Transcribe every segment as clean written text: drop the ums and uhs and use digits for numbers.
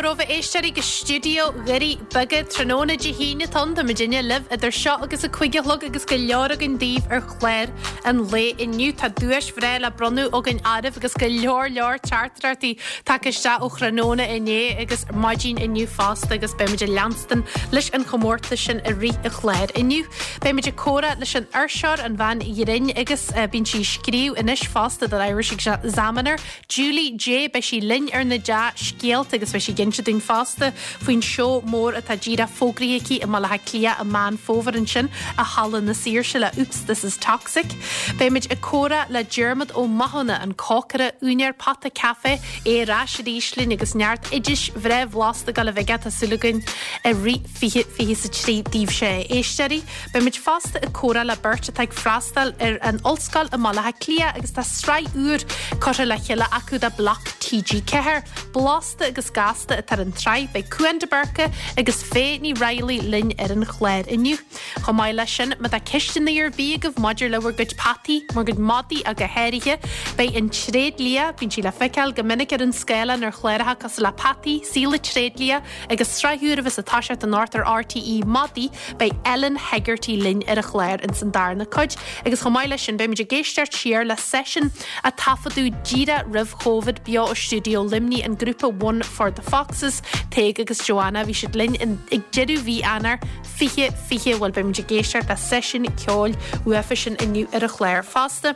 mhór romhaibh a éisteoirí go stiúideo Dhoirí Beaga tráthnóna Dé hAoine atá ann. Tá muidinne libh idir seo agus a 5 a chlog agus go leor againn daoibh ar chlár an lae inniu. Tá duais bhreá le bronnadh againn oraibh agus go leor leor teachtaireachtaí tagtha isteach ó thráthnóna inné agus maidin inniu fosta agus beimid ag leanstan leis an chomórtas sin i rith an chláir inniu. Beimid ag comhrá leis an fhuirseoir, an bhean ghrinn agus bíonn sí ag scríobh anois fosta don Irish Examiner, Julie Jay, beidh sí linn ar na dea-scéalta agus beidh sí ag inse dúinn fosta faoin seó mór atá díreach fógraithe aici i mBaile Átha Cliath i Meán Fómhair ansin i Halla na Saoirse le Oops This Is Toxic. Beimid ag comhrá le Diarmuid Ó Mathúna, an cócaire, úinéir Pota Café, é ar ais arís linn agus neart oidis bhreá bhlasta ag dul a bheith aige, tá súil againn, i rith 2023 daoibhse a éisteoirí. Beimid fosta ag comhrá le beirt atá ag freastal ar an ollscoil i mBaile Átha Cliath agus tá sraith úr curtha le chéile acu do Bloc TG4. Blasta agus Gasta atá ar an tsraith. Beidh Cúán de Búrca agus Faye Ní Raghallaigh linn ar an chlár inniu. Chomh maith leis sin, má tá ceisteanna ar bith agaibh maidir le bhur gcuid peataí, bhur gcuid madaí ach go háirithe, beidh an tréidlia, bíonn sí le feiceáil go minic ar an scáileán ar chláracha cosúil le Peataí, Saol an Tréidlia agus sraith úr a bheas ag toiseacht anocht ar RTÉ, Madaí, Beidh Ellen Hegarty linn ar an chlár ins an darna cuid agus chomh maith leis sin beimid ag éisteacht siar le seisiún a taifeadadh díreach roimh Chóvid beo ó stiúideo Luimnigh, an grúpa One for the Foxes, Tadhg agus Joanna. Bhí siad linn ag deireadh mhí Eanáir 2020. Bhuel beimid ag éisteacht le seisiún ceoil uafa sin inniu ar an chlár fosta.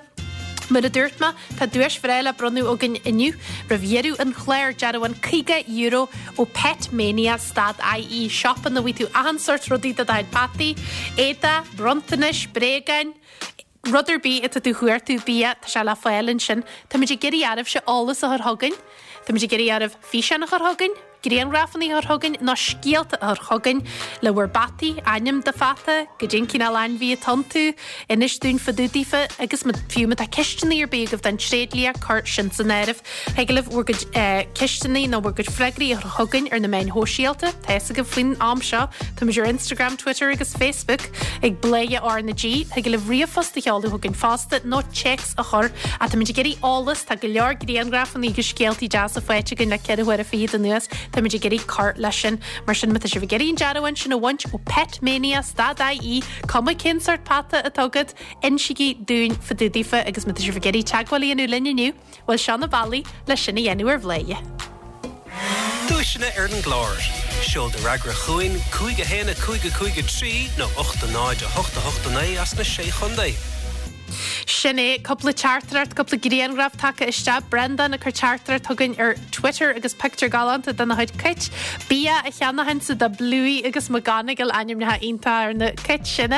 Mar a dúirt mé, tá duais bhreá le bronnadh againn inniu. Roimh dheireadh an chláir, dearbhán €50 ó Pet Mania stad IE, siopa ina bhfaighidh tú achan sórt rudaí do do chuid peataí, éadaí, bronntanais, bréagáin, rud ar bith atá tú a chuartú, bia, tá sé le fáil ansin. Táimid ag iarraidh oraibhse eolas a chur chugainn. Táimid ag iarraidh oraibh físeán a chur chugainn. grianghrafanna a chur chugainn nó scéalta a chur chugainn le bhur bpeataí, ainm do pheata, goidé an cineál ainmhí atá iontu, inis dúinn fá dtaobh daofa agus fiú má tá ceisteanna ar bith agaibh don tréidlia, cuir sin san áireamh. Thig libh bhur gcuid ceisteanna nó bhur gcuid freagraí a chur chugainn ar na meáin shóisialta, tá fhios agaibh faoin am seo, táimid ar Instagram, Twitter agus Facebook ag Bladhaire R na G. Thig libh ríomhphost a sheoladh chugainn fosta nó téacs a chur. Ach táimid ag iarraidh eolas, tá go leor grianghrafanna agus scéaltaí deasa faighte againn le 4 huaire fichead anuas, táimid ag iarraidh cur leis sin. Mar sin, má tá sibh ag iarraidh an dearbhán sin a bhaint ó Pet Mania stad IE, cuma cén sórt peata atá agat, insígí dúinn fá dtaobh daofa agus má tá sibh ag iarraidh teagmháil a dhéanamh linn inniu, Bhuel, seo na bealaí le sin a dhéanamh ar Bhladhaire. Duaiseanna ar an gclár. Seol do fhreagra chugainn, 5 1 5 5 3 nó 8 0 8 8 9 as na Sé Chontae. Sin é, cúpla teachtaireacht, cúpla grianghraf tagtha isteach. Breandán ag cur teachtaireacht chugainn ar Twitter agus pictiúr galánta dena chuid cait. Bia a cheannaitheansa do Bluey agus McGonagall, ainmneacha iontacha ar na cait sin.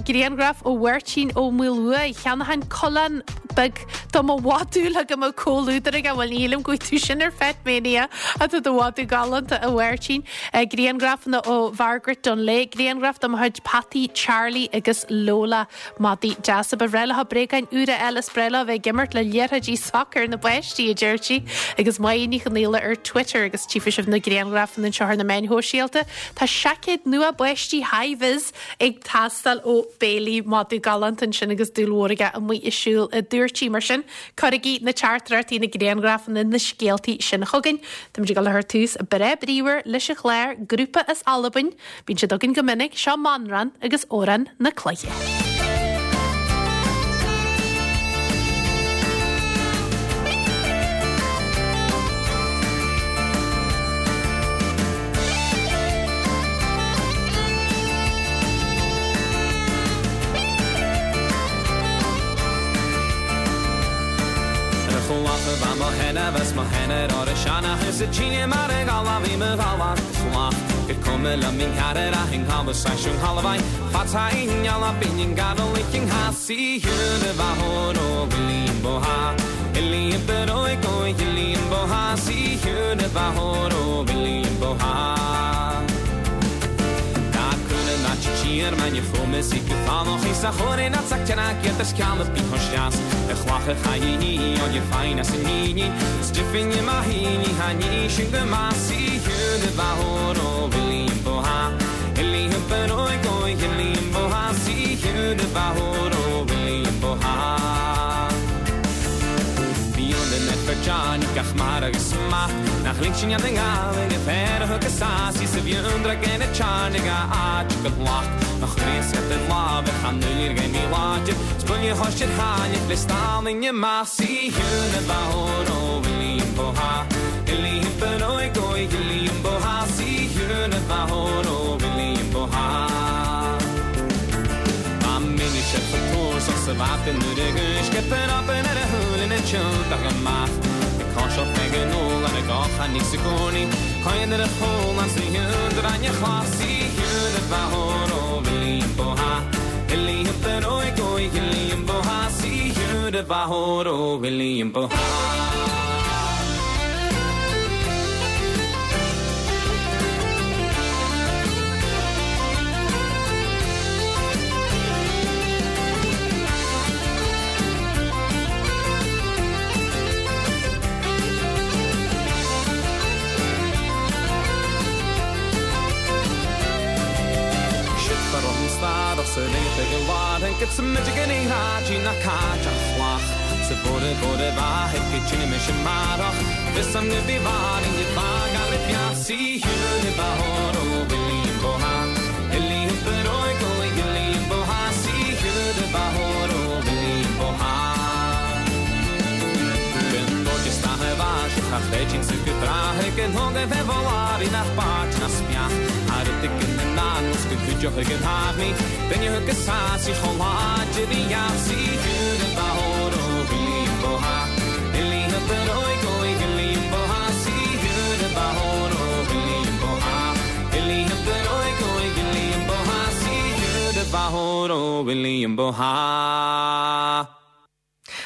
Grianghraf ó Mháirtín Ó Maolmhuaidh, ag ceannachan coileán beag Do mo mhadadh le go mbeadh comhluadar aige, bhuel ní shílim go bhfaighidh tú sin ar Pet Mania ach tá do mhadadh galánta a Mháirtín. Grianghrafanna ó Mhargaret Dunlea, grianghraf de mo chuid peataí Charlie agus Lola. Madaí deasa. Ba bhreá leo bréagáin úra a fháil is breá leo a bheith ag imirt le liathróidí sacair na bpáistí, a deir sí. Agus Máire Ní Chonaola ar Twitter agus tchífidh sibh na grianghrafanna anseo ar na meáin shóisialta. Tá seaicéad nua báistí hi-vis ag teastáil ó Bailey madadh galánta ansin agus dúil mhór aige amuigh ag siúl a dúirt sí. Mar sin, cuirigí na teachtaireachtaí, na grianghrafanna, na scéaltaí sin chugainn. Táimid ag dul a chur tús breá bríomhar leis an chlár, grúpa as Albain, bíonn siad againn go minic, seo Manran agus Amhrán na Cloiche.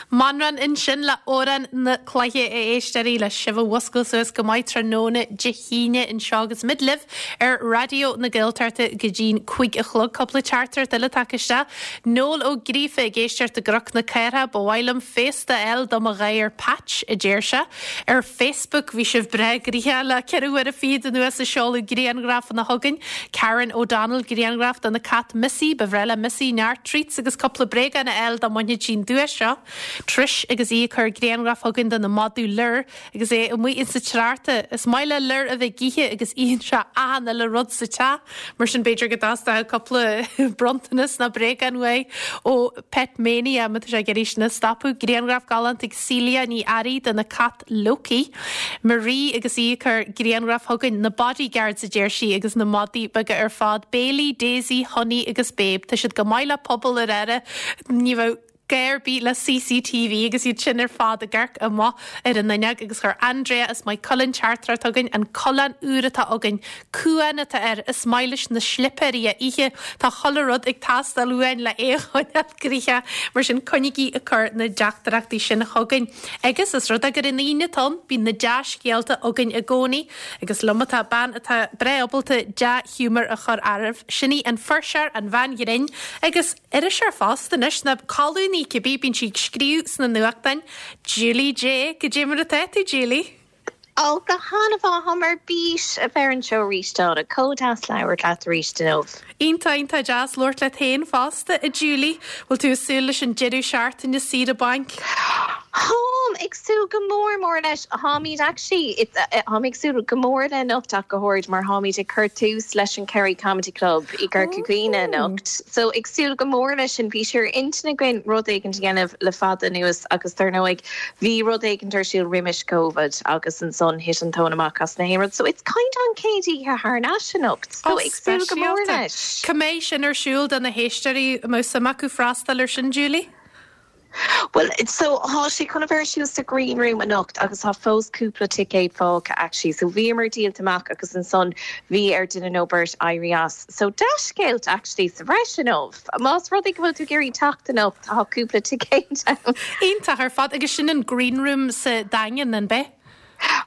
Manchán ansin le Amhrán na Cloiche a éisteoirí le sibh a mhuscailt suas go maith tráthnóna Dé hAoine anseo agus muid libh ar Raidió na Gaeltachta go dtí'n 5 a chlog. Cúpla teachtaireacht eile tagtha isteach. Noel Ó Gríofa ag éisteacht i gCnoc na Cathrach. Ba mhaith liom féasta a fháil do mo ghadhar Patch, a deir sé. Ar Facebook bhí sibh breá gnoitheach le ceithre huaire fichead anuas ag seoladh grianghrafanna chugainn. Karen O'Donnell, grianghraf dona cat Missy. Ba bhreá le Missy neart treats agus cúpla bréagán a fháil dá mbainfeadh sí an duais seo. Trish agus í ag cur grianghraf chugainn dona madadh Lir agus é amuigh insa tsneachta. Is maith le Lir a bheith ag ithe agus itheann sé achan uile rud sa teach. Mar sin b'fhéidir go dteastódh cúpla bronntanas nó bréagán uaidh ó Pet Mania má tá sé ag iarraidh sin a stopadh. Grianghraf galánta ag Celia Ní Fhearraigh dona cat Loki. Marie agus í ag cur grianghraf chugainn, na bodyguards a deir sí agus na madaí beaga ar fad, Bailey, Daisy, Honey agus Babe. Tá siad go maith le pobal ar aire, ní bheadh gá ar bith le CCTV agus iad sin ar fad ag amharc amach ar an fhuinneog agus chuir Andrea as Maigh Cuilinn teachtaireacht chugainn, an coileán úr atá againn, Cuán atá air, is maith leis na slipéirí a ithe, tá chuile rud ag teastáil uainn le é a choinneáil gnoitheach, mar sin coinnígí ag cur na dteachtaireachtaí sin chugainn. Agus os rud é gur an Aoine atá ann, bíonn na dea-scéalta againn i gcónaí, agus liom atá bean atá breá ábalta dea-ghiúmar a chur oraibh, sin í an fuirseoir, an bhean ghrinn, agus iriseoir fosta anois, nó colúnaí cibé, bíonn sí ag scríobh sna nuachtáin, Julie Jay. Goidé mar atá tú, Julie? Ó, go han-mhaith, táim ar bís a bheith ar an seó arís, Donna. Chomh deas labhairt leat arís inniu. Iontach, iontach deas labhairt leat féin fosta, a Julie. Bhfuil tú ag súil leis an deireadh seachtaine saoire bainc? Táim ag súil go mór mór leis. Táimid actually, táim ag súil go mór le anocht ach go háirid mar táimid ag cur tús leis an Kerry Comedy Club i gCorca Dhuibhne anocht. So ag súil go mór leis sin. Bhí sé ar intinn againn rud éigin a dhéanamh le fada anuas agus dar ndóigh Bhí rud éigint ar siúl roimis Covid agus ansan thit an tóin amach as na haon rud. So it's kind of an chéad oíche thar n-ais anocht. So ag súil go mór leis. Cá mbeidh sin ar siúl do na héisteoirí a mbeadh suim acu freastal ar sin, Julie? Bhuel, so tá sé chun a bheith ar siúl sa Green Room anocht agus tá fós cúpla ticéad fágtha actually. So bhíomar díolta amach agus ansan bhí ar duine nó beirt éirí as. So dea-scéalta actually sa bhreis inniu. Más rud é go bhfuil tú ag iarraidh teacht anocht, tá cúpla ticéad ann. Iontach ar fad. Agus sin an Green Room sa Daingean, an b'ea?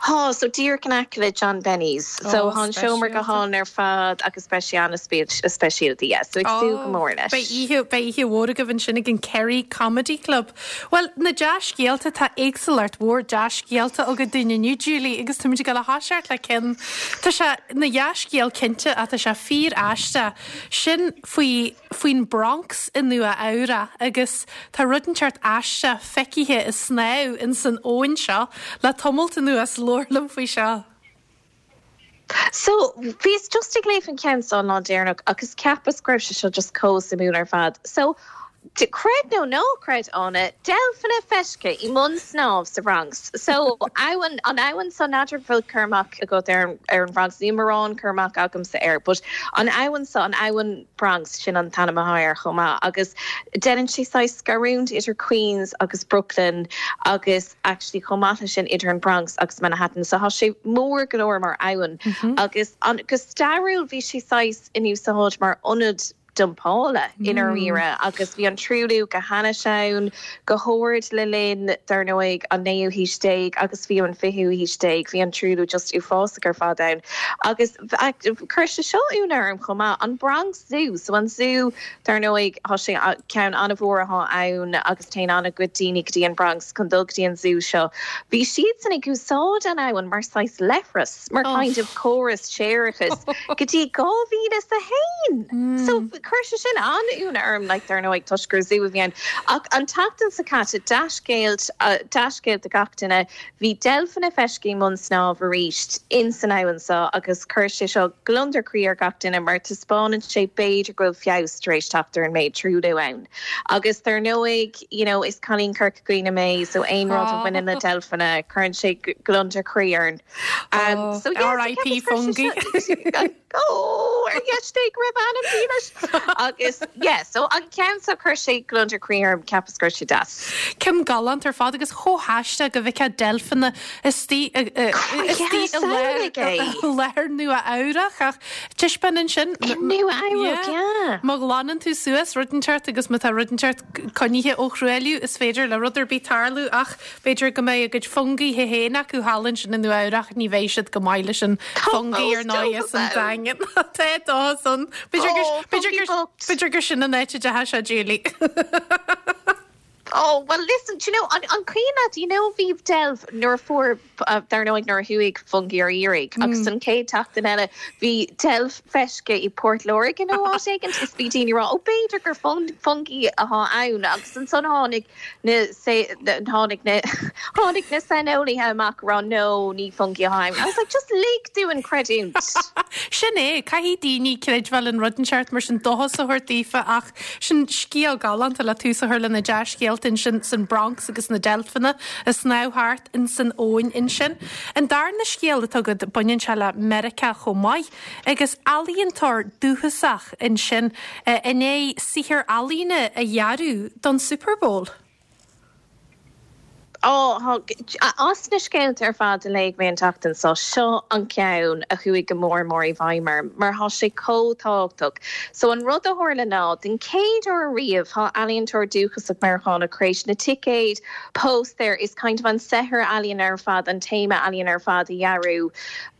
Tá, so díreach in aice le John Benny's. So tá an seomra go hálainn ar fad agus beidh sé an-speisialta, yeah. So ag súil go mór leis. Beidh oíche, beidh oíche mhór agaibh ansin ag an Kerry Comedy Club. Bhuel, na dea-scéalta, tá éagsúlacht mhór dea-scéalta againn dúinn inniu, Julie, agus táimid ag dul a thoiseacht le ceann, tá sé ina dhea-scéal cinnte ach tá sé fíor-aisteach. Sin faoi, faoin Bronx i Nua Eabhrac agus tá rud inteacht aisteach feicthe ag snámh ins an abhainn seo le tamalt anuas. suas. Labhair liom faoi seo. So, bhíos just ag léamh an ceann seo an lá deireanach agus cheapas go raibh sé seo just chomh suimiúil ar fad. So, creid nó ná creid, Áine, deilfeanna feiscithe i mbun snámh sa Bhronx. So, abhainn, an abhainn so, n'fheadar an bhfuil cur amach agat ar an, ar an Bhronx, níl mórán cur amach agamsa air, but an abhainn so, an abhainn Bronx, sin an t-ainm atá air chomh maith, agus déanann sé saghas scarúint idir Queens agus Brooklyn agus, actually chomh maith leis sin idir an Bronx agus Manhattan so tá sé mór go leor mar abhainn agus an go stairiúil bhí sé saghas in úsáid mar ionad dumpála i ndáiríre agus bhí an truailliú go hainnis ann go hard le linn dar ndóigh an naoú haois déag agus fiú an fichiú haois déag bhí an truailliú just uafásach ar fad ann agus chuir sé seo ionadh orm chomh maith an Bronx Zoo so an zú Dar ndóigh, tá sé, ceann an-mhór atá ann agus téann an-chuid daoine go dtí an Bronx chun dul go dtí an zú seo. Bhí siadsan ag úsáid an abhainn mar saghas leithreas, mar kind of córas séarachais go dtí 2001! So, chuir sé sin an-ionadh orm, like, dar ndóigh, toisc gur zú a bhí ann. Ach an tseachtain seo caite, dea-scéal, dea-scéal do gach duine, Bhí deilfeanna feiscithe i mbun snámh arís ins an abhainn seo agus chuir sé seo gliondar croí ar gach duine mar taispeánann sé b'fhéidir go bhfuil feabhas tar éis teacht ar an méid truailliú ann. Agus dar ndóigh, you know, is cailín Corca Dhuibhne mé so aon rud a bhaineann le deilfeanna cuireann sé gliondar croí orm. So yeah, R.I.P. Fungie. Ó, ar dheis Dé go raibh anam dílis! Agus, yeah, so an ceann seo, chuir sé gliondar croí orm, cheapas go raibh sé deas. Ceann galánta ar fad agus chomh haisteach go bhfeicfeá deilfeanna istigh i láthair Nua Eabhrach ach taispeánann sin. I Nua Eabhrac, yeah. Má ghlanann tú suas rud inteacht agus má tá rud inteacht coinnithe ó thruailliú is féidir le rud ar bith tarlú ach B'fhéidir go mbeidh a gcuid fungie féin acu thall ansin i Nua Eabhrach, ní bheidh siad go maith leis an fungie ar ndóigh as an Daingean. Tá dóchas ann. B'fhéidir gur sin an áit a dteachaigh sé, Julie. Oh, well listen, do you know, an, an cuimhin leat, you know, bhí deilf nuair a fuair, dar ndóigh nuair a chuaigh Fungie ar iarraidh, agus an chéad tseachtain eile bhí deilf feiscithe i Port Láirge nó áit éigint is bhí daoine ag rá, oh b'fhéidir gur fungie atá ann agus ansan tháinig na tháinig na tháinig na saineolaithe amach ag rá no, ní fungie atá ann. I was like, just lig dúinn creidiúint. Sin é, caithfidh daoine creidbheáil in rud inteacht mar sin dóchas a thabhairt daofa ach sin scéal galánta le tús a chur le na dea-scéalta ansin san Bronx agus na deilfeanna ag snámh thart insan abhainn ansin. An darna scéal atá agat baineann sé le Meiriceá chomh maith. Agus ealaíontóir dúchasach ansin i ndiaidh saothar ealaíne a dhearadh don Super Bowl. Ó, as na scéalta ar fad a léigh mé an tseachtain seo, seo an ceann a chuaigh go mór mór i bhfeidhm orm, mar tá sé chomh tábhachtach. So an rud a tharla ná, den chéad uair ariamh, tá ealaíontóir dúchasach Meiriceánach tar éis na ticéid, póstaeir is kind of an saothar ealaíne ar fad, an téama ealaíne ar fad a dhearadh.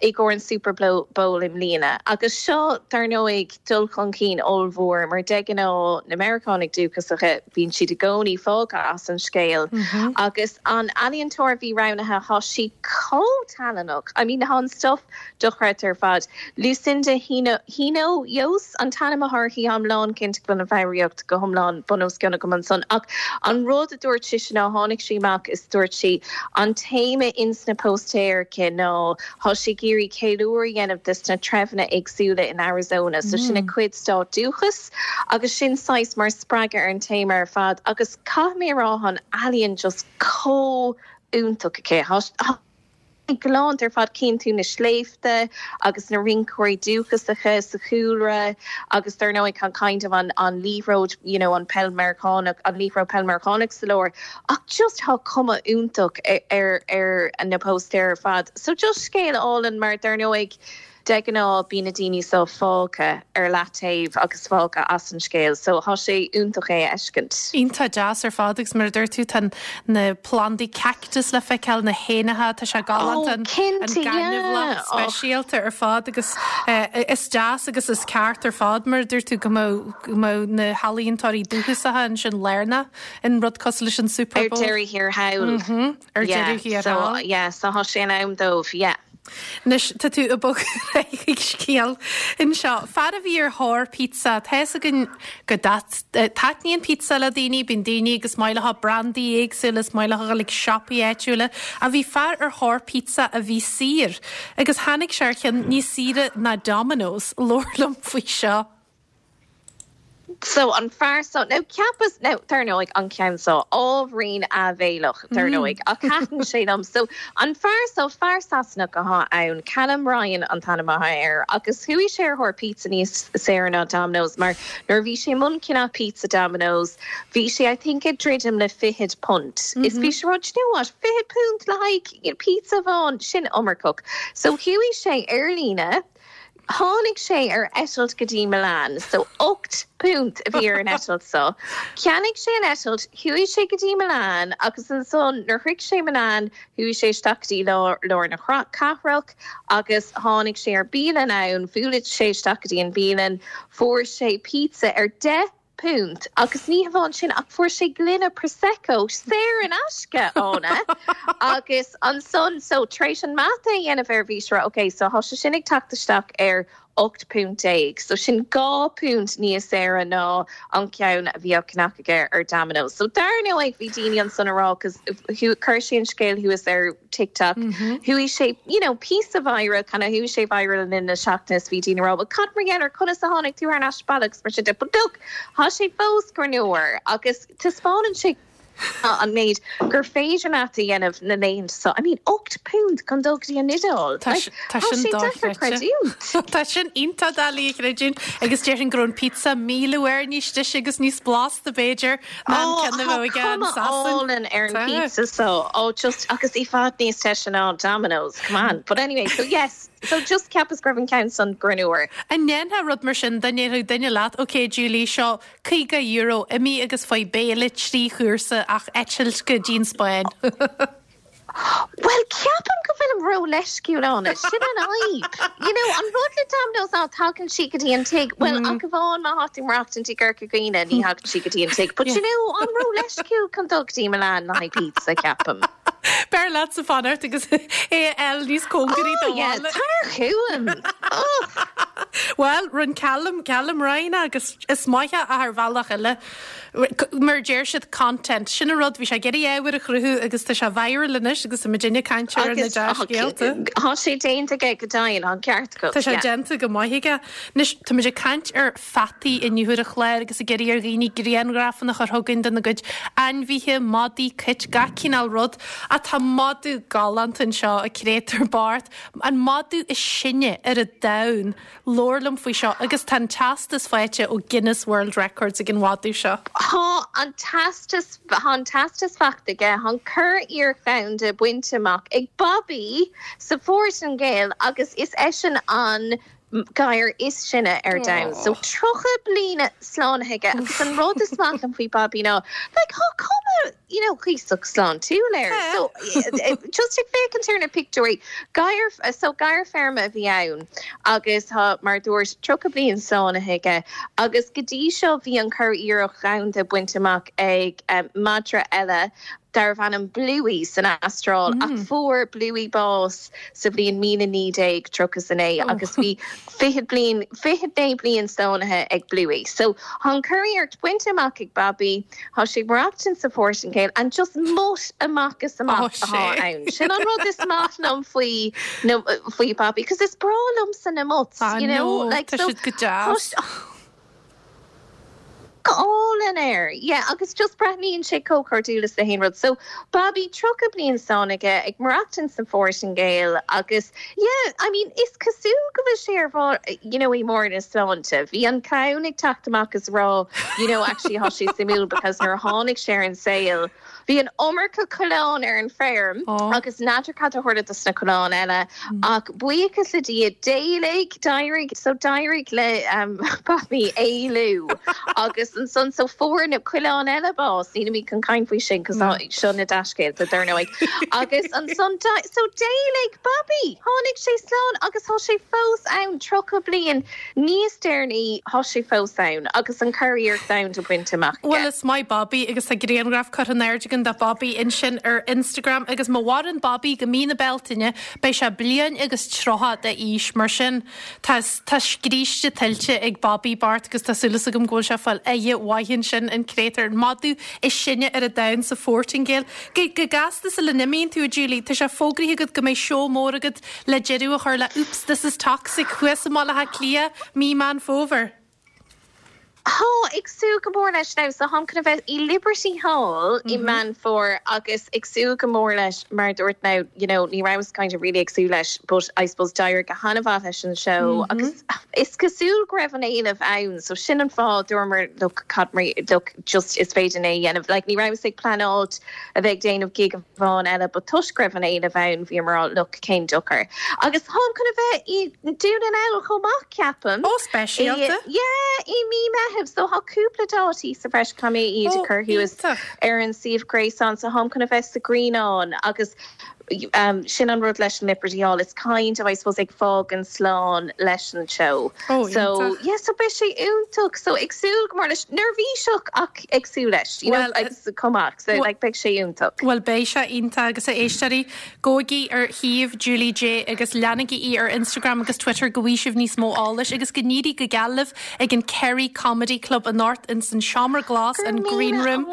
i gcomhair an Super Bowl i mbliana. Agus seo, dar ndóigh, dul chun cinn ollmhór mar de ghnáth na Meiriceánaigh dúchasacha, bíonn siad i gcónaí fágtha as an scéal. Agus an ealaíontóir a bhí roghnaithe, tá sí chomh tallannach, I mean, tá an stuff dochreidte ar fad. Lucinda Hinojosa an t-ainm atá uirthi, táim lánchinnte go bhfuil an foghraíocht go hiomlán bun os cionn agam ansan. Ach an rud a dúirt sise ná tháinig sí amach is dúirt sí, An téama ins na póstaeir aici ná tá sí ag iarraidh ceiliúradh a dhéanamh des na treibheanna éagsúla in Arizona, so sin a cuid stát dúchais agus sin saghas mar spreagadh ar an téama ar fad agus caithfidh mé a rá tá an ealaíon just chomh iontach aici. Tá galánta ar fad, cíonn tú na sléibhte agus na rinceoirí dúchasacha sa chúlra agus dar ndóigh tá kind of an an liathróid you know an peil Meiriceánach an liathróid peil Meiriceánach sa lár ach just tá cuma iontach ar ar na póstaeir ar fad. So just scéal álainn mar dar ndóigh De ghnáth bíonn na daoine seo fágtha ar leataobh agus fágtha as an scéal so tá sé iontach é a fheiscint. Iontach deas ar fad agus mar a dúirt tú tá na plandaí cactus le feiceáil, na héanacha, tá sé galánta, an gaineamhlach speisialta ar fad agus is deas agus is ceart ar fad mar a dúirt tú go mbeadh na healaíontóirí dúchasacha ansin lárnach in rud cosúil leis an Super Bowl. Ar deireadh thiar thall. Ar deireadh thiar thall. Yeah, so tá sé in am dóibh, yeah. Anois, tá tú ag bogadh ar aghaidh chuig scéal anseo. Fear a bhí ar thóir pizza. Tá fhios againn go dtaitníonn pizza le daoine, bíonn daoine agus maith leo brandaí éagsúla, is maith leo a dhul ag siopaí áitiúla. Ach bhí fear ar thóir pizza a bhí saor agus tháinig sé ar cheann níos saoire ná Domino's. Labhair liom faoi seo. So, an fear so, now cheapas, now, dar ndóigh, an ceann so, ábhairín áibhéileach, dar ndóigh, ach thaitin sé liom. So, an fear so, fear Sasanach athá ann, Callum Ryan an t-ainm athá air, agus chuaigh sé ar thóir pizza níos saoire ná Domino's mar nuair a bhí sé i mbun ceannach pizza Domino's, bhí sé, I think, ag druidim le fichead punt. Is bhí sé ag rá, do you know what, fichead punt le haghaidh pizza amháin, sin iomarcach. So, chuaigh sé ar líne, Tháinig sé ar eitilt go dtí Milan, so £8 a bhí ar an eitilt so. Cheannaigh sé an eitilt, chuaigh sé go dtí Milan agus ansan nuair shroich sé Milan chuaigh sé isteach go dtí lár na cathrach agus tháinig sé ar bialann ann, bhuail sé isteach go dtí an bialann, fuair sé pizza ar 10 punt agus ní hamháin sin ach fuair sé gloine Prosecco saor in aisce ann agus ansan so tar éis an mata a dhéanamh air bhí sé ag rá ok so thá sé sin ag teacht isteach ar 18 punt so sin 2 punt níos saoire ná an ceann a bhí á cheannach aige ar Domino's. So dar ndóigh bhí daoine ansan ag rá cos chuir sé an scéal thuas ar TikTok. Chuaigh sé, you know, píosa viral, kind of chuaigh sé viral le linn na seachtaine is bhí daoine ag rá, well cad mar gheall air, conas a tháinig tú thar n-ais abhaile agus mar sin de. But look, thá sé fós greannmhar agus taispeánann sé an méid gur féidir leat a dhéanamh na laethanta seo. I mean, £8 chun dul go dtí an Iodáil. Tá Like, tá tá sin sé deacair dochreidte. creidiúint. Tá sin iontach doiligh a chreidiúint agus déarfainn go raibh an pizza 1,000 uair níos deise agus níos blasta b'fhéidir Ó, tá cuma álainn ar an pizza so, ó just, agus i bhfad níos deise ná Domino's, come on. But anyway, so yes, so just cheapas go raibh an ceann san greannmhar. An ndéanfá rud mar sin, dá ndéarfadh duine leat, ok Julie, seo €50, imigh agus faigh béile trí chúrsa ach eitilt go dtí an Spáinn. Bhuel, ceapaim go bhfuilim ró-leisciúil ann. Sin an fhadhb. You know, an rud le Domino's ná tagann sí go dtí an tigh, bhuel, ach amháin má thá tú ag maireachtaint i gCorca Dhuibhne, ní thagann sí go dtí an tigh. But you know, I'm ró-leisciúil chun dul go dtí Milan le haghaidh pizza, ceapaim. B'fhearr leatsa fanacht agus é a fháil níos cóngaraí do Oh yeah, bhaile. tar chugam! Oh! Bhuel, rinne Callum, Callum Ryan agus is maith é ach ar bhealach eile. Mar a deir siad, content. Sin an rud, bhí sé ag iarraidh ábhar a chruthú agus tá sé viral anois agus tá muidinne ag caint air ar na Agus dea-scéalta. tá sé déanta aige go deimhin, tá an ceart agat, Tá sé yeah. déanta go maith aige. Anois, tá muid ag caint ar pheataí inniu ar an chlár agus ag iarraidh ar dhaoine grianghrafanna a chur chugainn dena gcuid ainmhithe, madaí, cait, gach cineál rud. Ach tá madadh galánta anseo, a créatúr bocht, an madadh is sine ar an domhan. Labhair liom faoi seo agus tá an teastas faighte ó Guinness World Records ag an mhadadh seo. Tá an teastas, tá an teastas faighte aige, tá an curiarracht dhomhanda bainte amach ag Bobby sa Phortaingéil agus is eisean an gadhar is sine ar domhan. So 30 bliana slánaithe aige agus an rud is maith liom faoi Bobby ná like tá cuma you know, cuíosach sláintiúil air. So, just ag féachaint ar na pictiúirí, gadhar, so gadhar feirme a bhí ann agus tá, mar a dúirt, 30 bliain slánaithe aige agus go dtí seo bhí an curiarracht dhomhanda bainte amach ag madra eile darbh ainm Bluey san Astráil ach fuair Bluey bás sa bhliain 1939 agus bhí 20 bliain, 29 bliain slánaithe ag Bluey. So, tá an curiarracht bainte amach ag Bobby. Tá sé ag maireachtaint sa Phortaingéil and just mutt amach is amach atá ann. Sin an rud is maith liom faoi na faoi Bobby cos is breá liomsa na mutts, you know, like tá so siad go deas. Go álainn air, yeah, agus just breathnaíonn sé chomh cairdiúil is le haon rud. So Bobby 30 bliain slánaithe aige ag maireachtaint sa Phortaingéil agus Yeah, I mean, is cosúil go bhfuil sé ar bharr, you know, i mbarr na sláinte. Bhí an clann ag teacht amach is rá, you know, actually thá sé suimiúil because nuair a tháinig sé ar an saol, bhí an iomarca coileán ar an feirm agus n'fheadar cad a tharla dos na coileáin eile ach buíochas le Dia, d'éalaigh, d'éirigh, so d'éirigh le Bobby éalú agus ansan so fuair na coileáin eile bás, nílimid chun caint faoi sin cos seo na dea-scéalta dar ndóigh. Agus ansan, so d'éalaigh Bobby! Tháinig sé slán agus thá sé fós ann, 30 bliain níos deireanaí, thá sé fós ann agus an curiarracht domhanda bainte amach aige. Bhuel, is maith Bobby agus tá grianghraf curtha in airde ag an. chugainn do Bobby ansin ar Instagram agus má mhaireann Bobby go mí na Bealtaine beidh sé bliain agus 30 d'aois mar sin tá tá scríste tuillte ag Bobby Bart agus tá súil agam go bhfuil sé ag fáil aire mhaith ansin an créatúr an madadh is sine ar an domhan sa Phortaingéil. Go go gasta sula n-imíonn tú a Julie, tá sé fógraithe agat go mbeidh seó mór agat le deireadh a chur le Oops This Is Toxic thuas i mBaile Átha Cliath mí Meán Fómhair. Tá, ag súil go mór leis now. So táim chun a bheith i Liberty Hall i Meán Fómhair agus ag súil go mór leis mar a dúirt now, you know, ní rabhas kind of really ag súil leis but I suppose d'éirigh go han-mhaith leis an seó agus is cosúil go raibh an éileamh ann so sin an fáth dúramar look cad mar look just is féidir é a dhéanamh. Like ní rabhas ag pleanáilt a bheith ag déanamh gig amháin eile but toisc go raibh an éileamh ann bhíomar look cén dochar. Agus táim chun a bheith i nDún na nGall chomh maith ceapaim. Ó speisialta. I yeah i mí Meitheamh so tá cúpla dátaí sa bhreis caithfidh mé iad a chur thuas ar an suíomh gréasáin so táim chun a bheith sa Ghrianán agus sin an rud leis an Liberty Hall it's kind of I suppose ag fágaint slán leis an seó. Ó So yeah so beidh sé iontach so ag súil go mór leis neirbhíseach ach ag súil leis you know agus chomh maith so like beidh sé iontach. Bhuel beidh sé iontach agus a éisteoirí gabhaigí ar shuíomh Julie Jay agus leanaigí í ar Instagram agus Twitter go bhfaighidh sibh níos mó eolais agus go n-éirí go geal libh ag an Kerry Comedy Club anocht ins an Seomra Glas, an Green Room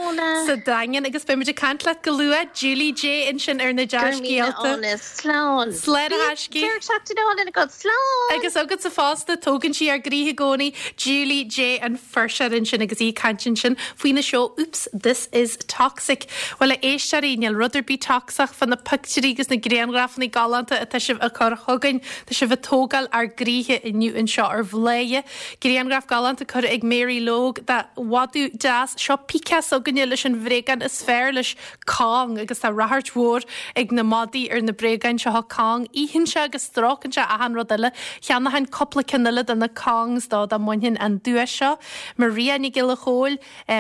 sa Daingean agus beidh muid ag caint leat go luath Julie Jay ansin ar na dea-scéalta. Slán. Slán a thaiscí. Deireadh seachtaine álainn agat. Slán! Agus agatsa fosta, tógann sí ár gcroíthe i gcónaí, Julie Jay an fuirseoir ansin agus í ag caint ansin faoina seó Oops, This Is Toxic. Bhuel, a éisteoirí, níl rud ar bith tocsach fá na pictiúirí agus na grianghrafanna galánta atá sibh a chur chugainn. Tá sibh ag tógáil ár gcroíthe inniu anseo ar Bhladhaire. Grianghraf galánta curtha ag Mary Logue de mhadadh deas. Seo Pika s'againne leis an bhréagán is fearr leis, Kong, agus tá ráchairt mhór ag na madaí ar na bréagáin seo Kong. Itheann sé agus stróiceann sé achan rud eile. Cheannóchainn cúpla ceann eile de na Kongs dó dá mbainfinn an duais seo. Maria Nic Giolla Chóill,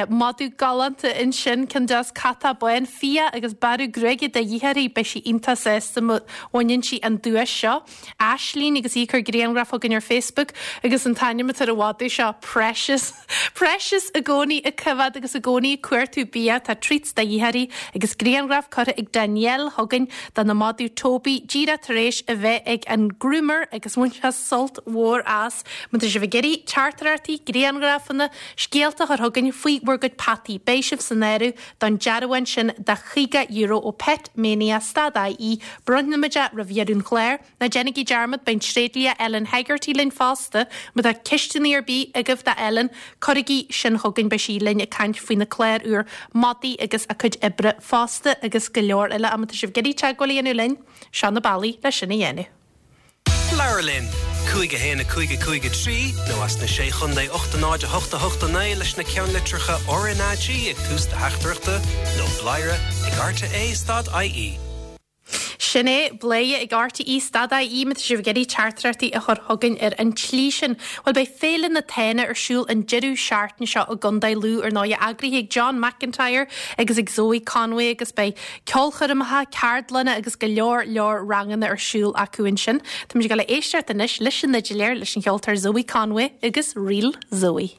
Madadh galánta ansin, ceann deas catach bán, fiach agus bearradh gruaige de dhíth uirthi, beidh sí iontach sásta má bhaineann sí an duais seo. Aislínn agus í ag cur grianghraf chugainn ar Facebook agus an t-ainm atá ar an mhadadh seo, Precious. Precious i gcónaí ag coimhéad agus i gcónaí ag cuartú bia, tá treats de dhíth uirthi agus grianghraf curtha ag Danielle chugainn dena madadh Toby díreach tar éis a bheith ag an groomer agus bhain sé sult mhór as. Má tá sibh ag iarraidh teachtaireachtaí, grianghrafanna, scéalta a chur chugainn faoi bhur gcuid peataí, beidh sibh san áireamh don dearbhán sin de €50 ó Pet Mania stad IE. Bronnfaimid é roimh dheireadh an chláir. Ná déanaigí dearmad, beidh an tréidlia Ellen Hegarty linn fosta. Má tá ceisteanna ar bith agaibh do Ellen, cuirigí sin chugainn, beidh sí linn ag caint faoina clár úr madaí agus a cuid oibre fosta agus go leor eile. Má tá sibh ag iarraidh teagmháil a dhéanamh linn, seo na bealaí le sin a dhéanamh. Labhair linn! 5 1 5 5 3 nó as na Sé Chontae 8 0 8 8 9 leis na ceannlitreacha RnaG ag tús do theachtaireachta nó bladhaire ag rte stad IE. Sin é, bladhaire ag RTÉ stad IE má tá sibh ag iarraidh teachtaireachtaí a chur chugainn ar an tslí sin. Bhuel, beidh Féile na Tána ar siúl an deireadh seachtaine seo i gContae Lú, ar ndóigh, eagraithe ag John McIntyre agus ag Zoe Conway agus beidh ceolchoirmeacha, ceardlanna agus go leor leor ranganna ar siúl acu ansin. Táimid ag dul a éisteacht anois leis an fhidléir, leis an cheoltóir Zoe Conway agus Ríl Zoe.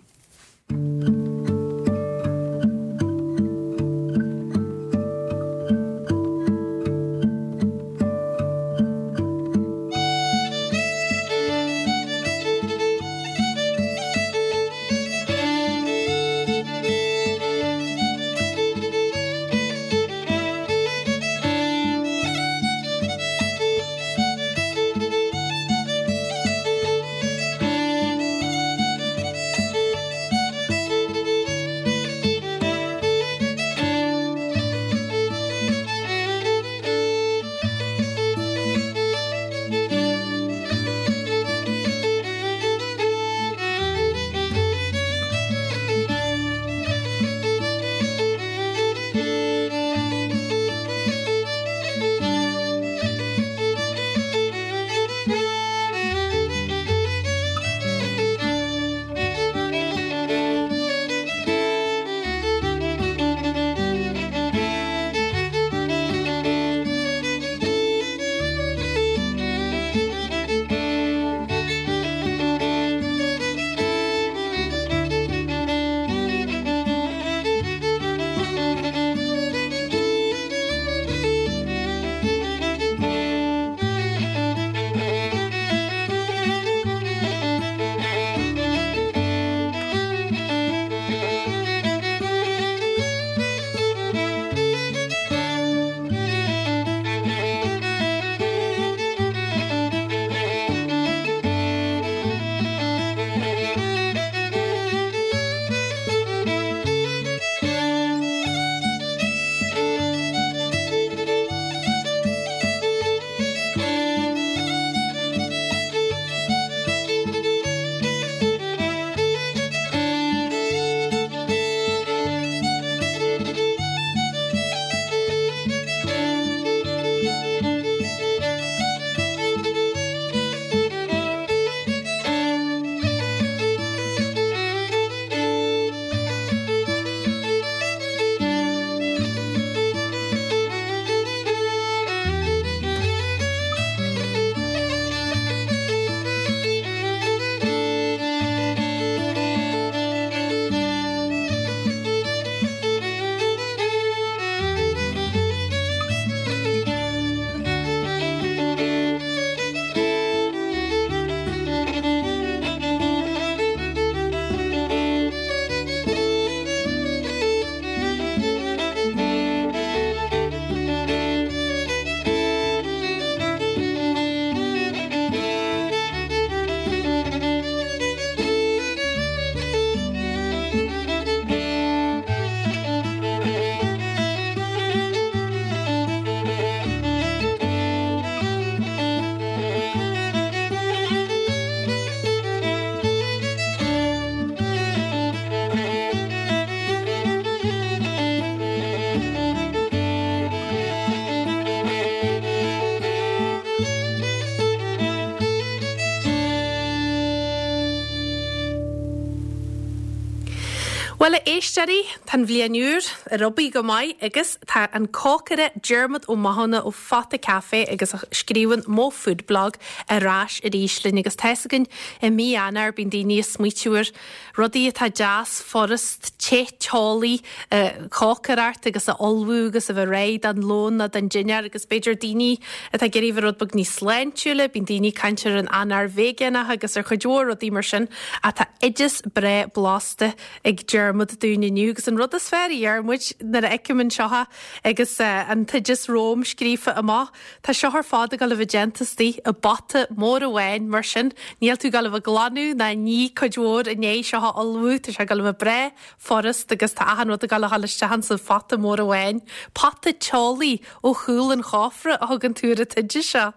Bhuel, a éisteoirí, tá an bhliain úr ar obair go maith agus tá an cócaire Diarmuid Ó Mathúna ó Phota Café agus a scríobhann Mo Food Blog ar ais arís linn agus tá fhios againn i mí Eanáir bíonn daoine ag smaoitiú ar rudaí atá deas, furast, te, teolaí a chócaireacht agus a ullmhú agus a bheith réidh don lón nó don dinnéar agus b'fhéidir daoine atá ag iarraidh a bheith rud beag níos sláintiúla, bíonn daoine ag caint ar an Eanáir veigeánach agus ar chuid mhór rudaí mar sin. Ach tá oideas breá blasta ag Diarmuid dúinn inniu agus an rud is fearr, a Dhiarmuid, nuair a fheicim anseo é agus an t-oideas romham scríofa amach, tá seo ar fad ag dul a bheith déanta istigh i bpota mór amháin, mar sin níl tú ag dul a bheith ag glanadh ná ag ní cuid mhór i ndiaidh seo a ullmhú, tá sé ag dul a bheith breá furast agus tá achan rud ag dul a dhul isteach insa phota mór amháin. Pota teolaí ó chúl an chófra a thugann tú ar an t-oideas seo.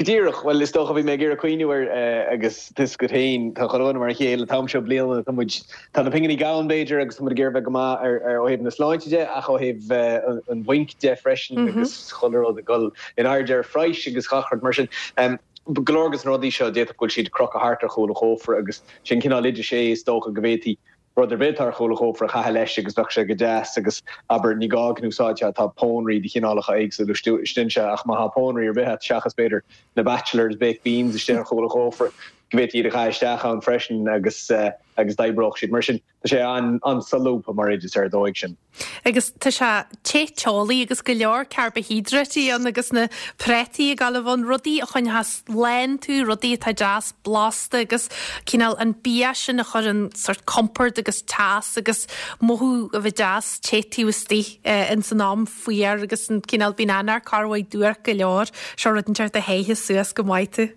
Go díreach. Bhuel, is dócha, bhí mé ag iarraidh cuimhniú air agus tá fhios agat féin, tá chuile dhuine mar a chéile an t-am seo bliana, tá muid, tá na pinginí gann b'fhéidir agus tá muid ag iarraidh bheith go maith ar, ar, ó thaobh na sláinte de ach ó thaobh an bhainc de freisin agus chuile rud ag dul in airde ar phraghas agus gach rud mar sin. Go leor de na rudaí seo d'fhéadfadh go bhfuil siad crochta thart ar chúl an chófra agus sin cineál oideas é is dócha go bhféadfaí rud ar bith atá ar chúl an chófra a chaitheamh leis agus bheadh sé go deas agus, abair, ní gá go n-úsáidfeá, tá pónairí de chineálacha éagsúla istigh anseo ach má tá pónairí ar bith agat seachas, b'fhéidir, na Batchelors baked beans istigh ar chúl an chófra, go bhféadfaí iad a chaitheamh isteach ann freisin agus agus d'oibreodh siad. Mar sin, tá sé an-solúbtha mar oideas ar an dóigh sin. Agus tá sé te teolaí agus go leor carbaihiodráití ann agus na prátaí ag gabháil a bheith ann, rudaí a choinneochas lán tú, rudaí atá deas blasta agus cineál an bia sin a chuireann sort compord agus teas agus mothú a bheith deas te taobh istigh ins an am fuar agus an cineál bíonn Eanáir corrmhaith duairc go leor, seo rud inteacht a théifeas suas go maith tú.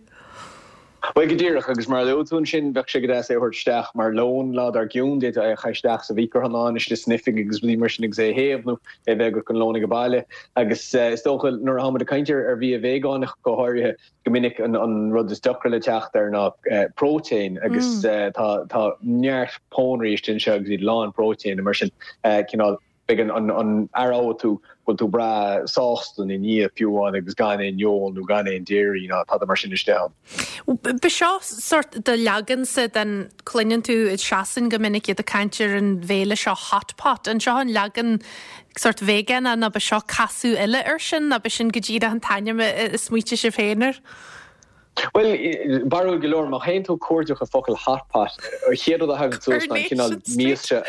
Bhuel, go díreach, agus mar a luaigh tú ansin, bheadh sé go deas é a thabhairt isteach mar lón lá dár gcionn, d'fhéadfá é a chaitheamh isteach sa mhicreathonnán istigh san oifig agus rudaí mar sin agus é a théamh nó é a bheith agat don lón ag baile. Agus is dócha, nuair atá muid ag caint ar bhia veigeánach go háirithe, go minic an rud is deacra le teacht air ná próitéin agus tá tá neart pónairí istigh anseo agus iad lán próitéine mar sin, cineál. Beidh an aireoidh tú go bhfuil tú breá sásta ina ndiaidh fiú amháin agus gan aon fheoil nó gan aon dairy ná tada mar sin istigh ann. Ba seo sort do leagansa den, cluineann tú i Sasain go minic iad ag caint ar an bhéile seo hot pot. An seo an leagan sort veigeánach nó ba seo casadh eile air sin nó ba sin go díreach an t-ainm a smaoitigh sibh féin air? Bhuel, barúil go leor, má théann tú ag cuardach an focal hot pot, an chéad rud a thagann suas ná an cineál mias seo.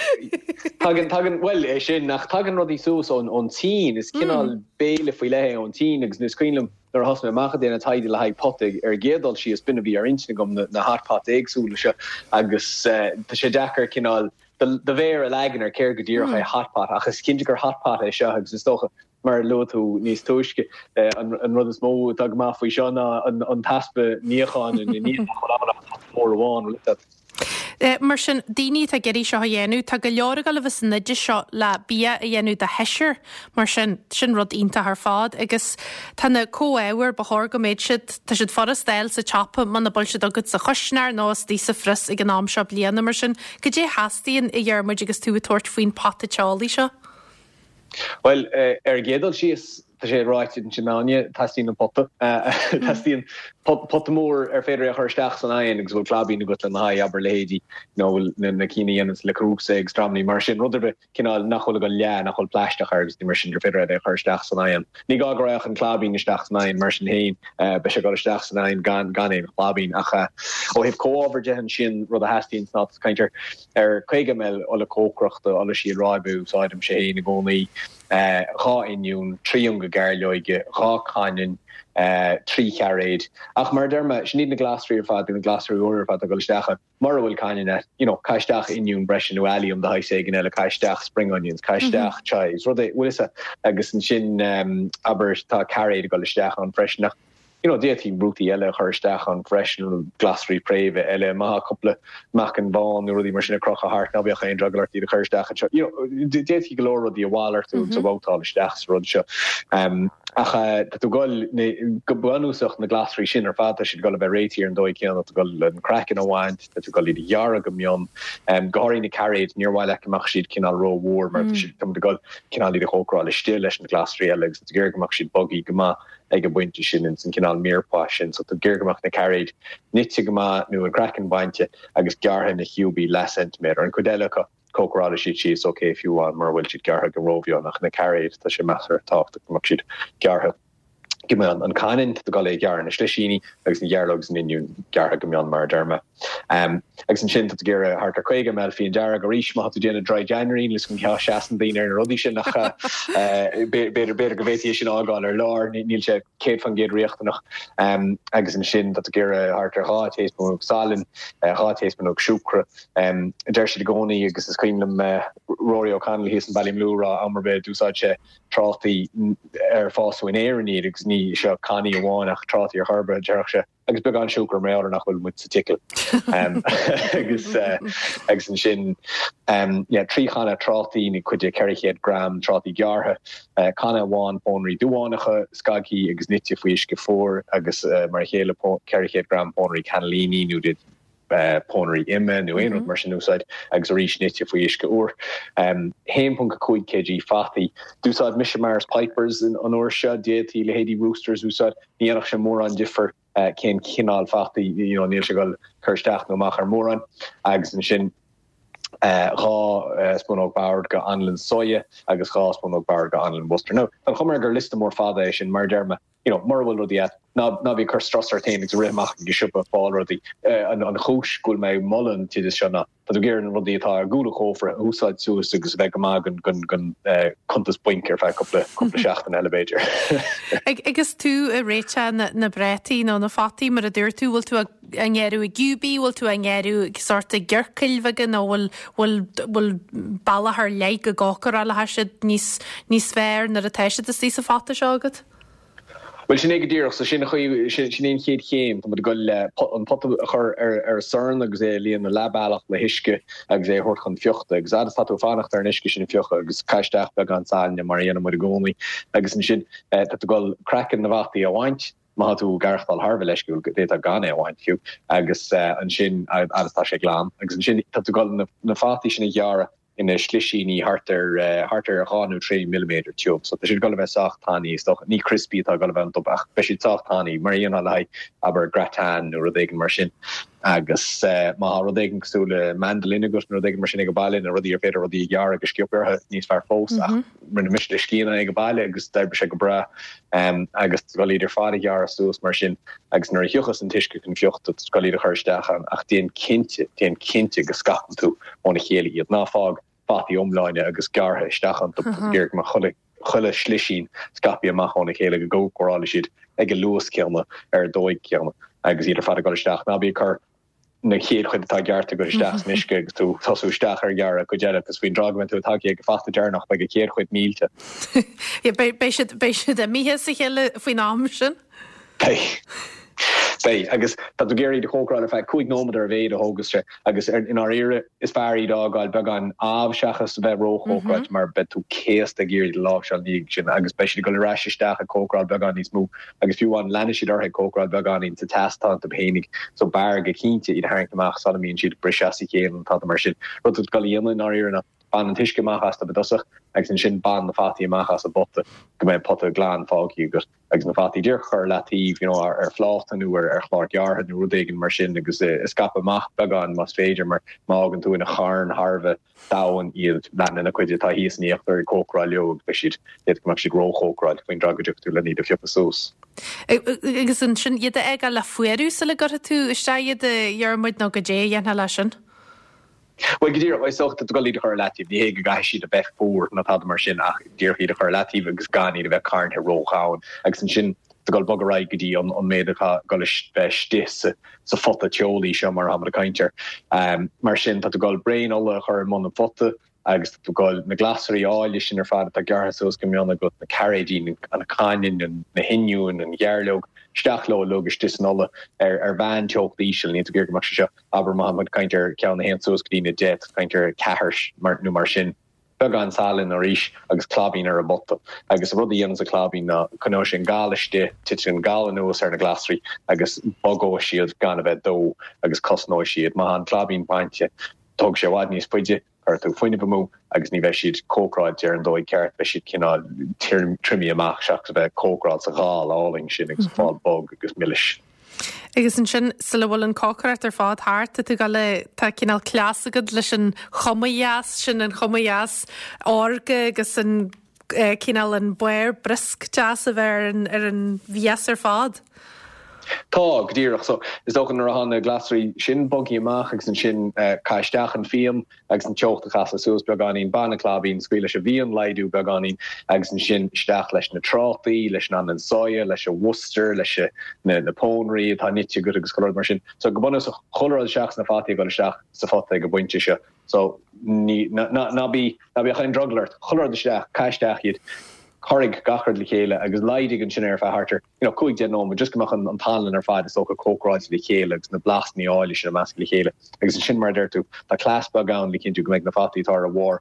Tagann, tagann, bhuel, é sin, ach tagann rudaí suas ón, ón tSín, is cineál béile faoi leith é ón tSín agus is cuimhin liom nuair a thosaigh mé amach ag déanamh taighde le haghaidh pota ar an gcéad dul síos, b'in a bhí ar intinn agam, na, na hot pots éagsúla seo agus tá sé deacair cineál do, do mhéar a leagan ar céard go díreach é hot pot ach is cinnte gur hot pot é seo agus is dócha Mar a luaigh tú níos túisce, an rud is mó atá go maith faoi seo ná an t-easpa níocháin ina ndiaidh, nach bhfuil ann ach pota mór amháin, bhfuil fhios agat. Mar sin, daoine atá ag iarraidh seo a dhéanamh, tá go leor ag dul a bheith san oideas seo le bia a dhéanamh do sheisear, mar sin, sin rud iontach ar fad. Agus tá na comhábhair, ba chóir go mbeadh siad, tá siad furast a fháil sa tsiopa muna bhfuil siad agat sa chuisneoir nó istigh sa phrios ag an am seo bliana, mar sin, cad é a theastaíonn, a Dhiarmuid, agus tú ag tabhairt faoin pota teolaí seo? Bhuel, ar an gcéad dul síos, tá sé ráite ansin Áine, teastaíonn an pota. Teastaíonn pota mór ar féidir é a chur isteach san oigheann agus a bhfuil claibín agat lena haghaidh, abair leithéidí, you know, na cinn a dhéananns Le Creuset agus dreamannaí mar sin, rud ar bith cineál nach bhfuil ag dul leá, nach bhfuil plaisteach air agus mar sin, gur féidir é a chur isteach san oigheann. Ní gá go raghadh an claibín isteach san oigheann mar sin féin, beidh sé ag dul isteach san oigheann gan gan aon chlaibín. Ach ó thaobh comhábhar de ansin, rud a theastaíonn ná caint ar Ar 50 ml ola cócaireachta, ola síol ráibe a úsáidimse féin i gcónaí, 2 oinniún, 3 ionga gairleoige, 2 cainneann, 3 chairéad. Ach mar a deir mé, sin iad na glasraí ar fad, na glasraí úra ar fad atá ag dul isteach ann. Mura bhfuil cainneann agat, you know, caith isteach oinniún breise nó allium de shaghas éigin eile, caith isteach spring onions, caith isteach chives, rud é, bhfuil fhios agat. Agus ansin, abair, tá cairéad ag dul isteach ann freisin ach, you know, d'fhéadfaí rudaí eile a chur isteach ann freisin, glasraí préimhe eile, má tá cúpla meacan bán nó rudaí mar sin ag crochadh thart, ná beadh aon drogall ort iad a chur isteach anseo. You know, d'fhéadfaí go leor rudaí a mhalartú agus a bhabhtáil isteach sa rud seo. Ach tá tú ag dul, go bunúsach, na glasraí sin ar fad, tá siad ag dul a bheith réitithe ar an dóigh chéanna, tá tú ag dul an craiceann a bhaint, tá tú ag dul iad a ghearradh go mion, go háirithe na cairéid, níor mhaith leat go mbeadh siad cineál rómhór mar tá siad, tá muid ag dul cineál iad a chócaráil istigh leis na glasraí eile agus tá tú ag iarraidh go mbeadh siad bogthaí go maith ag an bpointe sin ins an cineál mirepoix sin. So tá tú ag iarraidh go mbeadh na cairéid nite go maith nó an craiceann bainte agus gearrtha ina chiúbaí leath ceintiméadar. An chuid eile acu, cócarálfaidh siad síos ok fiú amháin mura bhfuil siad gearrtha go rómhion ach na cairéid tá sé measartha tábhachtach go mbeadh siad gearrtha go mion. An caininn, tá tú ag dul é a ghearradh ina slisíní agus an ghearrlóg agus an oinniún gearrtha go mion mar a deir mé. Agus ansin tá tú ag iarraidh thart ar 50 ml fíon dearg arís má tá tú ag déanamh dry January níl 'fhios agam cén fáth a seasann daoine ar na rudaí sin ach b'fhéidir b'fhéidir go bhféadfaí é sin a fhágáil ar lár níl sé 100% riachtanach. Agus ansin tá tú ag iarraidh thart ar 2 taespúnóg salainn, 2 taespúnóg siúcra. Deir siad i gcónaí, agus is cuimhin liom Rory O'Connell thíos in Ballymaloe ag rá am ar bith d'úsáid sé trátaí ar fásadh in Éirinn iad agus ní seo cannaí amháin ach trátaí ar chor ar bith, déarfadh sé, agus beagán siúcra mar gheall ar nach bhfuil muid sa tSicil. Agus agus ansin yeah, 3 channa trátaí nó cuid de 400 gram trátaí gearrtha, canna amháin pónairí duánacha, scagthaí agus nite faoi uisce fuar agus mar a chéile 400 gram pónairí cannellini nó pónairí ime nó aon rud mar sin a úsáid agus arís nite faoi uisce úr. 1.5 kg fataí. D'úsáid mise Maris Pipers an uair seo, d'fhéadfaí leithéidí Roosters a úsáid, ní dhéanfadh sé mórán difear cén cineál fataí, you know, níl sé ag dul cur isteach nó amach ar mórán. Agus ansin 2 spúnóg boird de anlann soya agus 2 spúnóg boird de anlann Worcester. Now, tá an chuma air gur liosta mór fada é sin, mar a deir mé, you know, mura bhfuil rudaí agat, ná, ná bí ag cur strus ort féin agus ag rith amach ag an siopa ag fáil rudaí. An, an chúis go bhfuil mé ag moladh an t-oideas seo ná tá tú ag iarraidh na rudaí atá ar gcúl an chófra a úsáid suas agus a bheith go maith don, don, don cuntas bainc ar feadh cúpla, cúpla seachtain eile b'fhéidir. Ag, agus tú ag réiteach na, na bprátaí nó na fataí mar a dúirt tú, bhfuil tú á ngearradh i gciúbaí, bhfuil tú á ngearradh ag sórt i gciorcail bheaga nó bhfuil, bhfuil, bhfuil bealach ar leith go gcócarálfaidh siad níos, níos fearr nuair atá siad istigh sa phota seo agat? Bhuel, sin é go díreach. So sin an chaoi, sin é an chéad chéim. Tá muid ag dul le an pota a chur ar ar an sorn agus é a líonadh leath bealach le huisce agus é a thabhairt chun fiuchta. Agus fhad is tá tú ag fanacht ar an uisce sin a fiuchadh agus caith isteach beagán salainne mar a dhéanann muid i gcónaí. Agus ansin tá tú ag dul craiceann na bhfataí a bhaint, má tá tú ag aireachtáil thar a bheith leisciúil, d'fhéadfá gan é a bhaint fiú. Agus ansin fhad is tá sé glan. Agus ansin tá tú ag dul na fataí sin a ghearradh ina slisíní thart ar thart ar 2 nó 3 milliméadar tiubh. So tá siad ag dul a bheith sách tanaí is dócha. Ní crispy atá ag dul a bheith iontu ach beidh siad sách tanaí mar a dhéanfá le haghaidh abair gratin nó rud éigin mar sin. Agus má tá rud éigin cosúil le mandolin agat nó rud éigin mar sin ag baile nó rudaí ar féidir rudaí a ghearradh go sciobtha orthu níos fearr fós ach rinne mise le scian ag baile agus d'oibrigh sé go breá. Agus tá tú ag dul iad ar fad a ghearradh suas mar sin agus nuair a thiocfas an t-uisce chun fiuchta tá tú ag dul iad a chur isteach ann ach déan cinnte, déan cinnte go scaipeann tú óna chéile iad. Ná fág fataí iomláine agus gearrtha isteach iontu. Tá tú ag iarraidh go mbeadh chuile, chuile shlisín scaipthe amach óna chéile go gcócarálfaidh siad ag an luas céanna ar an dóigh chéanna agus iad ar fad ag dul isteach. Ná bí ag cur na chéad chuid atá gearrtha agat isteach san uisce agus tú ag tosú isteach ar ghearradh cuid eile agus faoin dtráth go mbeidh tú tagtha ag an fata deireanach beidh an chéad chuid millte. Beidh, beidh siad, beidh siad imithe as a chéile faoin am sin. Beidh. Beidh. Agus tá tú ag iarraidh iad a chócaráil ar feadh 5 nóiméad ar a mhéad a thógas sé agus i ndáiríre is fearr iad a fhágáil beagán amh seachas a bheith róchócaráilte mar beidh tú céasta ag iarraidh iad a láimhseáil ina dhiaidh sin agus beidh siad ag dul ar ais isteach ag cócaráil beagán níos mó agus fiú amháin leanfaidh siad orthu ag cócaráil beagáinín sa teas atá iontu féinig so b'fhearr go cinnte iad a tharraingt amach sula mbíonn siad ag briseadh as a chéile nó tada mar sin. Rud atá tú ag dul a dhéanamh i ndáiríre ná bain an t-uisce amach astu i dtosach agus ansin bain na fataí amach as an bpota go mbeidh pota glan fágtha agat. agus na fataí díreach a chur ar leataobh, you know, ar phláta nó ar chlár gearrtha nó rud éigin mar sin agus a scaipeadh amach beagán más féidir mar má fhágann tú ina charn thar a bheith domhain iad, leanann an chuid atá thíos in íochtar ag cócaráil leo agus beidh siad, d'fhéadfadh go mbeadh siad róchócaráilte faoin dtráth go dtiocfaidh tú lena iad a phiocadh suas. Agus ansin iad a fhágáil le fuarú sula gcuirfidh tú isteach iad a Dhiarmuid nó goidé a dhéanfá leis sin? Bhuel, go díreach, is dócha, tá tú ag dul iad a chur ar leataobh. Ní hé go gcaithfidh siad a bheith fuar ná tada mar sin ach díreach iad a chur ar leataobh agus gan iad a bheith carntha ródhomhain. Agus ansin tá tú ag dul bogadh ar aghaidh go dtí an méid atá ag dul a bheith istigh sa phota teolaí seo mar atáimid ag caint air. Mar sin, tá tú ag dul braon ola a chur i mbun an phota agus tá tú ag dul na glasraí áille sin ar fad atá gearrtha suas go mion agat, na cairéidí, an caininn, na hoinniúin, an ghearrleog, isteach leo uilig istigh san ola ar mheán-teocht íseal. Níl tú ag iarraidh go mbeadh sé seo Abair má tá muid ag caint ar ceann a théann suas go dtí na 10, tá tú ag caint ar 4 nó mar sin. Beagán salainn arís agus claibín ar an bpota. Agus an rud a dhéananns an claibín ná coinneoidh sé an gal istigh, titfidh an gal anuas ar na glasraí agus bogóidh siad gan a bheith dubh agus cosnóidh siad. Má tá an claibín bainte, tógfaidh sé i bhfad níos faide, cuirfidh tú fuinneamh amú agus ní bheidh siad cócaráilte ar an dóigh ceart, beidh siad cineál triomaithe amach seachas a bheith cócaráilte sa ghal álainn sin agus ag fáil bog agus milis. Agus ansin, sula bhfuil an cócaireacht ar fad thart, tá tú ag dul a, tá cineál cleas agat leis an chuma dheas sin, an chuma dheas órga agus an cineál an barr briosc deas a bheith ar an, ar an mhias ar fad. Tá, go díreach. So, is dócha nuair atá na glasraí sin bogtha amach agus ansin caith isteach an fíon, agus an teocht a chasadh suas beagáinín, bain an claibín, scaoil leis an bhfíon laghdú beagáinín agus ansin isteach leis na trátaí, leis an anlann soya, leis an mhustar, leis na pónairí atá nite agat agus chuile rud mar sin. So go bunúsach, chuile rud seachas na fataí ag dul isteach sa phota ag an bpointe seo. So ní, ná, ná bí, ná bíodh aon drogall ort, chuile rud isteach, caith isteach iad, corraigh gach rud le chéile agus laghdaigh ansin ar feadh thart ar, you know, 5, 10 nóiméad, just go mbeadh an t-anlann ar fad is dócha cócaráilte le chéile agus na blasanna áille sin ag meascadh le chéile. Agus ansin, mar a deir tú, tá cleas beag ann le cinntiú go mbeidh na fataí atá ar a bharr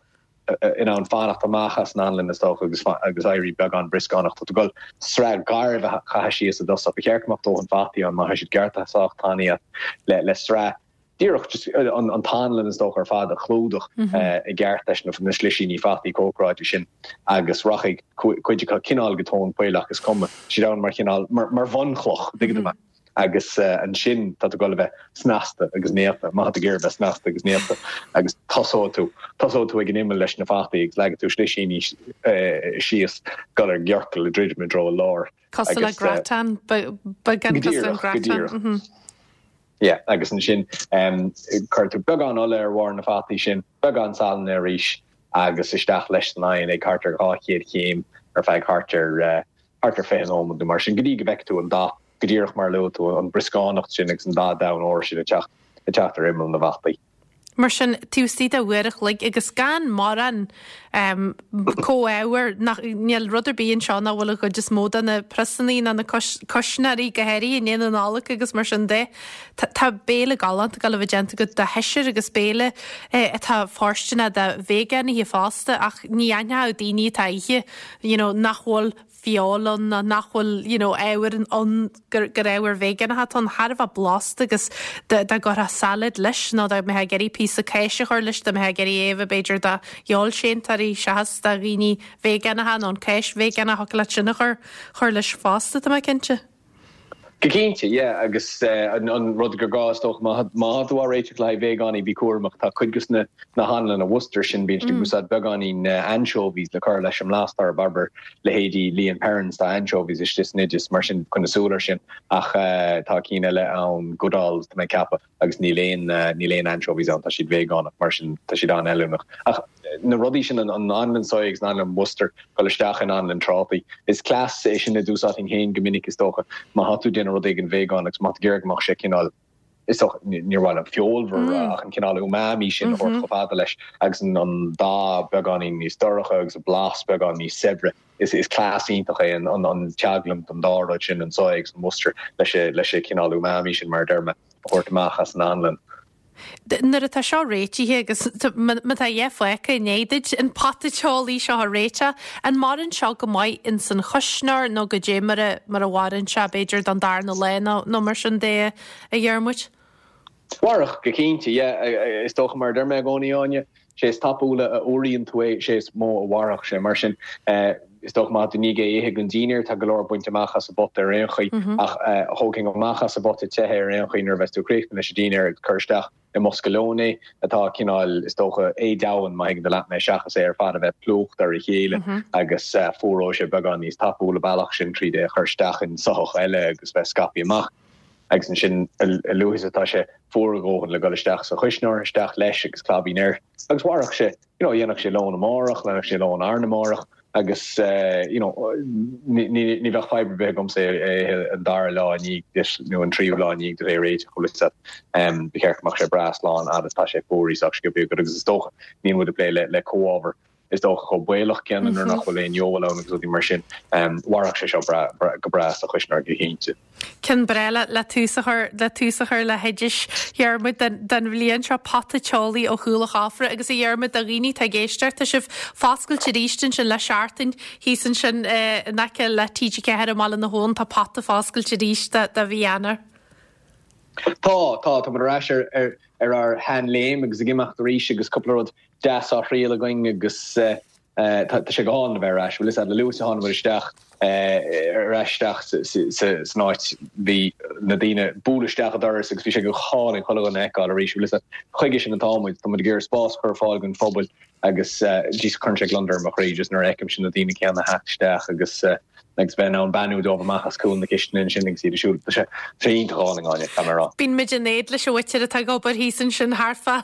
in ann fanacht amach as an anlann is dócha agus agus éirí beagán brioscánach. Tá tú ag dul sraith garbh a chaitheamh síos i dtosach. Ba cheart go mbeadh dóthain fataí ann má tá siad gearrtha sách tanaí le le sraith díreach just an t-anlann is dócha ar fad a chlúdach i gceart leis na slisíní fataí cócaráilte sin agus rachaidh cuid acu cineál go tóin poill ach is cuma, siad ann mar chineál, mar bhunchloch, tuigeann tú mé. Agus ansin tá tú ag dul a bheith snasta agus néata, má tá tú ag iarraidh bheith snasta agus néata agus tosóidh tú, tosóidh tú ag an imeall leis na fataí agus leagfaidh tú slisíní síos, dul ar gciorcal ag druidim i dtreo an láir. Cosúil le gratin, beagán cosúil le gratin. Go díreach. Yeah, agus ansin cuirfidh tú beagán ola ar bharr na fataí sin, beagán salainne arís agus isteach leis san oigheann ag thart ar 200 chéim ar feadh thart ar thart ar 20 nóiméad nó mar sin go dtí go bhfeicfidh tú an dath go díreach mar a luaigh tú, an brioscánacht sin agus an dath donn óir sin ag teacht ag teacht ar imeall na bhfataí. Mar sin, taobh istigh de uair a chloig agus gan mórán comhábhair, nach, níl rud ar bith anseo nach bhfuil an chuid is mó de na priosanna ná na cuisneoirí, go háirithe i ndiaidh na Nollag agus mar sin de. Tá béile galánta ag dul a bheith déanta agat do sheisear agus béile atá fóirsteanach do veigeánaithe fosta ach ní aithneodh daoine atá á ithe, you know, nach bhfuil feoil ann ná nach bhfuil you know ábhair ann gur gur ábhair veigeánacha atá ann thar a bheith blasta agus dá dá gcuirfeá salad leis nó dá mbeifeá ag iarraidh píosa cáise a chur leis dá mbeifeá ag iarraidh é a bheith b'fhéidir do fheoilséantóirí seachas do dhaoine veigeánacha nó an cáis veigeánach thiocfadh leat sin a chur chur leis fosta tá mé cinnte. Go cinnte, yeah, agus an rud gur gá is dócha má tá tú á réiteach le haghaidh veigeánaigh, bí cúramach, tá cuid de na na hanlanna Worcester sin, bíonn siad ag úsáid beagáinín anchovies le cur leis an mblas orthu, abair leithéidí Lea and Perrins, tá anchovies istigh san oideas, mar sin coinnigh súil air sin, ach tá cinn eile ann, Goodall's tá mé ag ceapadh. agus níl aon, níl aon anchovies ann, tá siad veigeánach, mar sin tá siad an-fheiliúnach. Ach na rudaí sin, an anlann soya agus an anlann Worcester, dul isteach in anlann trátaí, is cleas é sin a d'úsáidfinn féin go minic is dócha, má tá tú ag déanamh rud éigin veigeánach agus má tá tú ag iarraidh go mbeadh sé cineál, is dócha, níor mhaith liom feolmhar a rá ach an cineál umami sin a thabhairt chomh fada leis agus an dath beagáinín níos dorcha agus an blas beagán níos saibhre. Is cleas iontach é an teaglaim den dá rud sin, an soya agus an Worcester, leis an chineál umami sin, mar a deir mé, a thabhairt amach as an anlann. Nuair atá seo réitithe agus má tá a dhath fágtha i ndiaidh duit an pota teolaí seo a réiteach, an maireann seo go maith ins an chuisneoir nó goidé mar a mar a mhaireann sé b'fhéidir don darna lá nó nó mar sin de a Dhiarmuid? Mhairfeadh, go cinnte, yeah. Is dócha, mar a deir mé i gcónaí, Áine, sé is tapúla a fhuaraíonn tú é, sé is mó a mhairfeadh sé. Mar sin, is dócha má tá tú i ndiaidh é a ithe don dínnéar, tá go leor bainte amach as an bpota ar aon chaoi, ach thógfainn amach as an bpota te é ar aon chaoi nuair a bheas tú críochnaithe leis an dínnéar agus cur isteach i mbosca lóin é, atá cineál, is dócha, éadomhain, má thuigeann tú leat mé, seachas é ar fad a bheith plúchta ar a chéile agus fuaróidh sé beagán níos tapúla an bealach sin tríd é a chur isteach in soitheach eile agus bheith scaipthe amach. Agus ansin, a luaithe is atá sé fuar a dhóthain le dul isteach sa chuisneoir, isteach leis agus claibín air. Agus mhairfeadh sé, you know, dhéanfadh sé lón amárach, dhéanfadh sé lón arna mhárach agus, you know, ní, ní, ní bheadh fadhb ar bith agamsa é a ithe an dara lá i ndiaidh duit nó an tríú lá i ndiaidh duit é a réiteach, bhfuil fhios agat. Ba cheart go mbeadh sé breá slán fhad is atá sé fuaraithe sách sciobtha agat agus is dócha, níl muid ag plé le, le comhábhar. is dócha chomh baolach céanna nuair nach bhfuil aon fheoil ann agus rudaí mar sin. Mhairfeadh sé seo go breá sa chuisneoir go cinnte. Ceann breá le tús a chur le tús a chur le hoidis Dhiarmuid don bhliain seo, pota teolaí ó chúl an chófra agus a Dhiarmuid do dhaoine atá ag éisteacht tá sibh foscailte arís ansin le seachtain thíos ansin in aice le TG4 i mBaile na hAbhann tá pota foscailte arís do mhí Eanáir. Tá, tá, tá muid ar ais ar ar ar ár sheanléim agus ag imeacht arís agus cúpla rud deas á thriail againn agus tá sé go hálainn a bheith ar ais. Bhfuil fhios a'd, le luaithe a tháinig muid isteach ar ais isteach san áit bhí na daoine ag bualadh isteach an doras agus bhí sé go hálainn chuile dhuine a fheiceáil arís. Bhfuil fhios a'd, chuige sin atá muid, tá muid ag iarraidh spás a chur ar fáil don phobal agus just cuireann sé gliondar ar mo chroí just nuair a fheicimse na daoine céanna a theacht isteach agus agus bheith in ann beannú dóibh amach as cúl na cistine ansin agus iad ag siúl. Tá sé tá sé iontach álainn, Áine, caithfidh mé a rá. Bíonn muid in éad leis an mhuintir atá ag obair thíos ansin thart fá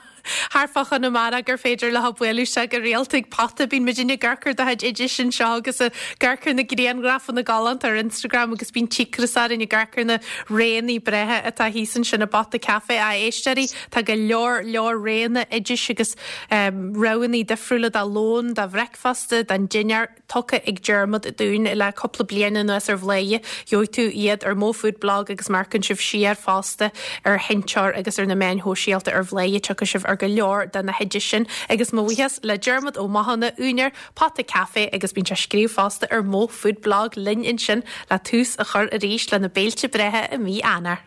thart fá Chonamara gur féidir leo bualadh isteach go rialta ag Pota. Bíonn muidinne ag amharc ar do chuid oidis anseo agus ag amharc ar na grianghrafanna galánta ar Instagram agus bíonn cíocras orainn ag amharc ar na roghanna breátha atá thíos ansin i bPota Café. A éisteoirí, tá go leor leor roghanna oidis agus roghanna difriúla do lón, do bhreicfeasta, don dinnéar. tugtha ag Diarmuid dúinn le cúpla bliain anuas ar Bhladhaire. Gheobhaidh tú iad ar Mo Food Blog agus má amharcann sibh siar fosta ar Sheinnteoir agus ar na meáin shóisialta ar Bhladhaire tiocfaidh sibh ar go leor de na hoidis sin. Agus mo bhuíochas le Diarmuid Ó Mathúna, úinéir Pota Café agus bíonn sé ag scríobh fosta ar Mo Food Blog linn ansin le tús a chur arís le na béilte breátha i mí Eanáir.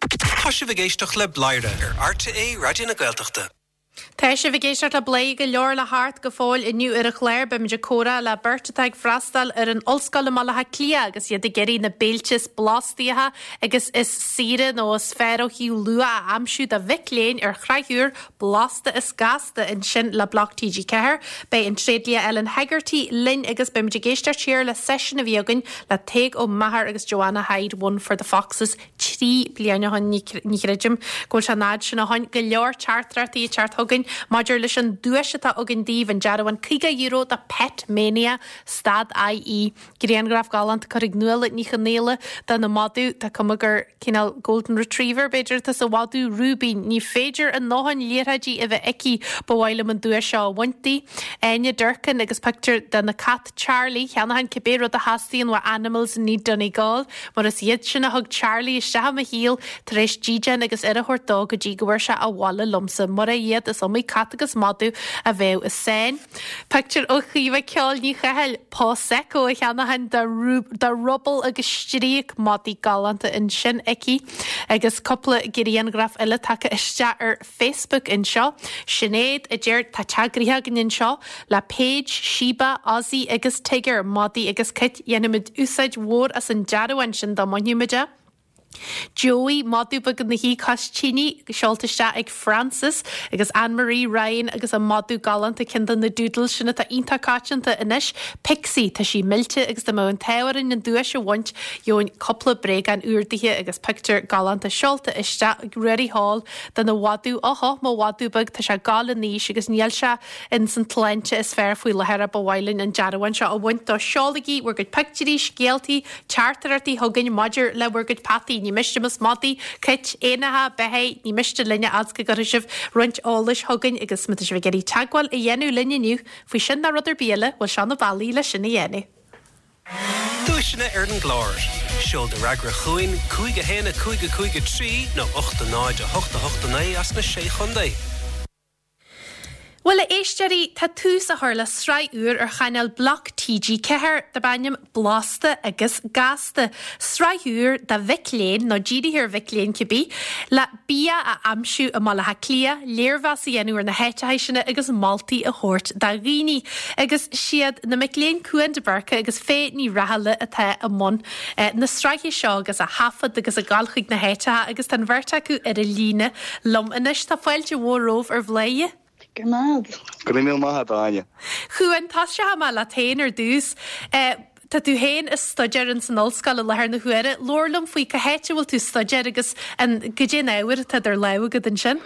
Tá sibh ag éisteacht le Bladhaire ar RTÉ Raidió na Gaeltachta. Tá sibh ag éisteacht le Bladhaire, go leor le theacht go fóill inniu ar an chlár. Beimid ag comhrá le beirt atá ag freastal ar an ollscoil i mBaile Átha Cliath agus iad ag iarraidh na béilte is blastaíocha agus is saoire nó is fearr ó thaobh luach a aimsiú do mhic léinn ar shraith úr Blasta is Gasta ansin le Bloc TG4. Beidh an tréidlia Ellen Hegarty linn agus beimid ag éisteacht siar le seisiún a bhí againn le Tadhg Ó Meachair agus Joanna Hyde, One for the Foxes. 3 bliana ó shin, ní chreidim go bhfuil sé an fhad sin ó shin, go leor teachtaireachtaí ag teacht chugainn maidir leis an duais atá againn daoibh, an dearbhán €50 do Pet Mania, stad IE. Grianghraf galánta curtha ag Nuala Ní Chonaola de na madadh, tá cuma gur cineál Golden Retriever b'fhéidir atá sa mhadadh Rúibín. Ní féidir a ndóthain liathróidí a bheith aici, ba mhaith liom an duais seo a bhaint di. Áine Durkin agus pictiúr de na cait. Charlie, cheannóchainn cibé rud a theastaíonn ó Animals in Need Donegal, mar is iad sin a thug Charlie isteach i mo shaol tar éis dídean agus aire a thabhairt dó go dtí go bhfuair sé abhaile liomsa. Mura iad, is iomaí cat agus madadh a bheadh i sáinn. Pictiúr ó Chaoimhe Ceoil Ní Chathail, Pawsecco a cheannóchainn do Rubble agus Stríoc, madaí galánta ansin aici agus cúpla grianghraf eile tagtha isteach ar Facebook anseo. Sinéad a deir, Tá teach gnoitheach againn anseo le Paige, Sheba, Ozzy agus Tigger, madaí agus cait. Dhéanfaimid úsáid mhór as an dearbhán sin dá mbainfimid é. Joey, madadh beag ina shuí cois tine, seolta isteach ag Frances agus Anne Marie Ryan agus a madadh galánta, ceann de na doodles sin atá iontach coitianta anois, Pixie. Tá sí millte agus dá mbeadh an t-ádh orainn an duais a bhaint, gheobhainn cúpla bréagán úr dithe agus pictiúr galánta seolta isteach ag Ruairí Hall dena mhadadh, Óhó, mo mhadadh beag, tá sé ag gabháil in aois agus níl sé ins an tsláinte is fearr faoi láthair ach ba mhaith linn an dearbhán seo a bhaint dó. Seolaigí bhur gcuid pictiúirí, scéaltaí, teachtaireachtaí chugainn maidir le bhur gcuid peataí. Ní miste más madaí, cait, éanacha, beithígh, ní miste linne fhad 's go gcuirfidh sibh roinnt eolais chugainn agus má tá sibh ag iarraidh teagmháil a dhéanamh linn inniu faoi sin ná rud ar bith eile, bhuel seo na bealaí le sin a dhéanamh. Duaiseanna ar an gclár. Seol do fhreagra chugainn, 5 1 5 5 3 nó 8 0 8 8 9 as na Sé Chontae. Bhuel, a éisteoirí, tá tús á chur le sraith úr ar chainéal Bloc TG4 darb ainm Blasta agus Gasta. Sraith úr do mhic léinn, nó dírithe ar mhic léinn cibé, le bia a aimsiú i mBaile Átha Cliath, léirmheas a dhéanamh ar na háiteacha sin agus moltaí a thabhairt do dhaoine. Agus siad na mic léinn Cuan de Búrca agus Faye Ní Rathaille atá i mbun na sraithe seo agus á thaifead agus ag dul chuig na háiteacha agus tá an bheirt acu ar an líne liom anois. Tá fáilte mhór romhaibh ar Bhladhaire. Go raibh maith agat. Go raibh míle maith agat, Áine. Chuan, tosóidh mé leat féin ar dtús. Tá tú féin ag staidéar ins an ollscoil i láthair na huaire. Labhair liom faoi cá háit a bhfuil tú ag staidéar agus an goidé an ábhar atá idir lámha agat ansin.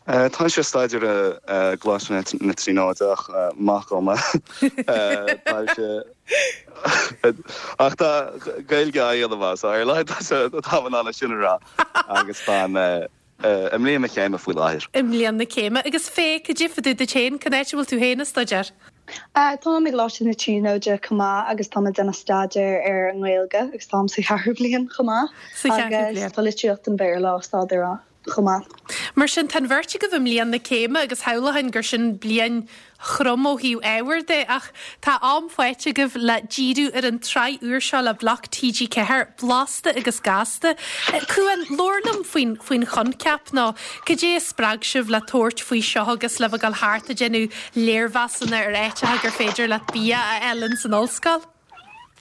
Táimse ag staidéar i gColáiste na Tríonóide ach maith dhom é. Táimse ach tá Gaeilge á dhéanamh as, so ar a laghad táim in ann é sin a rá agus tá an. I mbliain mo chéime faoi láthair. I mbliain na céime. Agus Faye, cad é fá dtaobh duit féin? Cén áit a bhfuil tú féin ag staidéar? Táim i gColáiste na Tríonóide chomh maith agus táim ag déanamh staidéar ar an nGaeilge agus táim sa cheathrú bliain chomh maith. Sa cheathrú bliain. Agus tá litríocht an Bhéarla á staidéar chomh maith. Mar sin, tá an bheirt agaibh i mbliain na céime agus shamhlóchainn gur sin bliain throm ó thaobh ábhair de ach tá am faighte agaibh le díriú ar an tsraith úr seo le Bloc TG4, Blasta agus Gasta. Cuan, labhair liom faoin faoin choincheap nó cad é a spreag sibh le tabhairt faoi seo agus le bheith ag dul thart ag déanamh léirmheasanna ar áiteacha gur féidir leat bia a fháil ins an ollscoil?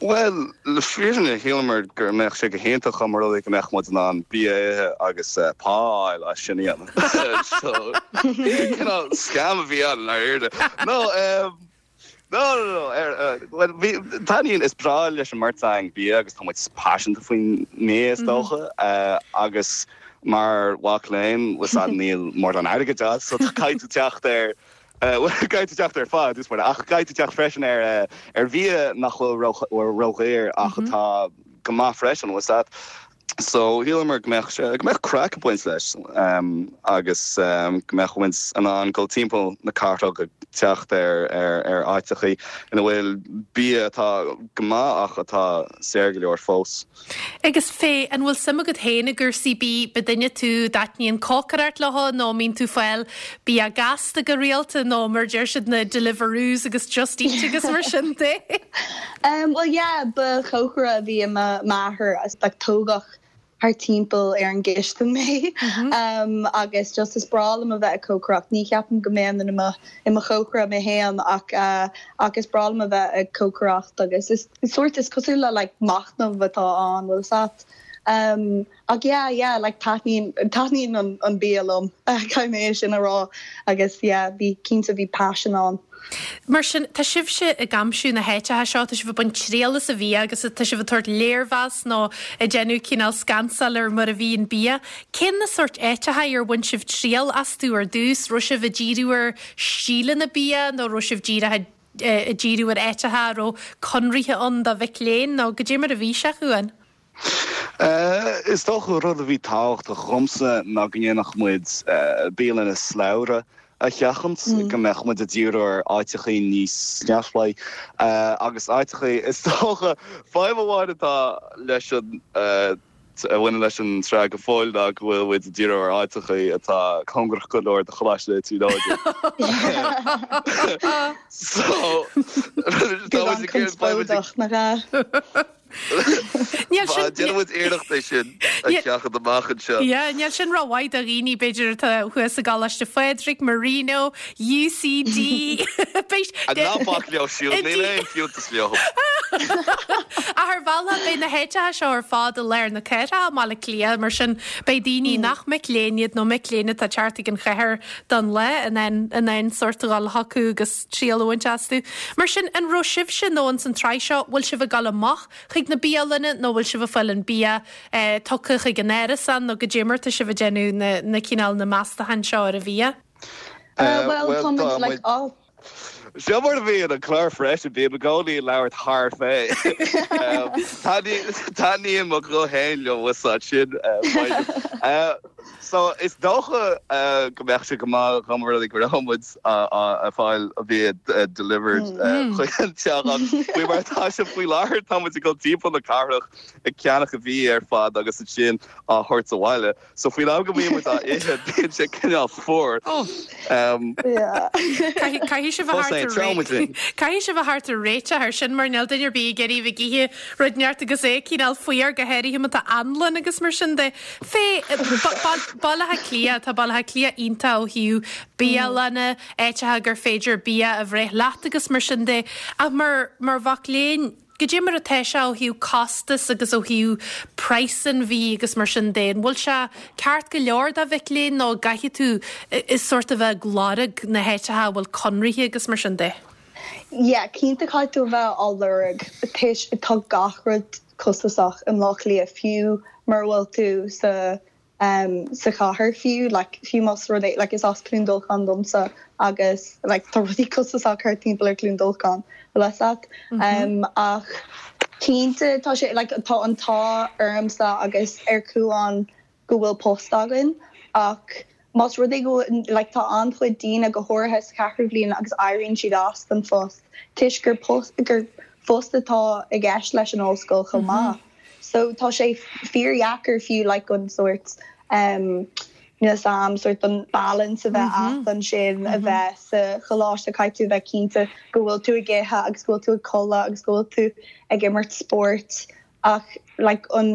Bhuel, le fírinne, shíleamar go mbeadh sé go hiontach dá mba rud é go mbeadh muid in ann bia a ithe agus pá a fháil as sin a dhéanamh. So, cineál scam a bhí ann i ndáiríre. No, um, no, no, no, ar, uh, bhuel, bhí, taitníonn, is breá leis an mbeirt againn bia agus tá muid paiseanta faoin mbia is dócha, uh, agus mar mhac léinn, bhfuil 's a'd, níl mórán airgid agat, so caithfidh tú teacht ar Caithfidh tú teacht ar phá, dús mar, ach caithfidh tú teacht freisin ar ar bhia nach bhfuil ródhaor ach atá go maith freisin, bhfuil 's a'd. So shíleamar go mbeadh sé, go mbeadh craic ag baint leis agus go mbeadh muid in ann dul timpeall na cathrach ag teacht ar ar ar áiteachaí ina bhfuil bia atá go maith ach atá saor go leor fós. Agus Faye, an bhfuil suim agat féin i gcúrsaí bídh? Ab duine tú a dtaitníonn cócaireacht leo nó an mbíonn tú ag fáil bia gasta go rialta nó mar a deir siad na Deliveroos agus Just Eat agus mar sin de? Bhuel yeah, ba chócaire a bhí i m'athair like tógadh thart timpeall ar an gcistin mé agus just is breá liom a bheith ag cócaireacht. Ní cheapaim go mbeinn i mo i mo chócaire mé féin ach ach is breá liom a bheith ag cócaireacht agus is sórt is cosúil le like machnamh atá ann, bhfuil 'fhios a'd. Ach yeah yeah like taitníonn taitníonn an an bia liom caithfidh mé é sin a rá agus yeah bhí cinnte bhí paisean ann. Mar sin, tá sibhse ag aimsiú na háiteacha seo, tá sibh ag baint triail as an bhia agus tá sibh ag tabhairt léirmheas nó ag déanamh cineál scansáil ar mar a bhí an bia. Cén na sóirt áiteacha ar bhain sibh triail astu ar dtús? Raibh sibh ag díriú ar stíleanna bia nó raibh sibh díreach ag díriú ar áiteacha a raibh conraithe ann do mhic léinn nó goidé mar a bhí sé, a Chuain? Is dócha rud a bhí tábhachtach dhomsa ná go ndéanfadh muid bialanna slabhra a sheachaint, go mbeadh muid ag díriú ar áiteachaí níos neamhspleáí agus áiteachaí, is dócha, fadhb amháin atá leis an, a bhaineann leis an tsraith go fóill ná go bhfuil muid ag díriú ar áiteachaí atá cóngarach go leor do Choláiste na Tríonóide. So, tá muid ag iarraidh, beidh muid ag. Conspóideach, nach ea? Níl sin. Déanfaidh muid iarracht é sin a sheachaint amach anseo. Yeah, níl sin rómhaith do dhaoine, b'fhéidir, atá thuas i gColáiste Phádraig, Marino, UCD. Ná bac leo siúd, níl aon fiúntas leo. Ach ar bhealach, beidh na háiteacha seo ar fad i lár na cathrach i mBaile Átha Cliath, mar sin beidh daoine nach mic léinn iad nó mic léinn atá ag teacht chuig an chathair don lá in ann in ann sórt a dhul chucu agus triail a bhaint astu. Mar sin, an raibh sibhse nó ins an tsraith seo, bhfuil sibh ag dul amach chuig na bialanna nó bhfuil sibh ag fáil an bia tugtha chuig an árasán nó goidé mar atá sibh ag déanamh na na cineál na meastacháin seo ar an bhia? Bhuel, tá muid like á. Seo mar a bhíonn an clár freisin, bím i gcónaí ag labhairt thar Faye. Taitníonn mo ghuth féin liom, bhfuil 's a'd, sin fadhb. So, is dócha go mbeadh sé go maith dá mba rud é go raibh muid ag fáil an bia delivered chuig an teach ach faoi mar atá sé faoi láthair tá muid ag dul timpeall na cathrach ag ceannach an bhia ar fad agus ansin á thabhairt abhaile. So faoin am go mbíonn muid á ithe bíonn sé cineál fuar. Caithfidh sibh a Caithfidh sibh a theacht ar réiteach ar sin mar níl duine ar bith ag iarraidh bheith ag ithe rud inteacht agus é cineál fuar go háirithe má tá anlann agus mar sin de. Faye, Baile Átha Cliath, tá Baile Átha Cliath iontach ó thaobh bialanna, áiteacha gur féidir bia a bhreith leat agus mar sin de ach mar mar mhac léinn, Goidé mar atá sé ó thaobh costas agus ó thaobh praghas an bhídh agus mar sin de? An bhfuil sé ceart go leor do mhic léinn nó an gcaithfidh tú sórt a bheith ag lorg na háiteacha a bhfuil conraithe agus mar sin de? Yeah, cinnte caithfidh tú a bheith á lorg toisc tá gach rud costasach i mBleá Cliath fiú mura bhfuil tú sa sa chathair fiú, like fiú más rud é, like is as Cluain Dolcáin domsa agus like tá rudaí costasach thart timpeall ar Cluain Dolcáin, bhfuil fhios a't. Ach cinnte tá sé, like tá an t-ádh ormsa agus ar Cuan go bhfuil post againn. Ach más rud é go bhfuil, like tá an-chuid daoine, go háirithe sa cheathrú bhliain agus éiríonn siad as don phost toisc gur post, gur post atá i gceist leis an ollscoil chomh maith. So tá sé fíordheacair fiú like an sórt em níl 'fhios a'm sórt an balance a bheith a'd ansin a bheith sa choláiste caithfidh tú a bheith cinnte go bhfuil tú ag ithe agus go bhfuil tú ag codladh agus go bhfuil tú ag imirt spóirt ach like an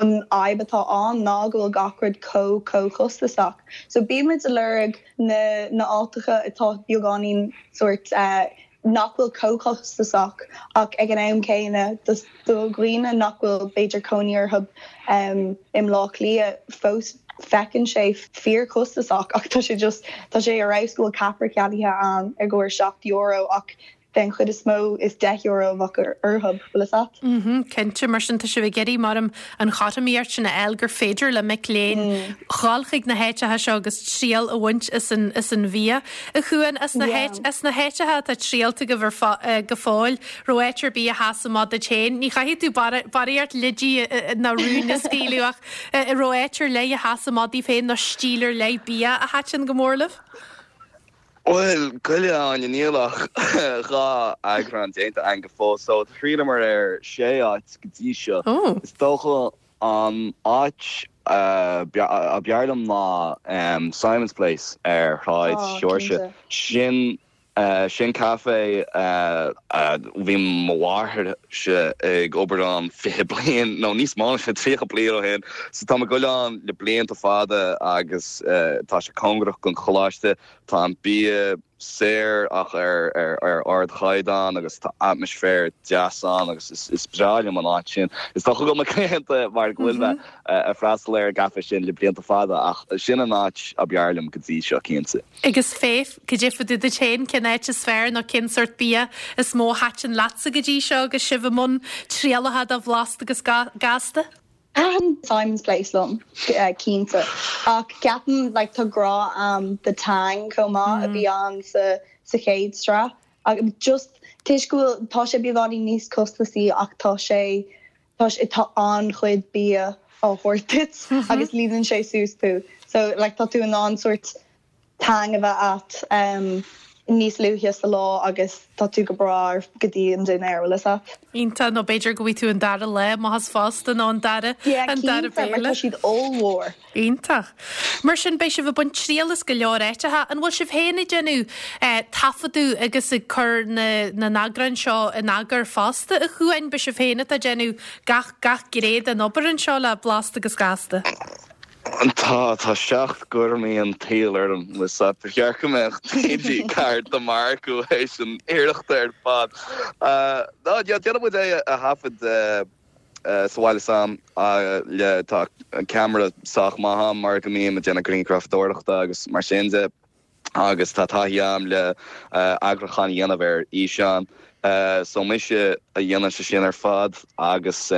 an fhadhb atá ann ná go bhfuil gach rud chomh chomh costasach. So bímid ag lorg na na áiteacha atá beagáinín sórt eh nach bhfuil chomh costasach ach ag an am céanna do dhaoine nach bhfuil b'fhéidir cónaí orthu i mBleá Cliath fós feiceann sé fíorchostasach ach tá sé just tá sé ar fheabhas go bhfuil ceapaire ceannaithe ann i gcomhair €7 ach den chuid is mó is €10 a bheadh orthu, bhfuil fhios a'd? Mhm, cinnte, mar sin tá sibh ag iarraidh mar an chothromaíocht sin a fháil gur féidir le mic léinn dhul chuig na háiteacha seo agus triail a bhaint as an as an bhia. A Chuain, as na as na háiteacha atá triailte agaibh ar fo go fóill, raibh áit ar bith a sheas amach duit féin? Ní chaithfidh tú barraíocht leidí ná rúin a scaoileadh ach an raibh áit ar leith a sheas amach daoibh féin nó stíl ar leith bia a thaitin go mór libh? Bhuel, gabh i leith a Áine, níl ach 2 eagrán déanta againn go fóill so thriaileamar ar 6 áit go dtí seo. Is dócha an áit ab fhearr liom ná Simon's Place ar Shráid Sheoirse. Sin sin caife a bhí mo mháthairse ag obair ann 20 bliain nó níos mó ná sin, 30 bliain ó shin. So tá mé ag goil ann le blianta fada agus tá sé cóngarach don choláiste. Tá an bia saor ach ar ardchaighdeán agus tá atmaisféar deas ann agus is breá liom an áit sin. Is dócha go bhfuil mé claonta mar go bhfuil mé ag freastal ar an gcaife sin le blianta fada ach sin an áit ab fhearr liom go dtí seo cinnte. Agus Faith, cad é fá dtaobh duit féin, cén áit is fearr nó cén sórt bia is mó a thaitin leatsa go dtí seo agus sibh i mbun trialacha de Bhlasta agus Gasta? Thaitin Simon's Place liom, cinnte. Ach ceapaim like tá grá a'm do Tang chomh maith a bhí ann sa sa chéad sraith. Ach just toisc go bhfuil tá sé beagáinín níos costasaí ach tá sé tá sé tá an-chuid bia á thabhairt duit agus líonann sé suas tú. So like tá tú in ann sórt Tang a bheith a'd níos luaithe sa lá agus tá tú go breá go dtí an dinnéar, bhfuil fhios a'd. Iontach, nó b'fhéidir go bhfaighidh tú an dara lá amach as fosta nó an dara, Yeah, an dara cinnte, mar tá siad ollmhór. Iontach. Mar sin, beidh sibh ag baint triail as go leor áiteacha. An bhfuil sibh féin ag déanamh taifeadadh agus ag cur na na n-eagrán seo in eagar fosta, a Chuain? Ab é sibh féin atá ag déanamh gach gach gné den obair anseo le Blasta agus Gasta? Tá, tá seacht gcúraimí an tsaoil orm, bhfuil fhios a'd. Ba cheart go mbeadh TG4 do m'earcú théis an iarrachta ar fad. Ná, déanann muid é a thaifead sa bhaile s'a'm le, tá ceamara sách maith a'm mar go mbím ag déanamh grianghrafadóireachta agus mar sin de. agus tá taithí a'm le eagrúchán a dhéanamh ar fhíseán. So mise a dhéanann sé sin ar fad agus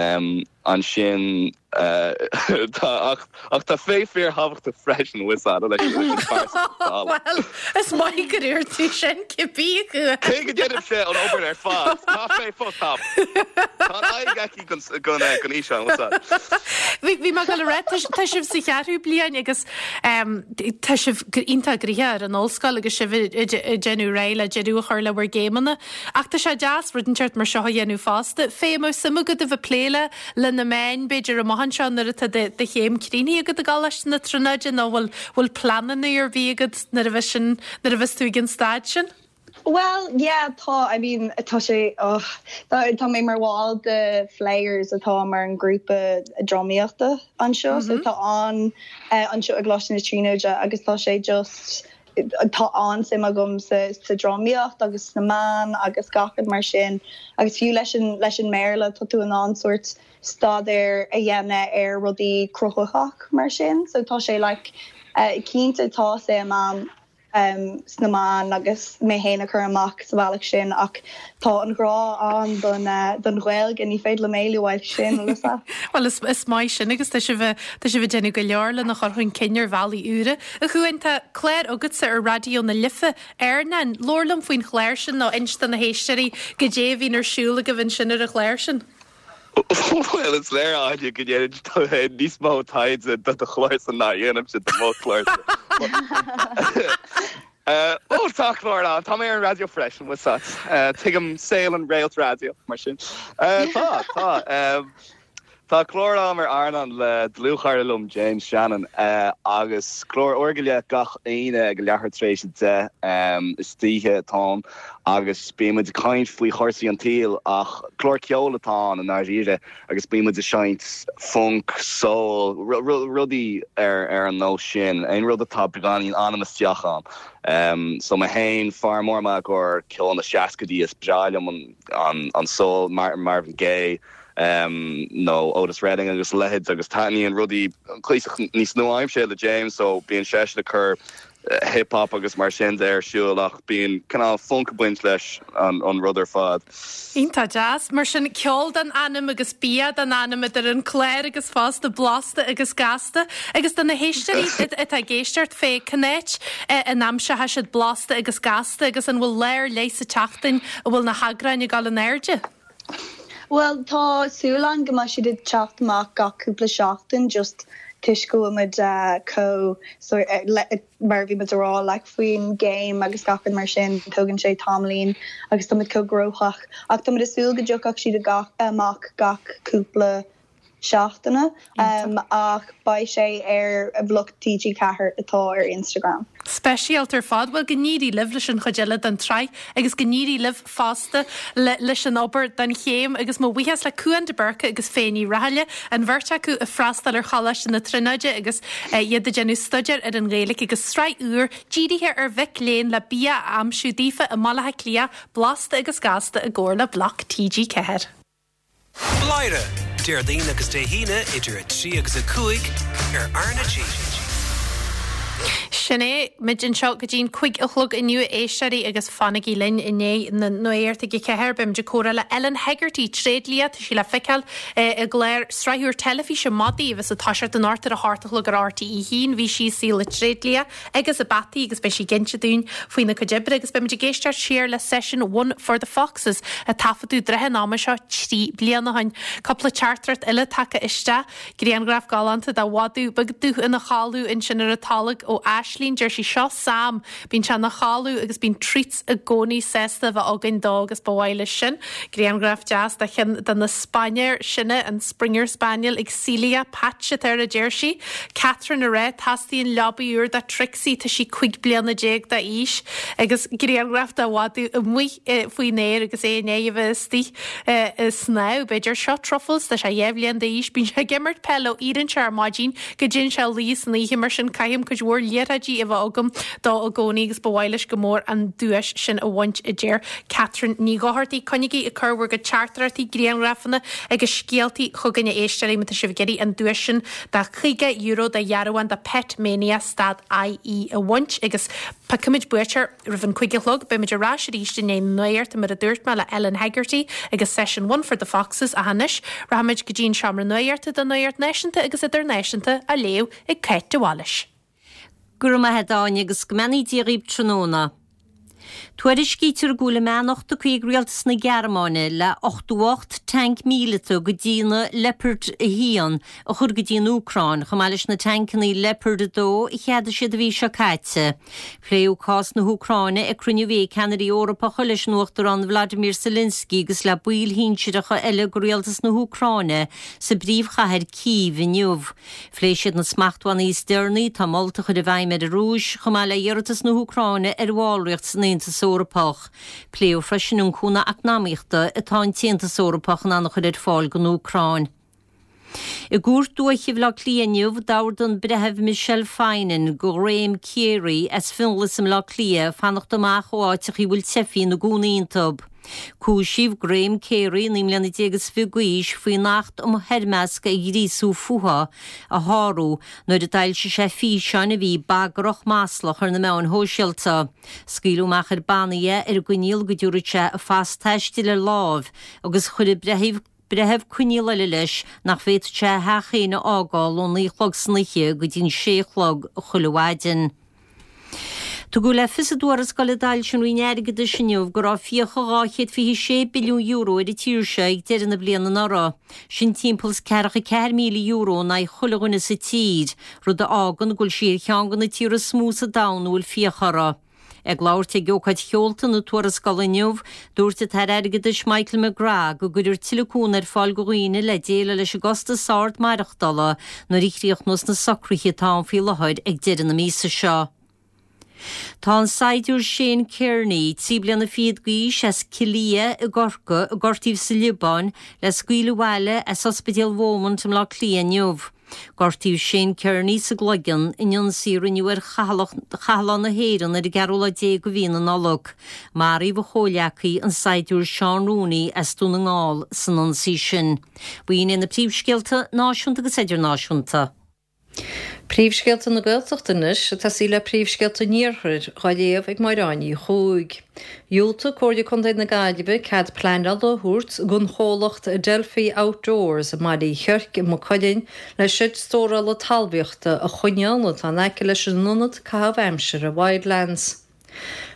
ansin tá ach ach tá Faye fíorthábhachtach freisin bhfuil fhios a'd leis an phearsa Bhuel, is maith gur dúirt tú sin, cibé acu. Cé go ndéanaimse an obair ar fad, tá Faye fós tábhachtach. Tá an aghaidh aici don fhíseán, bhfuil fhios a'd. Bhí mé ag dul a rá, tá sibh sa cheathrú bliain agus Tá sibh iontach gnoitheach ar an ollscoil agus sibh ag déanamh réidh le deireadh a chur le bhur gcéimeanna. Ach tá sé deas rud inteacht mar seo a dhéanamh fosta. Faye, an mbeadh suim agat a bheith ag plé le le na meáin, b'fhéidir, amach anseo nuair atá do chéim críochnaithe agat i gColáiste na Tríonóide nó bhfuil bhfuil pleananna ar bith agat nuair a bheas sin nuair a bheas tú ag an staid sin? Bhuel, yeah, tá, I mean, tá sé, oh, tá, tá mé mar bhall de Flayers atá mar an grúpa drámaíochta anseo, so tá an, anseo i gColáiste na Tríonóide agus tá sé just, tá an-suim agam sa, sa drámaíocht agus sna meáin agus gach rud mar sin agus fiú leis an, leis an mBéarla tá tú in ann sórt staidéar a dhéanamh ar rudaí cruthaitheach mar sin, so tá sé like, cinnte tá suim a'm. sna meáin agus mé féin a chur amach sa bhealach sin ach tá an grá ann don Ghaeilge, ní féidir liom éalú uaidh sin, bhfuil fhios a'd. Bhuel, is maith sin agus tá sibh tá sibh ag déanamh go leor lena chur chun cinn ar bhealaí úra. A Chuain, tá clár agatsa ar Raidió na Life, Airneán. Labhair liom faoin chlár sin nó inis do na héisteoirí goidé a bhíonn ar siúl agaibh ansin ar an chlár sin. Bhuel, is léir, Áine, go ndéanann tú féin níos mó taighde do do chlársa ná a dhéanaimse do mo chlársa. Ó, tá clár ann. Tá mé ar an raidió freisin, bhfuil a fhios agat. Tuigim saol an réalt raidió, mar sin. Tá, tá. Tá clár agam ar Airneán le dlúthchara liom, James Shannon, agus clár uair go leith gach Aoine ag leathuair tar éis 10 istoíche atá ann agus bíonn muid ag caint faoi chúrsaí an tsaoil ach clár ceoil atá ann i ndáiríre agus bíonn muid ag seinnt funk, soul, rudaí ar ar an nós sin, aon rud atá beagáinín anam isteach ann. So mé féin, fear mór maith i gcomhair ceol na seascaidí, is breá liom an an soul, Marvin Gaye, nó Otis Redding agus a leithéid agus taitníonn rudaí cuíosach níos nua-aimseartha le James so bíonn seisean ag cur hip hop agus mar sin de ar siúl ach bíonn cineál funk ag baint leis an rud ar fad. Iontach deas. Mar sin, ceol don anam agus bia don anam idir an clár agus fosta blasta agus gasta. Agus do na héisteoirí atá ag éisteacht fé cén áit a n-aimseoidh siad blasta agus gasta agus an bhfuil lá ar leith sa tseachtain a bhfuil na heagráin ag dul in airde? Bhuel, tá súil ann go mbeidh siad ag teacht amach gach cúpla seachtain just toisc go bhfuil muid chomh mar a bhí muid a rá like faoin gcéim agus gach rud mar sin, tógann sé tamaillín agus tá muid chomh gnóthach ach tá muid ag súil go dtiocfadh siad amach gach cúpla seachtaine ach beidh sé ar Bhloc TG4 atá ar Instagram. Speisialta ar fad. Bhuel, go n-éirí libh leis an chuid eile den tsraith agus go n-éirí libh fosta leis an obair don chéim agus mo bhuíochas le Cuan de Búrca agus Faye Ní Rathaille, an bheirt acu ag freastal ar Choláiste na Tríonóide agus iad ag déanamh staidéir ar an Ghaeilge agus sraith úr dírithe ar mhic léinn le bia a aimsiú daofa i mBaile Átha Cliath, Blasta agus Gasta i gcomhar le Bloc TG4. Bladhaire, Déardaoin agus Dé hAoine idir 3 agus 5 ar R na G. Sin é, muid anseo go dtí'n 5 a chlog inniu a éisteoirí agus fanaigí linn i ndiaidh na nuachta ag a ceathair. Beidh muid ag comhrá le Ellen Hegarty, tréidlia, tá sí le feiceáil i gclár sraith úr teilifíse Madaí a bheas ag toiseacht anocht ar a hocht a chlog ar RTÉ 1. Bhí sí i saol na tréidlia agus na bpeataí agus beidh sí ag inse dúinn faoina cuid oibre agus beimid ag éisteacht siar le seisiún One for the Foxes a taifeadadh trátha an ama seo 3 bliana ó shin. Cúpla teachtaireacht eile tagtha isteach. Grianghraf galánta de mhadadh beag dubh ina chodladh ansin ar an tolg ó Aislín. Deir sí seo Sam. Bíonn sé ina chodladh agus bíonn treats i gcónaí sásta a bheith againn dó agus ba mhaith leis sin. Grianghraf deas de cheann de na spainéir sine, an Springer Spaniel ag Celia, Patch atá air a deir sí. Catherine ag rá, Teastaíonn leabaidh úr do Trixie, tá sí 15 bliana d'aois agus grianghraf de mhadadh amuigh faoin aer agus é i ndiaidh a bheith istigh ag snámh, b'fhéidir. Seo Truffles, tá sé 2 bhliain d'aois, bíonn sé ag imirt peile ó éiríonn sé ar maidin go dtéann sé a luí san oíche, mar sin caithim cuid mhór liathróidí a bheith agam dó i gcónaí agus ba mhaith leis go mór an duais sin a bhaint a deir Catherine Ní Dhochartaigh. Coinnígí ag cur bhur gcuid teachtaireachtaí, grianghrafanna agus scéaltaí chugainn a éisteoirí má tá sibh ag iarraidh an duais sin de €50 de dhearbhán de Pet Mania stad IE a bhaint agus piocfaimid buaiteoir roimh an 5 a chlog. Beimid ar ais arís i ndiaidh na nuachta mar a dúirt mé le Ellen Hegarty agus session One for the Foxes ach anois rachaimid go dtí an seomra nuachta don nuacht náisiúnta agus idirnáisiúnta á léamh ag Cáit de Bhailís. Go raibh maith a't Áine agus go mbeannaí Dia dhaoib tráthnóna. Tuairiscítear go bhfuil a mbeannacht tugtha ag rialtas na Gearmáine le 88 tanc míleata de dhíonadh Leopard 1 a chur go dtí an Úcráin, chomh maith leis na tancannaí Leopard 2 a cheadaigh siad an mhí seo caite. Pléadh cás na hÚcráine ag cruinniú a bhí ag ceannairí Eorpacha leis an Uachtarán Vladimir Zelensky agus le baill shinsearacha eile de rialtas na hÚcráine sa bpríomhchathair Cív inniu. Phléigh siad na smachtbhannaí is deireanaí atá molta a chur i bhfeidhm ar an Rúis, chomh maith le hiarratas na hÚcráine ar bhallraíocht san Aontas Eorpach. Pléadh freisin an cúnamh eacnamaíochta atá an tAontas Eorpach in ann a chur ar fáil don Úcráin. I gCúirt Dúiche Bhaile Átha Cliath inniu, d'ordaigh an Breitheamh Michelle Finan do Ghraham Carey as Fionnghlas i mBleá Cliath fanacht amach ó áiteachaí a bhfuil teifigh ina gcónaí iontu. Cúisíodh Graham Carey, 19 mbliana is fiche d'aois, faoin Acht um Thoirmeasc ar Ghríosú Fuatha a shárú nuair a d'fhoilsigh sé físeáin a bhí bagrach maslach ar na meáin shóisialta. Scaoileadh amach ar bannaí é ar an gcoinníoll go dtabharfadh sé a phas taistil ar láimh agus chuir an breitheamh breitheamh coinníoll eile leis nach bhféadfadh sé a theach féin a fhágáil ón naoi a chlog san oíche go dtí an sé a chlog chuile mhaidin. Tugadh le fios i dtuarascáil a d'fhoilsigh an Roinn Airgeadais inniu go raibh fiacha €226 billiún ar an tír seo ag deireadh na bliana anuraidh. Sin timpeall is €44,000 in aghaidh chuile dhuine sa tír, rud a fhágann go bhfuil sí ar cheann de na tíortha is mó sa domhan a bhfuil fiacha orthu. Ag labhairt ag ócáid sheolta na tuarascála inniu, dúirt an tAire Airgeadais Michael McGrath go gcuirfear tuilleadh cúnamh ar fáil do dhaoine le déileáil leis an gcostas ard maireachtála nuair a chríochnós na socruithe atá ann faoi láthair ag deireadh na míosa seo. Tá an saighdiúir Shane Kearney, 23 bliana d'aois, as Cill Liath i gCorcaigh, a gortaíodh sa Liobáin, le scaoileadh abhaile as Ospidéal Beaumont i mBleá Cliath inniu. Gortaíodh Shane Kearney sa gcloigeann in ionsaí a rinneadh ar chathlán na hÉireann ar an gceathrú lá déag de mhí na Nollag. Maraíodh a chomhghleacaí, an saighdiúir Seán Rooney as Dún na nGall, san ionsaí sin. B'in iad na príomhscéalta náisiúnta agus idirnáisiúnta. Príomhscéalta na Gaeltachta anois, ag tosaí le príomhscéalta an Iarthair, dhá léamh ag Máire Áine Uí Chuaig. Dhiúltaigh Comhairle Contae na Gaillimhe cead pleanála a thabhairt don chomhlacht Adelphi Outdoors i mBaile Uí Chiorc i Maigh Cuilinn le seid stórála talmhaíochta a choinneáil atá in aice leis an ionad caitheamh aimsire Wildlands.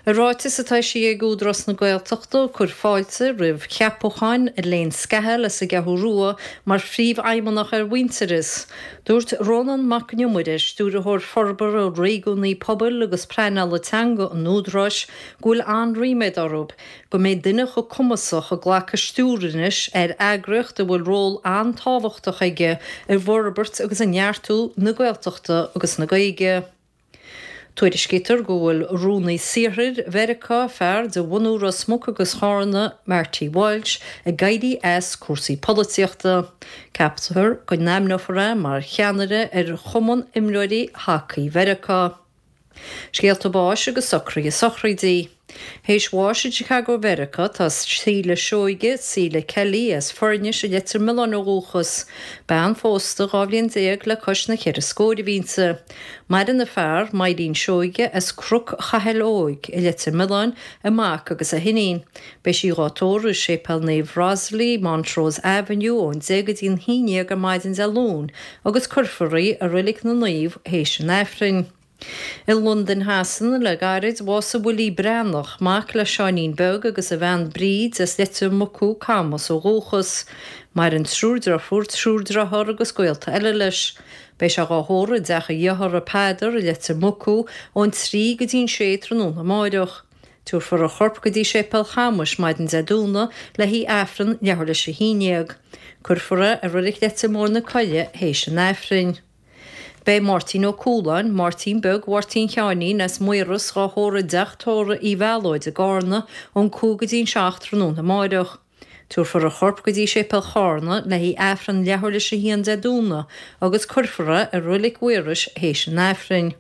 I ráiteas atá eisithe ag Údarás na Gaeltachta ag cur fáilte roimh cheapachán Elaine Scahill as an gCeathrú Rua mar Phríomhfheidhmeannach ar Mhuintearas, Dúirt Rónán Mac Con Iomaire, Stiúrthóir Forbartha Réigiúnaí Pobail agus Pleanála Teanga an Údaráis, go bhfuil an-ríméad orthu go mbeidh duine chomh cumasach ag glacadh stiúir anois ar eagraíocht a bhfuil ról an-tábhachtach aige i bhforbairt agus i neartú na Gaeltachta agus na Gaeilge. Tuairiscítear go bhfuil Rúnaí Saothair Mheiriceá, fear de bhunú Ros Muc agus Chárna, Marty Walsh, ag éirí as cúrsaí polaitíochta. Ceaptar go n-ainmneofar é mar cheannaire ar Chumann Imreoirí Hacaí Mheiriceá. Scéalta báis agus socruithe sochraidí. Théis bháis i Chicago Mheiriceá tá Síle Seoige, Síle Kelly, as Foirnis i Leitir Mealláin ó dhúchas. Bean phósta 12 bhliain le cois na cheithre scóir a bhí inti. Maireann a fear, Maidhcín Seoige, as Cnoc Chathail Óig i Leitir Mealláin, a mac agus a hiníon. Beidh sí dhá tórramh i Séipéal Naomh Rosalie, Montrose Avenue, ón 10 go dtí an 11 ar maidin Dé Luain agus cuirfear í i Reilig na Naomh théis an Aifrinn. I Londain Shasana le gairid, bhásaigh Willie Breathnach, mac le Seáinín Beag agus a bhean Bríd as Leitir Mucú, Camas ó dhúchas. Maireann triúr deirfiúr, triúr dearthár agus gaolta eile leis. Beidh sé dhá thórramh i dteach a dhearthara Peadar i Leitir Mucú ón 3 go dtí an 6 tráthnóna amáireach. Tabharfar a chorp go dtí Séipéal Chamais maidin Dé Domhnaigh le haghaidh Aifreann leathuair leis a haon dhéag. Cuirfear é i Reilig Leitir Móir na Coille théis an Aifrinn. Beidh Máirtín Ó Cualáin, Máirtín Beag Mháirtín Sheáinín as Maoras dhá thórramh i dteach tórraimh Uí Mhealóid i gCárna ón 5 go dtí an 7 tráthnóna amáireach. Tabharfar a chorp go dtí Séipéal Chárna le haghaidh Aifreann leathuair leis a haon Dé Domhnaigh agus cuirfear é i Roilig Mhaorais théis an Aifrinn.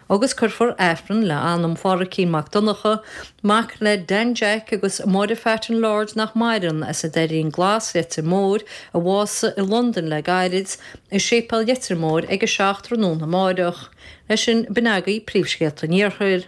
Agus cuirfear Aifreann le anam Phádhraic Mac Donncha, mac le Dan Jack agus Máire Phat an Lord nach maireann, as an Doirín Glas, Leitir Móir, a bhásaigh i Londain le gairid, i Séipéal Leitir Móir ag a 7 tráthnóna amáireach. Leis sin, b'in agaibh príomhscéalta an Iarthair.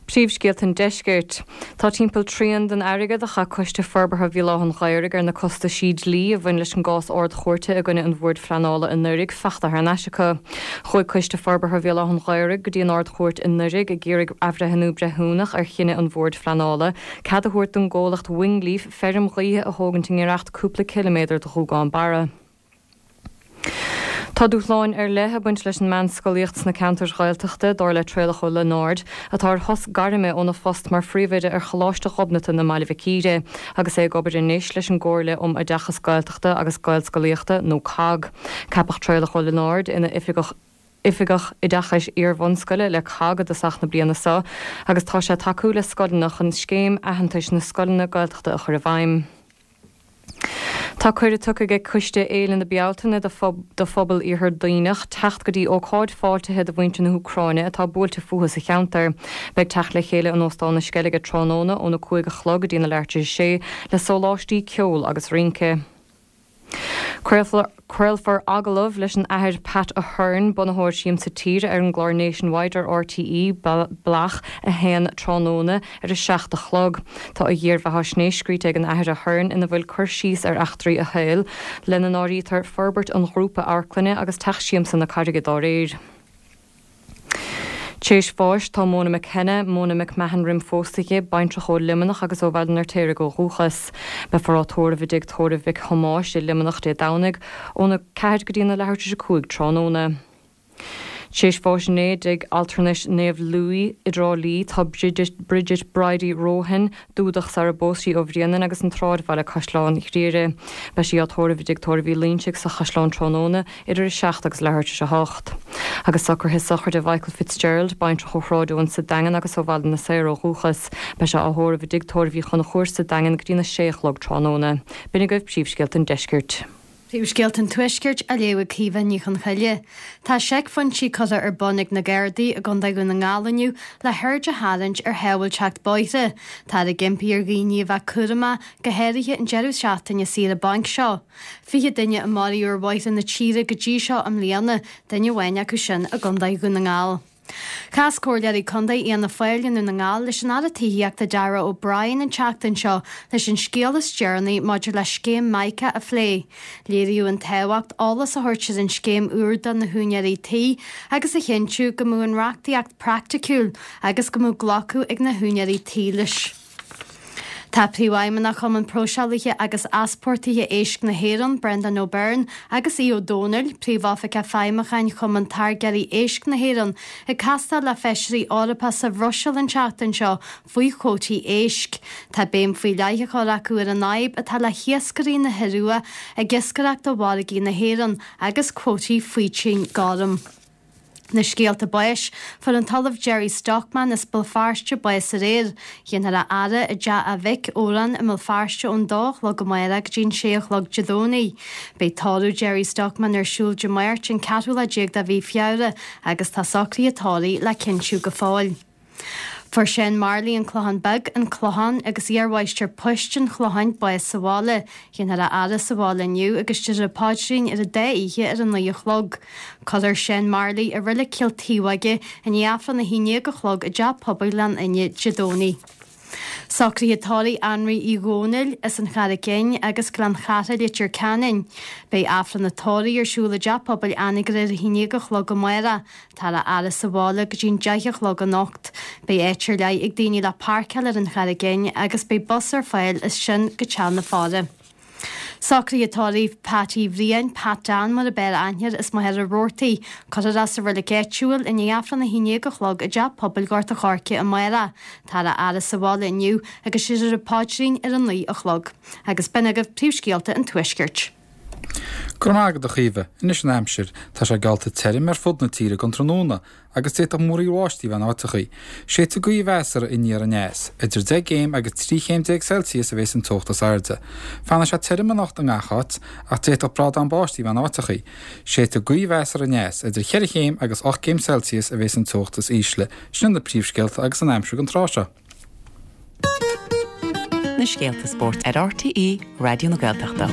Príomhscéalta an Deiscirt. Tá timpeall trian den airgead a chaith Coiste Forbartha Bhéal Átha an Ghaorthaidh ar na costaisí dlí a bhain leis an gcás Ard-Chúirte i gcoinne an Bhoird Phleanála i nDoirigh fachta thar n-ais acu. Chuaigh Coiste Forbartha Bhéal Átha an Ghaorthaidh go dtí an Ard-Chúirt i nDoirigh ag iarraidh athbhreithniú breithiúnach ar chinneadh an Bhoird Phleanála cead a thabhairt don gcomhlacht Wingleaf feirm ghaoithe a thógaint i ngiorracht cúpla ciliméadar do Ghuagán Barra. Tá dúshláin ar leith ag baint leis an meánscolaíocht sna ceantair Ghaeltachta, dar le Traolach Ó Lionáird, atá ar shos gairme óna phost mar phríomhoide ar Choláiste Ghobnatan i mBaile Mhic Íre, agus é ag obair anois leis an gComhairle um Oideachas Gaeltachta agus Gaelscolaíochta, nó cogg. Ceapadh Traolach Ó Lionáird ina Oifigeach Oifigeach Oideachais Iar-bhunscoile le cogg i dtosach na bliana seo agus tá sé ag tacú le scoileanna chun Scéim Aitheantais na Scoileanna Gaeltachta a chur i bhfeidhm. Tá cuireadh tugtha ag Coiste Fhéile na Bealtaine do phobal Iarthar Duibhneach teacht go dtí ócáid fáiltithe do mhuintir na hÚcráine atá buailte fúthu sa cheantar. Beidh teacht le chéile in Óstán na Sceilge tráthnóna óna 5 a chlog go dtí na leathuair tar éis a sé le sóláistí, ceol agus rince. Craolfar agallamh leis an Athair Pat Ahern, bunaitheoir Siamsa Tíre ar an gclár Nationwide ar RTÉ Bealach 1 tráthnóna ar a 7 a chlog. Tá a dhírbheathaisnéis scríte ag an Athair Ahern ina bhfuil cur síos ar eachtraí a shaoil, lena n-áirítear forbairt an ghrúpa amharclainne agus Teach Siamsa na Carraige dá réir. T'éis bháis tá Mona McKenna, Mona McMahon roim phósadh di, baintreach ó Luimneach agus ó Bhaile an Fheirtéaraigh ó dhúchas. Beifear á tórramh i dTigh Tórraimh Mhic Thomáis i Luimneach Dé Domhnaigh óna 4 go dtína leathuair tar éis 5 tráthnóna. T'éis bháis inné i dTigh Altranais Naomh Louis i dTrá Lí tá Bridget, Bridget Bridie Rohan, Dúdach sara bpós sí ó Bhréanainn agus an tSráidbhaile Caisleán Ghriaire. Beidh sí á tórramh i dTigh Tórraimh Uí Loingsigh sa Chaisleán tráthnóna idir 7 agus leathuair tar éis 8. Agus socruithe sochraide Mhichael Fitzgerald, baintreach ó Shráid Eoin sa Daingean agus ó Bhaile na Saor ó dhúchas. Beidh sé á thórramh i dTigh Tórraimh Uí Chonchúir sa Daingean go dtína sé a chlog tráthnóna. B'in agaibh príomhscéalta an deiscirt. Príomhscéalta an Tuaiscirt á léamh ag Caoimhe Ní Chonchoille. Tá seicphointí curtha ar bun ag na Gardaí i gContae Dhún na nGall inniu le haird a tharraingt ar shábháilteacht bóithre. Táthar ag impí ar dhaoine a bheith cúramach, go háirithe an deireadh seachtaine saoire bainc seo. 20 duine a maraíodh ar bhóithre na tíre go dtí seo i mbliana, duine amháin acu sin i gContae Dhún na nGall. Chas Comhairleoirí Contae Fhianna Fáil i nDún na nGall leis an Aire Tithíochta Darragh O'Brien an tseachtain seo leis an scéal is deireanaí maidir le scéim Mica a phlé. Léiríodh an tábhacht eolas a thabhairt ar an scéim úr do na húinéirí tí agus a chinntiú go mbeadh an reachtaíocht praiticiúil agus go mbeadh glacadh ag na húinéirí tí leis. Tá Príomhfheidhmeannach Chumann Próiseálaithe agus Easpórtaithe Éisc na hÉireann, Brendan O'Byrne, agus Aodh Ó Domhnaill, Príomhoifigeach Feidhmiúcháin Chumann Táirgeoirí Éisc na hÉireann, ag castáil le Feisirí Eorpacha sa Bhruiséil an tseachtain seo faoi chuótaí éisc. Tá béim faoi leith á chur acu ar an fhadhb atá le hiascairí na hIorua ag iascaireacht do mhargaí na hÉireann agus cuótaí faoitín gorm. Na scéalta báis, Fuair an tOllamh Gerry Stockman as Béal Feirste bás aréir. Déanfar a fhaire i dteach a mhic, Odhrán, i mBéal Feirste ón dó a chlog amárach go dtí an sé a chlog Dé Domhnaigh. Beidh tórramh Gerry Stockman ar siúl Dé Máirt, an ceathrú lá déag de mhí Feabhra agus tá socruithe tórraimh le cinntiú go fóill. Fuair Seán Marley, An Clochán Beag, An Clochán, agus iarmháistir poist an Chlocháin, bás sa bhaile. Déanfar a fhaire sa bhaile inniu agus déarfar an paidrín ar an dá oíche ar a naoi a chlog. Cuirfear Seán Marley i Reilig Chill Taobhóige i ndiaidh Aifreann a haon déag a chlog i dTeach Pobail Ghleann Fhinne Dé Domhnaigh. Socruithe tórraimh Anraí Uí Dhónaill, as an Charraic Fhinn agus Gleann Chatha, Leitir Ceanainn. Beidh Aifreann an tórraimh ar siúl i dTeach Pobail Anagaire ar a haon déag a chlog amárach. Táthar á fhaire sa bhaile go dtí'n 10 a chlog anocht. Beidh áit ar leith ag daoine le páirceáil ar an Charraig Fhinn agus beidh bus ar fáil as sin go teach na faire. Socruithe tórraimh Pat Uí Bhriain, Pat Dan mar ab fhearr aithne air, as Machaire Rabhartaigh. Cuirfear é sa reilig áitiúil i ndiaidh Aifreann 11 a chlog i dTeach Pobail Ghort a' Choirce amárach. Táthar á fhaire sa bhaile inniu agus déarfar an paidrín ar a 9 a chlog. Agus b'in agaibh príomhscéalta an Tuaiscirt. Go raibh maith agat a Chaoimhe. Anois an aimsir. Tá sé geallta tirim ar fud na tíre don tráthnóna agus d'fhéadfadh múraíl bháistí a bheith in áiteachaí. Séidfidh gaoth mheasartha aniar aneas. Idir 10 gcéim agus 13 chéim Celsius a bheas an teocht is airde. Fanfaidh sé tirim anocht i ngach áit ach d'fhéadfadh brádán báistí a bheith in áiteachaí. Séidfidh gaoth mheasartha aneas. Idir 4 chéim agus 8 gcéim Celsius a bheas an teocht is ísle. Sin iad na príomhscéalta agus an aimsir don tráth seo. Na scéalta spóirt ar RTÉ Raidió na Gaeltachta.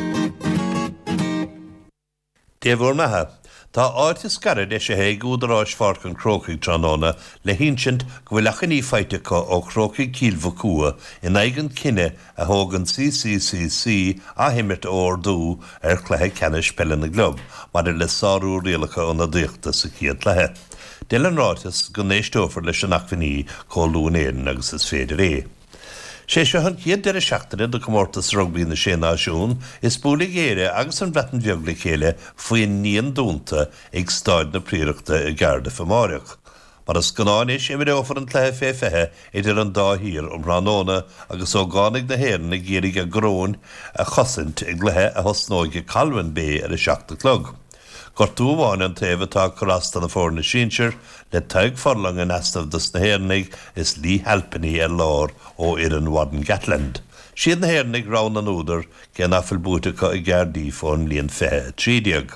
Dé bhur mbeatha. Tá áit is gaire eisithe ag údaráis Pháirc an Chrócaigh tráthnóna le hinsint go bhfuil achainí faighte acu ó Chrócaigh Chill Mhochua in aghaidh an chinnidh a thóg an CCCC athimirt a ordú ar chluiche ceannais peile na gclub maidir le sárú rialacha ionadaíochta sa chéad chluiche. Deir an ráiteas go n-éisteofar leis an achainí chomh luath in Éirinn agus is féidir é. Sé seo an chéad deireadh seachtaine de chomórtas rugbaí na Sé Náisiún is buailfidh Éire agus an Bhreatain Bheag le chéile faoin ndíon dúnta ag Stáid na Priaireachta i gCardiff amáireach. Mar is gnáth anois, imreofar an cluiche fé 20 idir an dá thír um thráthnóna agus ógánaigh na hÉireann ag iarraidh a gcoróin a chosaint i gcluiche a thosnóidh i Colwyn Bay ar a 7 a chlog. Gortú amháin an taobh atá ag cur as do na foirne sinsir, le Tadhg Furlong in easnamh dos na hÉireannaigh is Leigh Halfpenny ar lár ó fhoireann Warren Gatland. Siad na hÉireannaigh rogha na n-údar, cé nach bhfuil buaite acu i gCardiff ón mbliain 2013.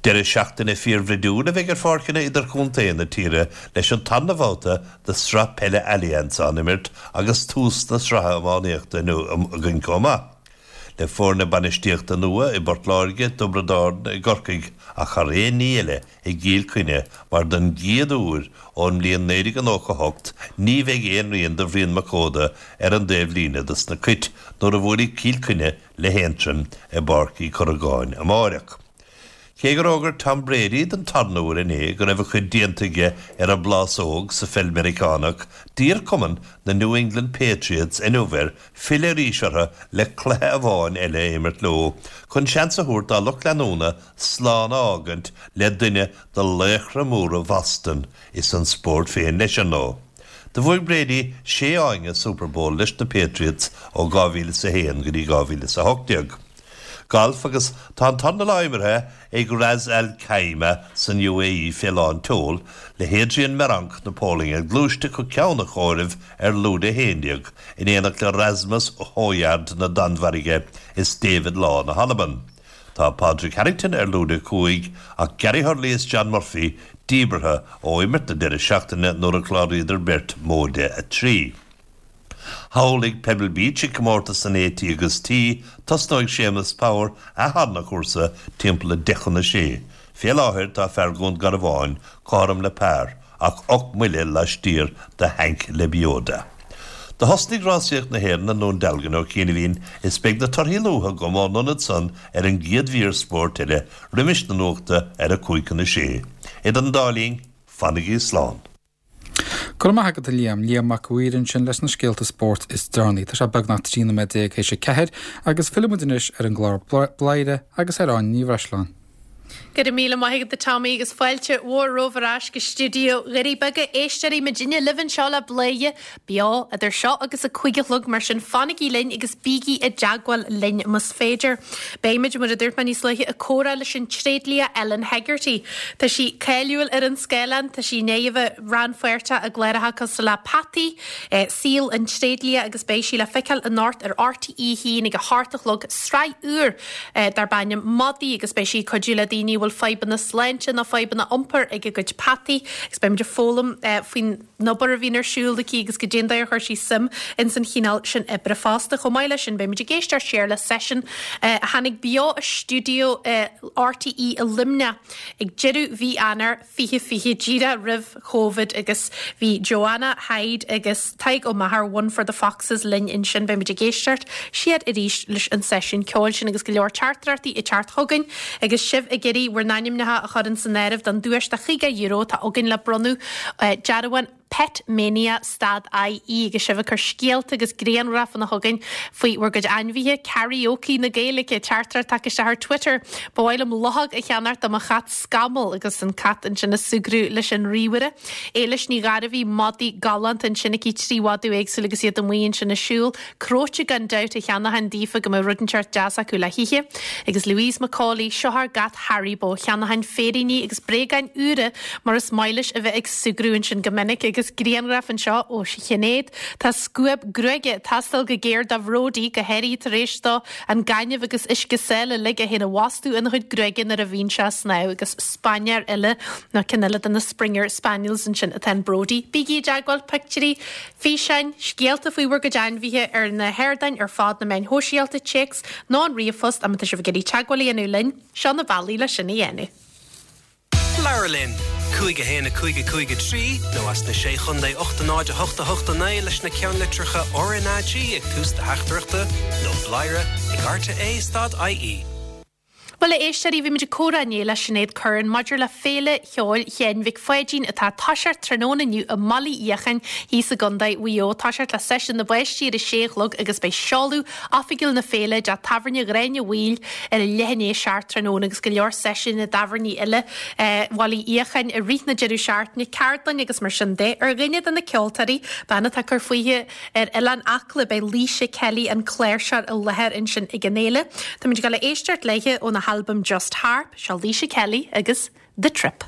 Deireadh seachtaine fíorbhroidiúil a bheidh ar pháirceanna idirchontae na tíre leis an tarna bhabhta de Sraith Peile Allianz á n-imirt agus tús na sraithe iománaíochta inniu againn chomh maith. Le foirne bainistíochta nua i bPort Láirge, dTiobraid Árann, i gCorcaigh ach thar aon ní eile i gCill Chainnigh mar don gcéad uair ón mbliain 1998 ní bheidh aon rian de Bhrian Mac Óda ar an dtaobh líne dos na Cait nuair a bhuailfidh Cill Chainnigh le hAontroim i bPáirc Uí Chorragáin amáireach. Cé gur fhógair Tom Brady den tarna huair inné go raibh a chuid déanta aige ar an bplásóg sa pheil Meiriceánach, d'iarr cumann na New England Patriots inniu air filleadh arís orthu le cluiche amháin eile a imirt leo chun seans a thabhairt dá lucht leanúna slán a fhágaint le duine de laochra móra Bhoston is an spórt féin leis, ar ndóigh. Do bhuaigh Brady sé fháinne Super Bowl leis na Patriots ó 2001 go dtí 2018. Galf agus tá an tornalá imeartha ag Ras Al Khaimah san UAE fé lán tseoil, le hAdrian Meronk na Polainne ag gluaisteacht go ceann an chomhairimh ar lúide 11, in éineacht le Rasmus Hojgaard na Danmhairge is David Law na hAlban. Tá Padraig Harrington ar lúide 5 ach Gary Hurley is John Murphy díbeartha ó imirt na deireadh seachtaine nuair a chláraíodar beirt móide 3. Thall ag Pebble Beach ag comórtas an AT agus T, tosnóidh Séamus Power a tharna chúrsa timpeall 5:50 chun a sé. Fé láthair tá fear Dhún Garbháin cothrom le par ach 8 mbuille laistiar de Hank Lebioda. Do thosnaigh rásaíocht na hÉireann i nDún Dealgan ó chianaibhín is beidh na torthaí luatha agam ón ionad san ar an gcéad mhír spóirt eile roimis na nuachta ar a 5:50 chun a sé. Idir an dá linn, fanaigí slán. Go raibh maith agat a Liam. Liam Mac a' Mhaoir ansin leis na scéalta spóirt is deireanaí. Tá sé beagnach 13 nóiméad théis a ceathair agus fillfidh muid anois ar an gclár Bladhaire agus ar Áine Ní Bhreisleáin. Go raibh míle maith agat a Tommy agus fáilte mhór romhaibh ar ais go stiúideo Dhoirí Beaga. Éisteoirí muidinne libh anseo le Bladhaire beo idir seo agus a 5 a chlog mar sin fanaigí linn agus bígí i dteagmháil linn más féidir. Beimid, mar a dúirt mé níos luaithe, ag comhrá leis an tréidlia Ellen Hegarty. Tá sí cáiliúil ar an scáileán, tá sí i ndiaidh a bheith rannpháirteach i gcláracha cosúil le Peataí, Saol an Tréidlia agus beidh sí le feiceáil anocht ar RTÉ 1 ag a hocht a chlog, sraith úr darb ainm Madaí agus beidh sí ag cuidiú le daoine a bhfuil fadhbanna sláinte nó fadhbanna iompair ag a gcuid peataí agus beimid ag foghlaim faoin obair a bhíonn ar siúl aici agus goidé an dóigh ar chuir sí suim ins an chineál sin oibre fosta. Chomh maith leis sin, beimid ag éisteacht siar le seisiún a tháinig beo as stiúideo RTÉ i Luimneach ag deireadh mhí Eanáir 2020, díreach roimh Covid agus bhí Joanna Hyde agus Tadhg Ó Meachair, One for the Foxes, linn ansin. Beimid ag éisteacht siar arís leis an seisiún ceoil sin agus go leor teachtaireachtaí ag teacht chugainn agus sibh ag iarraidh bhur n-ainmneacha a chur ins an áireamh don duais de €50 atá againn le bronnadh dearbhán Pet Mania stad IE agus sibh ag cur scéalta agus grianghrafanna chugainn faoi bhur gcuid ainmhithe, Karaoke na Gaeilge, teachtaireacht tagtha isteach ar Twitter, Ba mhaith liom luchóg a cheannacht do mo chat Scamall agus an cat ansin ag súgradh leis an ríomhaire. Éilis Ní Ghairbhí, madaí galánta ansin aici, 3 mhadadh éagsúil agus iad amuigh ansin ag siúl. Cróite gan dabht a cheannóchainn daofa go mbeadh rud inteacht deas acu le hithe. Agus Louise McCauley, seo ár gcat Haribo, cheannóchainn féiríní agus bréagáin úra mar is maith leis a bheith ag súgradh ansin go minic. Agus grianghraf anseo ó Shinéad. Tá scuab gruaige ag teastáil go géar do Bhródí, go háirithe tar éis dó an gaineamh agus uisce sáile uilig é féin a bhastú ina chuid gruaige nuair a bhíonn sé ag snámh. Agus spainéir eile, nó ceann eile de na Springer Spaniels ansin atá in Bródí. Bígí i dteagmháil, pictiúirí, Físeáin, scéalta faoi bhur gcuid ainmhithe ar na hardáin ar fad, na meáin shóisialta, téacs nó an ríomhphost má tá sibh ag iarraidh teagmháil a dhéanamh linn, seo na bealaí le sin a dhéanamh. Labhair linn! 5 1 5 5 3 nó as na Sé Chontae 8 0 8 8 9 leis na ceannlitreacha RnaG ag tús do theachtaireachta nó bladhaire ag rte stad IE. Bhuel, a éisteoirí, bhí muid ag comhrá inné le Sinéad Curran maidir le Féile Cheoil Sheáin Mhic Pháidín atá ag toiseacht tráthnóna inniu i mBaile Uí Fhiacháin thíos i gContae Mhaigh Eo. Toiseacht le seisiún na bpáistí ar a sé a chlog agus beidh seoladh oifigiúil na féile i dteach tábhairne Ghráinne Mhaoil ar a leath i ndiaidh a seacht tráthnóna agus go leor seisiún i dtábhairní eile Bhaile Uí Fhiacháin i rith na deireadh seachtaine, ceardlainn agus mar sin de. Ar dhuine de na ceoltóirí, bean atá ag cur fúithi, Ar Oileán Acla beidh Laoise Kelly, an cláirseoir, i láthair ansin ag an fhéile. Táimid ag dul a éisteacht léithe óna halbam Just Harp. Seo Laoise Kelly agus The Trip.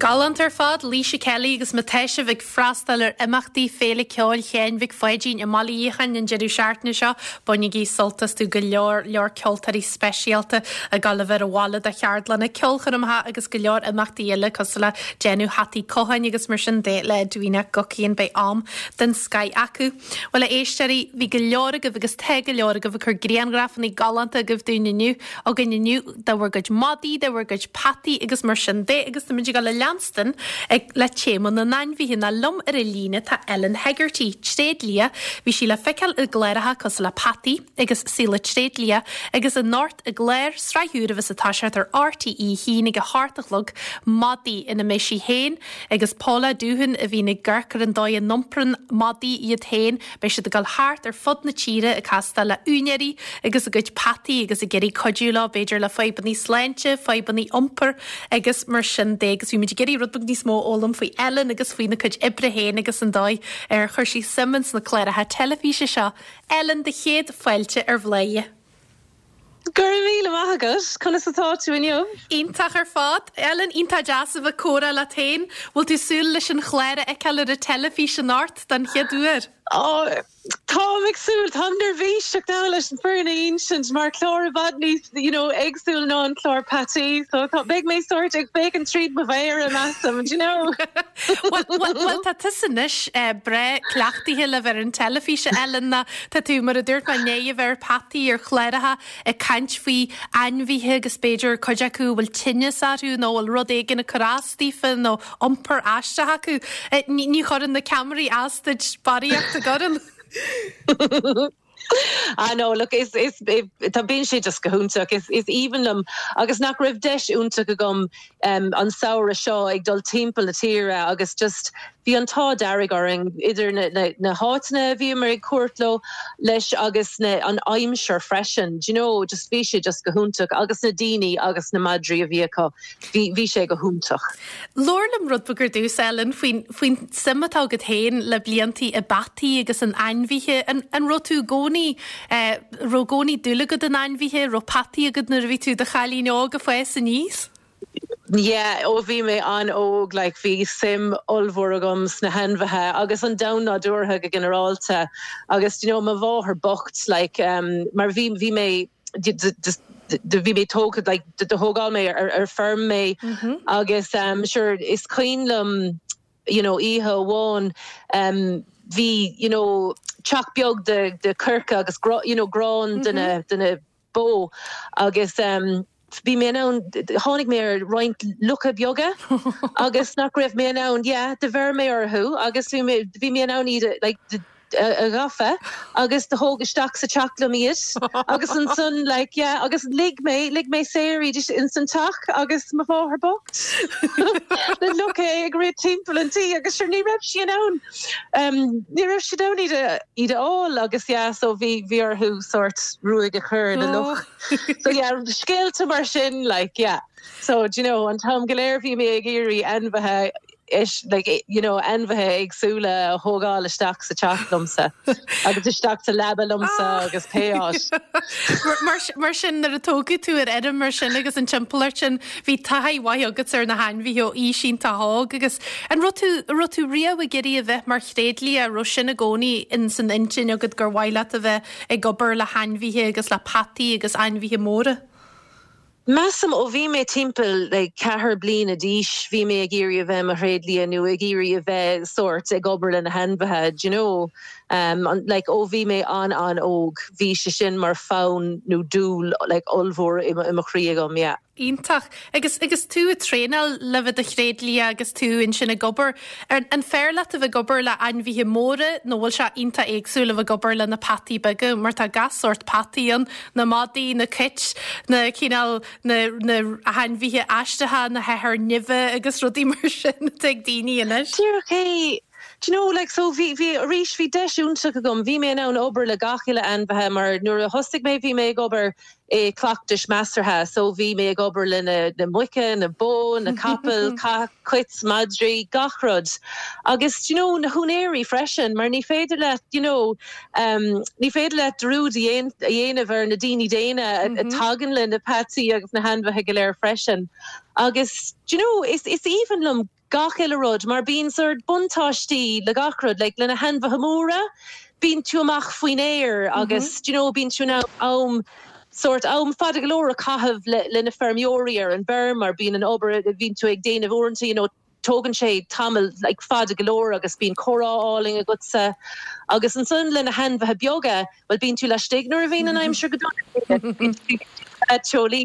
Galánta ar fad, Laoise Kelly agus má tá sibh ag freastal ar imeachtaí Féile Ceoil Sheáin Mhic Pháidín i mBaile Fhiacháin an deireadh seachtaine seo, bainigí sult astu, go leor leor ceoltóirí speisialta ag dul a bheith ar an bhaile do cheardlanna ceolchoirmeacha agus go leor imeachtaí eile cosúil le déanamh hataí cotháin agus mar sin de le Edwina Guckian. Beidh am den scoith acu. Bhuel, a éisteoirí, bhí go leor agaibh agus tá go leor agaibh ag cur grianghrafanna galánta agaibh dúinn inniu, againn inniu, de bhur gcuid madaí, de bhur gcuid peataí agus mar sin de agus táimid ag dul a leanstan ag le téama na n-ainmhithe nó liom ar an líne tá Ellen Hegarty, tréidlia, bhí sí le feiceáil i gcláracha cosúil le Peataí agus Saol an Tréidlia agus anocht i gclár sraith úr a bheas ag toiseacht ar RTÉ 1 ag a hocht a chlog Madaí ina mbeidh sí féin Agus Paula Doohan a bhíonn ag amharc ar an dóigh a n-iomprann madaí iad féin, beidh siad ag dul thart ar fud na tíre ag castáil le úinéirí agus a gcuid peataí agus ag iarraidh cuidiú leo, b'fhéidir le fadhbanna sláinte, fadhbanna iompair agus mar sin de. Agus bhí muid ag iarraidh rud beag níos mó a fhoghlaim faoi Ellen agus faoina cuid oibre féin agus an dóigh ar chuir sí suim ins na cláracha teilifíse seo. Ellen, do chéad fáilte ar Bhladhaire. Go raibh míle maith agat. Conas atá tú inniu? Iontach ar fad. Ellen, iontach deas a bheith ag comhrá leat féin. Bhfuil tú súil leis an chlár a fheiceáil ar an teilifís anocht don chéad uair? Ó, táim ag súil. Táim neirbhíseach now leis an fírinne a insint mar clár i bhfad níos, you know, éagsúil ná an clár Peataí. So tá, beidh mé sórt ag féachaint tríd mo mhéara, measaim, do you know? Bhuel, bhuel, bhuel, tá tusa anois breá cleachtaithe le bheith ar an teilifís, a Ellen, nó Tá tú, mar a dúirt mé, i ndiaidh a bheith ar Peataí, ar chláracha ag caint faoi ainmhithe agus b'fhéidir cuid acu a bhfuil tinneas orthu nó a bhfuil rud éigin ag cur as daofa nó iompar aisteach acu. Ní chuireann na ceamaraí as duit barraíocht, an gcuireann? Ah no, look, is, is, tá, bíonn sé just go hiontach, is, is aoibhinn liom agus nach raibh deis iontach agam an samhradh seo ag dul timpeall na tíre agus just bhí an t-ádh dearg orainn idir na háiteanna a bhíomar ag cuairt leo leis agus na an aimsir freisin do you know just bhí sé just go hiontach agus na daoine agus na madraí a bhí acu bhí bhí sé go hiontach. Labhair liom rud beag ar dtús Ellen faoin faoin suim atá agat féin le bliantaí i bpeataí agus in ainmhithe. An an raibh tú i gcónaí eh raibh i gcónaí dúil agat in ainmhithe, raibh peataí agat nuair a bhí tú i do chailín óg ag fás aníos? Yeah, ó bhí mé an-óg, like, bhí suim ollmhór agam sna hainmhithe agus an domhan nádúrtha go ginearálta agus, you know, mo mháthair bocht, like, um, mar bhí, bhí mé, bhí mé tógtha, like, do thógáil mé ar, ar feirm mé agus, um, sure, is cuimhin liom, you know, oíche amháin, um, bhí, you know, teach beag de, de coirce agus, you know, grán de na, de na, bó agus bhí mé in ann, tháinig mé ar roinnt lucha beaga agus nach raibh mé in ann, yeah, do bheir mé orthu agus bhí mé, bhí mé in ann iad a, like, a ghafa agus do thóg isteach sa teach liom iad agus ansan, like, yeah, agus lig mé, lig mé saor iad ins an teach agus mo mháthair bocht na lucha ag rith timpeall an tí agus sure ní raibh sí in ann. Ní raibh siad in ann iad a iad a fháil agus yeah so bhí bhí orthu sórt ruaig a chur ar na lucha. So yeah scéalta mar sin like yeah. So do you know an t-am go léir bhí mé ag iarraidh ainmhithe is like you know ainmhithe éagsúla a thógáil isteach sa teach liomsa agus isteach sa leaba liomsa agus pé áit. Mar mar sin nuair a tógadh tú ar fheirm mar sin agus an timpeallacht sin Bhí taithí mhaith agat ar na hainmhithe ó aois iontach óg agus an raibh tú, an raibh tú riamh ag iarraidh a bheith mar thréidlia, an raibh sin i gcónaí ins an intinn agat gur mhaith leat a bheith ag obair le hainmhithe agus le peataí agus ainmhithe móra? Measaim ó bhí mé timpeall like ceathair bliana d'aois bhí mé ag iarraidh a bheith i mo thréidlia nó ag iarraidh a bheith sórt ag obair le na hainmhithe, do you know. Like ó bhí mé an-an-óg bhí sé sin mar fonn nó dúil like ollmhór i mo chroí agam, yeah. Iontach. Agus agus tú ag traenáil le bheith i do thréidlia agus tú ansin ag obair, an an fearr leat a bheith ag obair le ainmhithe móra nó bhfuil sé iontach éagsúil a bheith ag obair le na peataí beaga mar tá gach sórt peataí ann, na madaí, na cait, na cineál na na hainmhithe aisteacha, na hathair nimhe agus rudaí mar sin atá ag daoine anois. Díreach é. Do you know, like, so bhí, bhí, arís, bhí deis iontach agam, bhí mé in ann obair le gach uile ainmhithe mar nuair a thosaigh mé bhí mé ag obair i cleachtais measartha so bhí mé ag obair le na, na muice, na bó, na capaill, cait, madraí, gach rud. Agus do you know, na húinéirí freisin mar ní féidir leat, you know, um, ní féidir leat dearúd a dhéanamh ar na daoine daonna a tagann le na peataí agus na hainmhithe go léir freisin. Agus do you know, is, is aoibhinn liom. gach uile rud mar bíonn sort buntáistí le gach rud, like le na hainmhithe móra, bíonn tú amach faoin aer agus do you know bíonn tú in ann am sort am fada go leor a chaitheamh le le na feirmeoirí ar an bhfeirm mar bíonn an obair a bhíonn tú ag déanamh uaireanta you know tógann sé tamall like fada go leor agus bíonn comhrá álainn agatsa agus ansan le na hainmhithe beaga bhuel bíonn tú laistigh nuair a bhíonn an aimsir go dona bíonn tú teolaí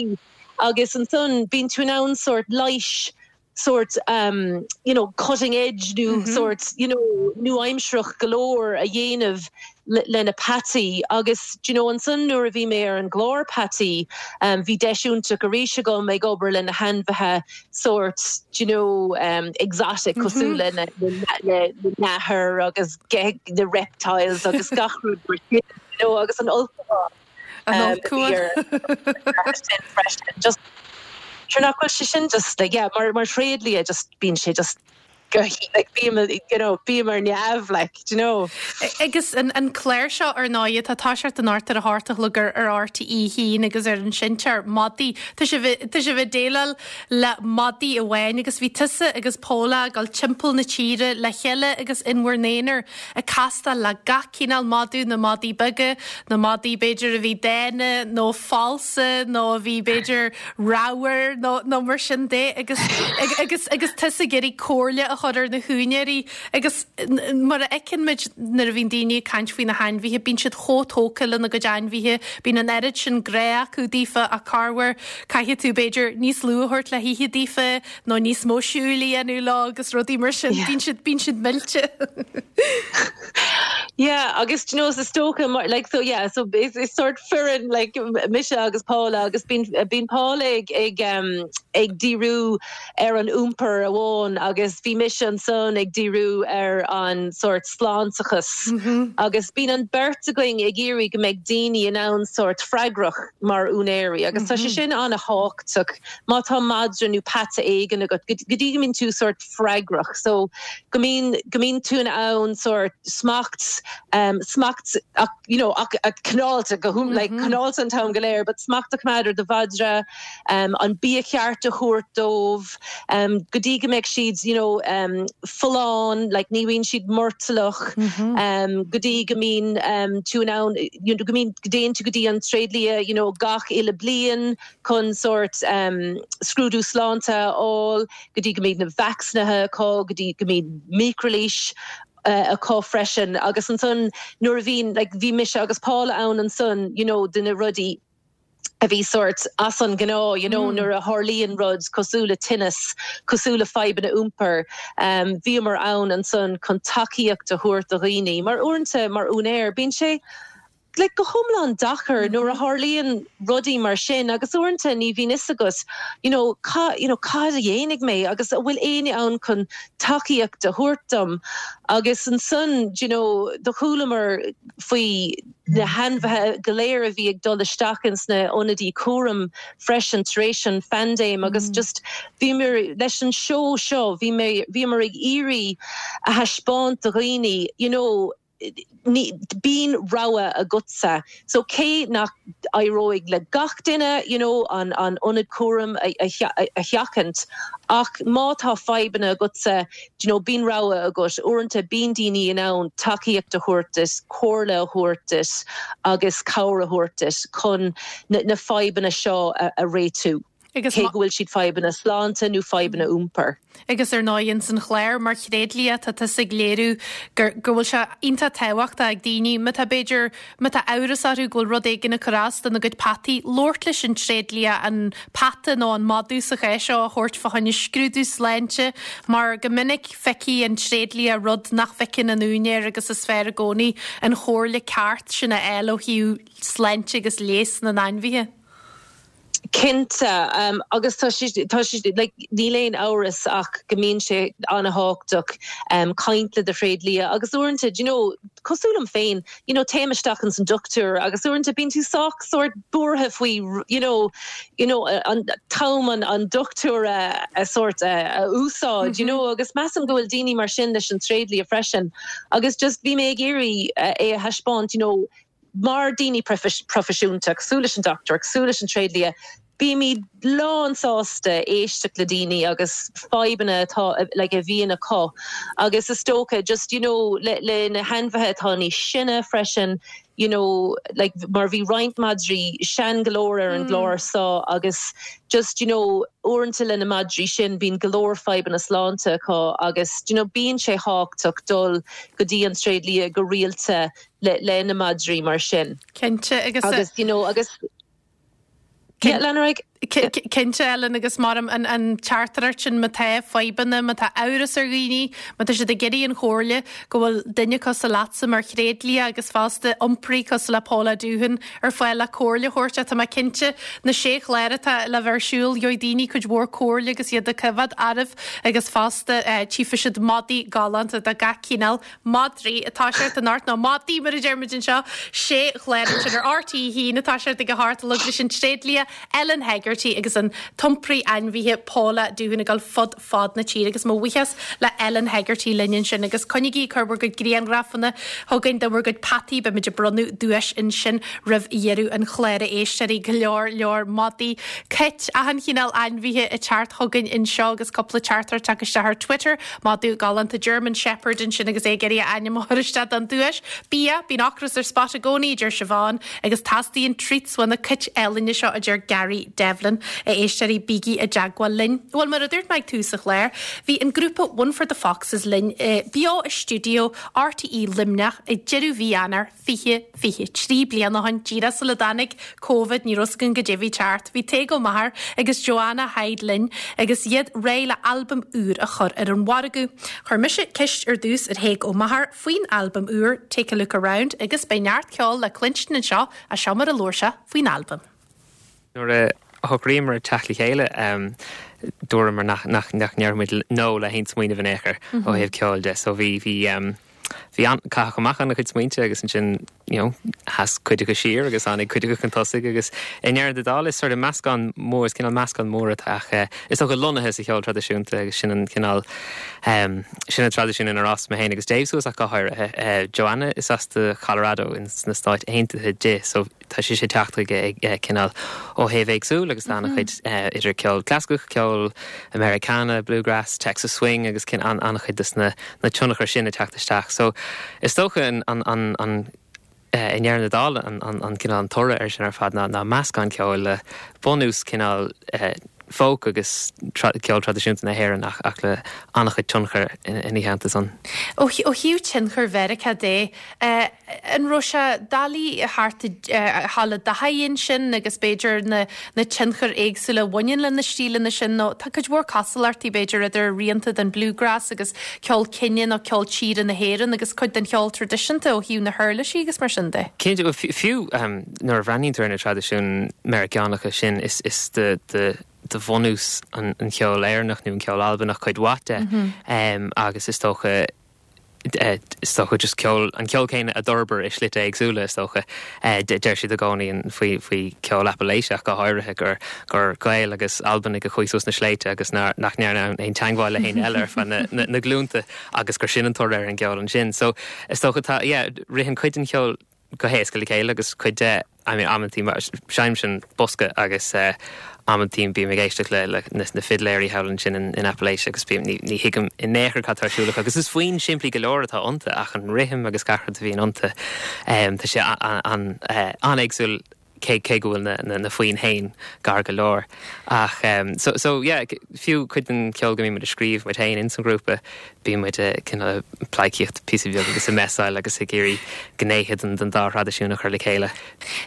agus ansan bíonn tú in ann sort leighis sort um you know cutting edge nó sort you know nua-aimsearach go leor a dhéanamh le na peataí agus do you know ansan nuair a bhí mé ar an gclár peataí um bhí deis iontach arís agam ag obair le na hainmhithe sort do you know um exotic cosúil le na na nathair agus na reptiles agus gach rud mar sin you know agus an ulchabhán. An ulchabhán. Sin freisin just sure nach bhfuil sé sin just like yeah mar mar thréadlia just bíonn sé just go like bím you know bím ar neamh like do you know. Agus an an clár seo ar ndóigh atá ag toiseacht anocht ar a hocht a chlog ar ar RTÉ 1 agus ar an seinnteoir madaí tá sibh tá sibh ag déileáil le madaí amháin agus bhí tusa agus Paula ag dul timpeall na tíre le chéile agus in bhur n-aonar ag castáil le gach cineál madadh, na madaí beaga, na madaí b'fhéidir a bhí dána nó falsa nó a bhí b'fhéidir ramhar nó nó mar sin de agus agus agus tusa ag iarraidh comhairle a chur ar na húinéirí agus mar a fheiceann muid nuair a bhíonn daoine ag caint faoi na hainmhithe, bíonn siad chomh tógtha lena gcuid ainmhithe, bíonn an oiread sin grá acu daofa ach corruair caithfidh tú b'fhéidir níos lú a thabhairt le hithe daofa nó níos mó siúil a dhéanamh leo agus rudaí mar sin, bíonn siad, bíonn siad millte. Yeah, agus do you know, is dócha mar, like, so yeah, so is, is sort foireann, like, mise agus Paula agus bíonn, bíonn Paula ag, ag, um, ag díriú ar an iompar amháin agus bhí mise ansan ag díriú ar an sort sláinteachas mm -hmm. agus bíonn an beirt againn ag iarraidh go mbeidh daoine in ann sort freagrach mar úinéirí agus mm -hmm. tá sé sin an-thábhachtach má tá madra nó peata éigin agat, go dtí go mbíonn tú sórt freagrach, so go mbíonn, go mbíonn tú in ann sórt smacht, um, smacht ach, you know, ach, ach cineálta go hum, like, cineálta an t-am go léir, but smacht a choimeád ar do mhadra, um, an bia ceart a thabhairt dóibh, um, go dtí go mbeidh siad, you know, um, folláin, like, ní bhíonn siad murtallach, um, go dtí go mbíonn, um, tú in ann, you know, go mbíonn, go dtéann tú go dtí an tréidlia, you know, gach uile bliain, chun sórt scrúdú sláinte a fháil, go dtí go mbíonn na vacsaínithe acu, go dtí go mbíonn micrileighis acu freisin. Agus ansan nuair a bhíonn, like bhí mise agus Paula ann ansan, you know, do na rudaí a bhí sórt as an ngnáth, you know, nuair a tharlaíonn rud cosúil le tinneas, cosúil le fadhbanna iompair, bhíomar ann ansan chun tacaíocht a thabhairt do dhaoine. Mar uaireanta, mar úinéir, bíonn sé, like go hiomlán deacair nuair a tharlaíonn rudaí mar sin agus uaireanta ní bhíonn fhios agat you know ca you know cad a dhéanfaidh mé agus an bhfuil éinne ann chun tacaíocht a thabhairt dom agus ansan you know do chualamar faoi na hainmhithe go léir a bhí ag dul isteach ins na ionadaí cúraim freisin tar éis an phaindéim agus just bhíomar leis an seó seo bhí mé bhíomar ag iarraidh a thaispeáint do dhaoine you know bíonn rogha agatsa. So cé nach éireoidh le gach duine you know an an ionad cúraim a a sheachaint ach má tá fadhbanna agatsa you know bíonn rogha agat. Uaireanta bíonn daoine in ann tacaíocht a thabhairt duit, comhairle a thabhairt duit agus cabhair a thabhairt duit chun na na fadhbanna seo a a réitiú. Agus cé go bhfuil siad fadhbanna sláinte nó fadhbanna iompair. Agus ar ndóigh ins an chlár mar thréadlia tá tusa ag léiriú gur go bhfuil sé iontach tábhachtach ag daoine má tá b'fhéidir má tá amhras orthu go bhfuil rud éigin ag cur as dona gcuid peataí labhairt leis an tréadlia an peata nó an madadh sa chás seo a thabhairt fá choinne scrúdú sláinte mar go minic feicfidh an tréadlia rud nach bhfeiceann an úinéir agus is fearr i gcónaí an chomhairle ceart sin a fháil ó thaobh sláinte agus leigheas na n-ainmhithe. Cinnte, agus tá sé, tá sé, like, níl aon amhras ach go mbíonn sé an-thábhachtach caint le do thréadlia agus uaireanta, do you know, cosúil liom féin, you know, téim isteach ins an dochtúir agus uaireanta bíonn tú sách sórt buartha faoi, you know, you know, an t-am an, an dochtúir a, a sórt a, a úsáid, you know, agus measaim go bhfuil daoine mar sin leis an tréadlia freisin agus just bhí mé ag iarraidh é a thaispeáint, you know, Mar daoine proifisiúnta, cosúil leis an dochtúir, cosúil leis an tréadlia, Bímid lán sásta éisteacht le daoine agus fadhbanna atá like a bhíonn acu agus is dócha just you know le le na hainmhithe atá níos sine freisin you know like mar bhí roinnt madraí sean go leor ar an gclár seo agus just you know uaireanta le na madraí sin bíonn go leor fadhbanna sláinte acu agus you know bíonn sé tábhachtach dul go dtí an tréidlia go rialta le le na madraí mar sin. Cinnte agus agus you know agus Yeah, lean ar aghaidh. Cinnte, Ellen, agus mar an teachtaireacht sin, má tá fadhbanna, má tá amhras ar dhaoine, má tá siad ag iarraidh an chomhairle, go bhfuil duine cosúil leatsa mar thréidlia agus fosta iompraí cosúil le Paula Doohan ar fáil le comhairle a thabhairt. Tá mé cinnte, na sé chlár atá le bheith ar siúl, gheobhaidh daoine cuid mhór comhairle agus iad ag coimhéad oraibh agus fosta tchífidh siad madaí galánta de gach cineál. Madraí ag toiseacht anocht, nó madaí mar a deir muid anseo, sé chlár ansin ar RTÉ 1 ag toiseacht ag a hocht a chlog leis an tréidlia Ellen Hegarty agus an t-iompraí ainmhithe Paula Doohan ag dul fud fad na tíre agus mo bhuíochas le Ellen Hegarty linn ansin agus coinnígí ag cur bhur gcuid grianghrafanna chugainn de bhur gcuid peataí, beimid ag bronnadh duais ansin roimh dheireadh an chláir a éisteoirí, go leor leor madaí, cait, achan chineál ainmhithe ag teacht chugainn anseo agus cúpla teachtaireacht tagtha isteach ar Twitter. Madadh galánta German Shepherd ansin agus é ag iarraidh a ainm a chur isteach don duais. Bia, bíonn ocras ar Spot i gcónaí, a deir Siobhán, agus teastaíonn treats ó na cait álainne seo, a deir Gary Devlin. A éisteoirí, bígí i dteagmháil linn. Bhuel, mar a dúirt mé ag tús an chláir, bhí an grúpa One for the Foxes linn beo i stiúideo RTÉ Luimneach ag deireadh mhí Eanáir 2023 bliain ó shin, díreach sula dtáinig Covid, ní raibh 's againn goidé a bhí ag teacht. Bhí Tadhg Ó Meachair agus Joanna Hyde linn agus iad réidh le albam úr a chur ar an mhargadh. Chuir mise ceist ar dtús ar Thaidhg Ó Meachair faoin albam úr, Take a Look Around, agus beidh neart ceoil le cluinstin anseo ach seo mar a labhair sé faoin albam. Nuair a shocraíomar teacht le chéile, dúramar nach ndéarfadh muid 'no' le haon smaoineamh in aon chor ó thaobh ceoil de. So bhí, bhí, bhí an, caitheadh amach an-chuid smaointe agus ansin, you know, sheas cuid acu siar agus tháinig cuid acu chun tosaigh agus i ndeireadh na dála is sort of meascán mór, is cineál meascán mór atá ach is dócha lonnaithe sa cheol traidisiúnta agus sin an cineál, sin an traidisiún inar fhás mé féin agus Dave suas ach go háirithe. Joanna is as do Colorado ins na Stáit Aontaithe di so tá sise ag teacht chuige ag cineál ó thaobh éagsúil agus tá an-chuid idir ceol clasaiceach, ceol Americana, bluegrass, Texas swing agus an-chuid de na tionchair sin ag teacht isteach. So is dócha an an an i ndeireadh na dála an an cineál an toradh air sin ar fad ná ná meascán ceoil le bunús cineál folk agus ceol traidisiúnta na hÉireann ach ach le an-chuid tionchar ina theannta san. Ó thaobh tionchar Mheiriceá de, an raibh sé doiligh a theacht a ghabháil i dtaithí ansin agus b'fhéidir na na tionchair éagsúla a bhaineann le na stíleanna sin nó tá cuid mhór cosúlachtaí b'fhéidir idir rianta den bluegrass agus ceol cine nó ceol tíre na hÉireann agus cuid den cheol traidisiúnta ó thaobh na huirlisí agus mar sin de. Cinnte, bhuel fiú nuair a bhreathnaíonn tú ar na traidisiúin Meiriceánacha sin is is de de de bhunús an cheoil Éireannach nó an ceol Albanach cuid mhaith de agus is dócha is dócha just ceol, an ceol céanna a d'fhorbair i slite éagsúla is dócha. Deir siad i gcónaí faoi faoi cheol Apalaiseach go háirithe gur gur Gaeil agus Albanaigh a chuaigh suas na sléibhte agus nár nach ndearna aon teagmháil le héinne eile ar feadh na na na glúnta agus gur sin an toradh ar an gceol ansin. So is dócha tá yeah ritheann cuid den cheol go héasca le chéile agus cuid de, I mean amantaí mar seinnimse an bosca agus amantaí bím ag éisteacht le le na fidléirí thall ansin in in Appalachia agus bím ní ní thuigim in aon chor cad tá ar siúl acu agus is foinn simplí go leor atá iontu ach an rithim agus gach rud a bhíonn iontu tá sé an an-éagsúil cé cé go bhfuil na na na foinn féin gar go leor ach so so yeah fiú cuid den cheol go mbíonn muid ag scríobh muid féin ins an ghrúpa Bíonn muid cineál ag pleidhcíocht píosa beag agus ag messáil agus ag iarraidh gnéithe den dá thraidisiún a chur le chéile.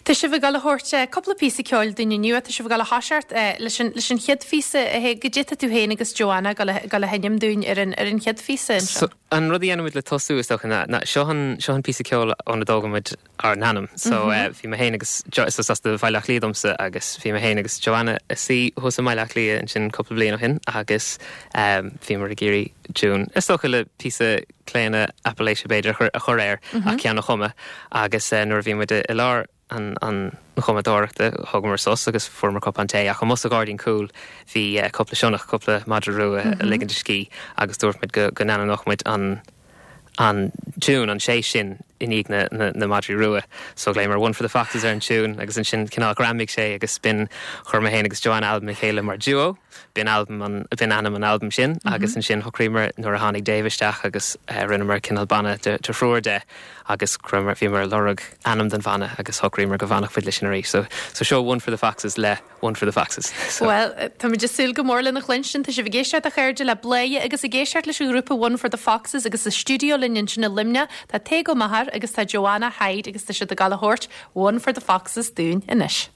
Tá sibh ag dul a thabhairt cúpla píosa ceoil dúinn inniu. Tá sibh ag dul a thoiseacht leis an leis an chéad phíosa. Goidé tá tú féin agus Joanna ag dul a dul a sheinm dúinn ar an ar an chéad phíosa anseo. So, an rud a dhéanann muid le tosú is dócha ná ná seo an seo an píosa ceoil óna dtógann muid ár n-ainm. So bhí mé féin agus Jo, so is as do Bhaile Átha Cliath domsa agus bhí mé féin agus Joanna ag suí thuas i mBaile Átha Cliath ansin cúpla bliain ó shin agus bhíomar ag iarraidh tiún, is dócha le píosa claonadh Appalachia b'fhéidir a chur, a chur air ach ceann a chumadh agus nuair a bhí muid i lár an, an chumadóireachta thógamar sos agus fuaireamar cupán tae ach amuigh sa ghairdín cúil bhí cúpla sionnach, cúpla madra rua ag ligint a scíth agus dúirt muid go, go n-ainmneodh muid an, an tiún, an séis sin. i ndiaidh na na madraí rua. So ghlaomar One for the Foxes ar an tiún agus ansin cineál ghreamaigh sé agus b'in chuir mé féin agus Joanna albam le chéile mar duo. B'in albam an b'in ainm an albaim sin agus ansin shocraíomar nuair a tháinig Dave isteach agus rinneamar cineál banna de thriúr de agus chuireamar bhíomar ag lorg ainm don bhanna agus shocraíomar go bhfanfadh muid leis sin arís. So so seo One for the Foxes le One for the Foxes. So. Bhuel, táimid ag súil go mór lena chluinstin. Tá sibh ag éisteacht a chairde le Bladhaire agus ag éisteacht leis an ghrúpa One for the Foxes agus sa stiúideo linn ansin i Luimneach tá Tadhg Ó Meachair agus tá Joanna Hyde agus tá siad ag gabháil a thabhairt One for the Foxes dúinn anois.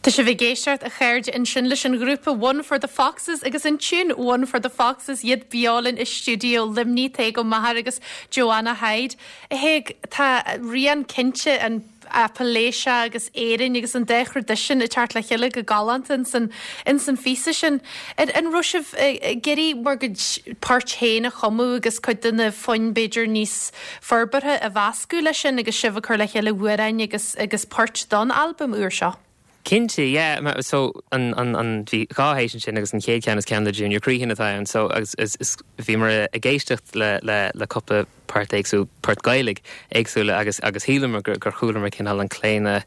Tá sibh ag éisteacht, a chairde, ansin leis an ghrúpa One for the Foxes agus an tiún One for the Foxes, iad beo linn i stiúideo Luimnigh, Tadhg Ó Meachair agus Joanna Hyde. A Thaidhg, tá rian cinnte an Appalachia agus Éirinn agus an dá thraidisiún ag teacht le chéile go galánta ins an ins an phíosa sin. An an raibh sibh ag iarraidh bhur gcuid poirt féin a chumadh agus cuid de na foinn b'fhéidir níos forbartha a mheascadh leis sin agus sibh ag cur le chéile amhráin agus agus poirt don albam úr seo? Cinnte, yeah. So, an, an, an, bhí dhá théis ansin agus an chéad cheann is ceann le Junior Crehan atá ann. So, agus is, is, bhíomar ag éisteacht le, le, le cúpla. port éagsúil, port Gaeilge éagsúla agus agus shíleamar gur gur chualamar cineál an claonadh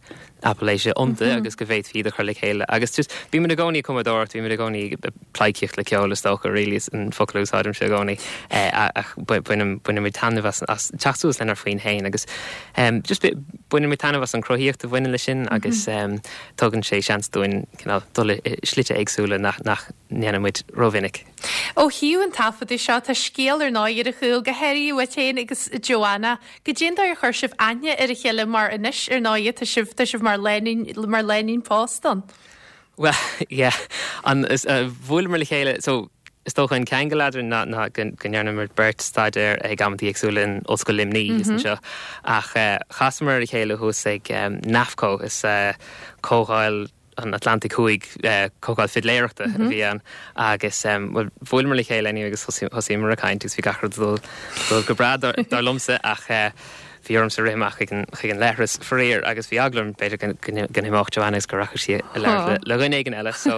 Apailéise iontu agus go bhféadfaí iad a chur le chéile agus just bímid i gcónaí ag cumadóireacht, bímid i gcónaí ag pleidhcíocht le ceol is dócha really is an focal a úsáidimse i gcónaí ach bainim bainimid taitneamh as as teacht suas lenár bhfoinn féin agus just bainimid taitneamh as an chruthaíocht a bhaineann leis sin agus tugann sé seans dúinn cineál dul i slite éagsúla nach nach ndéanann muid rómhinic. Ó thaobh an taifeadadh seo, tá scéal ar ndóigh ar a chúl, go háirithe uait féin agus Joanna. Goidé an dóigh ar chuir sibh aithne ar a chéile mar anois, ar ndóigh, tá sibh, tá sibh mar lánúin, mar lánúin pósta ann. Bhuel, yeah, an, is, bhuaileamar le chéile, so, is dócha an ceangal eadrainn ná, ná go, go ndearnamar beirt staidéar ag amantaí éagsúla in Ollscoil Luimnigh thíos anseo. Ach chasamar ar a chéile thuas ag NAFCO, is comhdháil, an Atlantaigh Thuaidh, comhdháil fidléireachta a bhí ann agus bhuel bhuaileamar le chéile anyway agus thosaíomar ag caint agus bhí gach rud ag dul dul go breá dar liomsa ach bhí ormsa rith amach chuig an chuig an leithreas faraor agus bhí eagla orm b'fhéidir go go n-imeodh Joanna agus go rachadh sí a labhairt le dhuine éigin eile so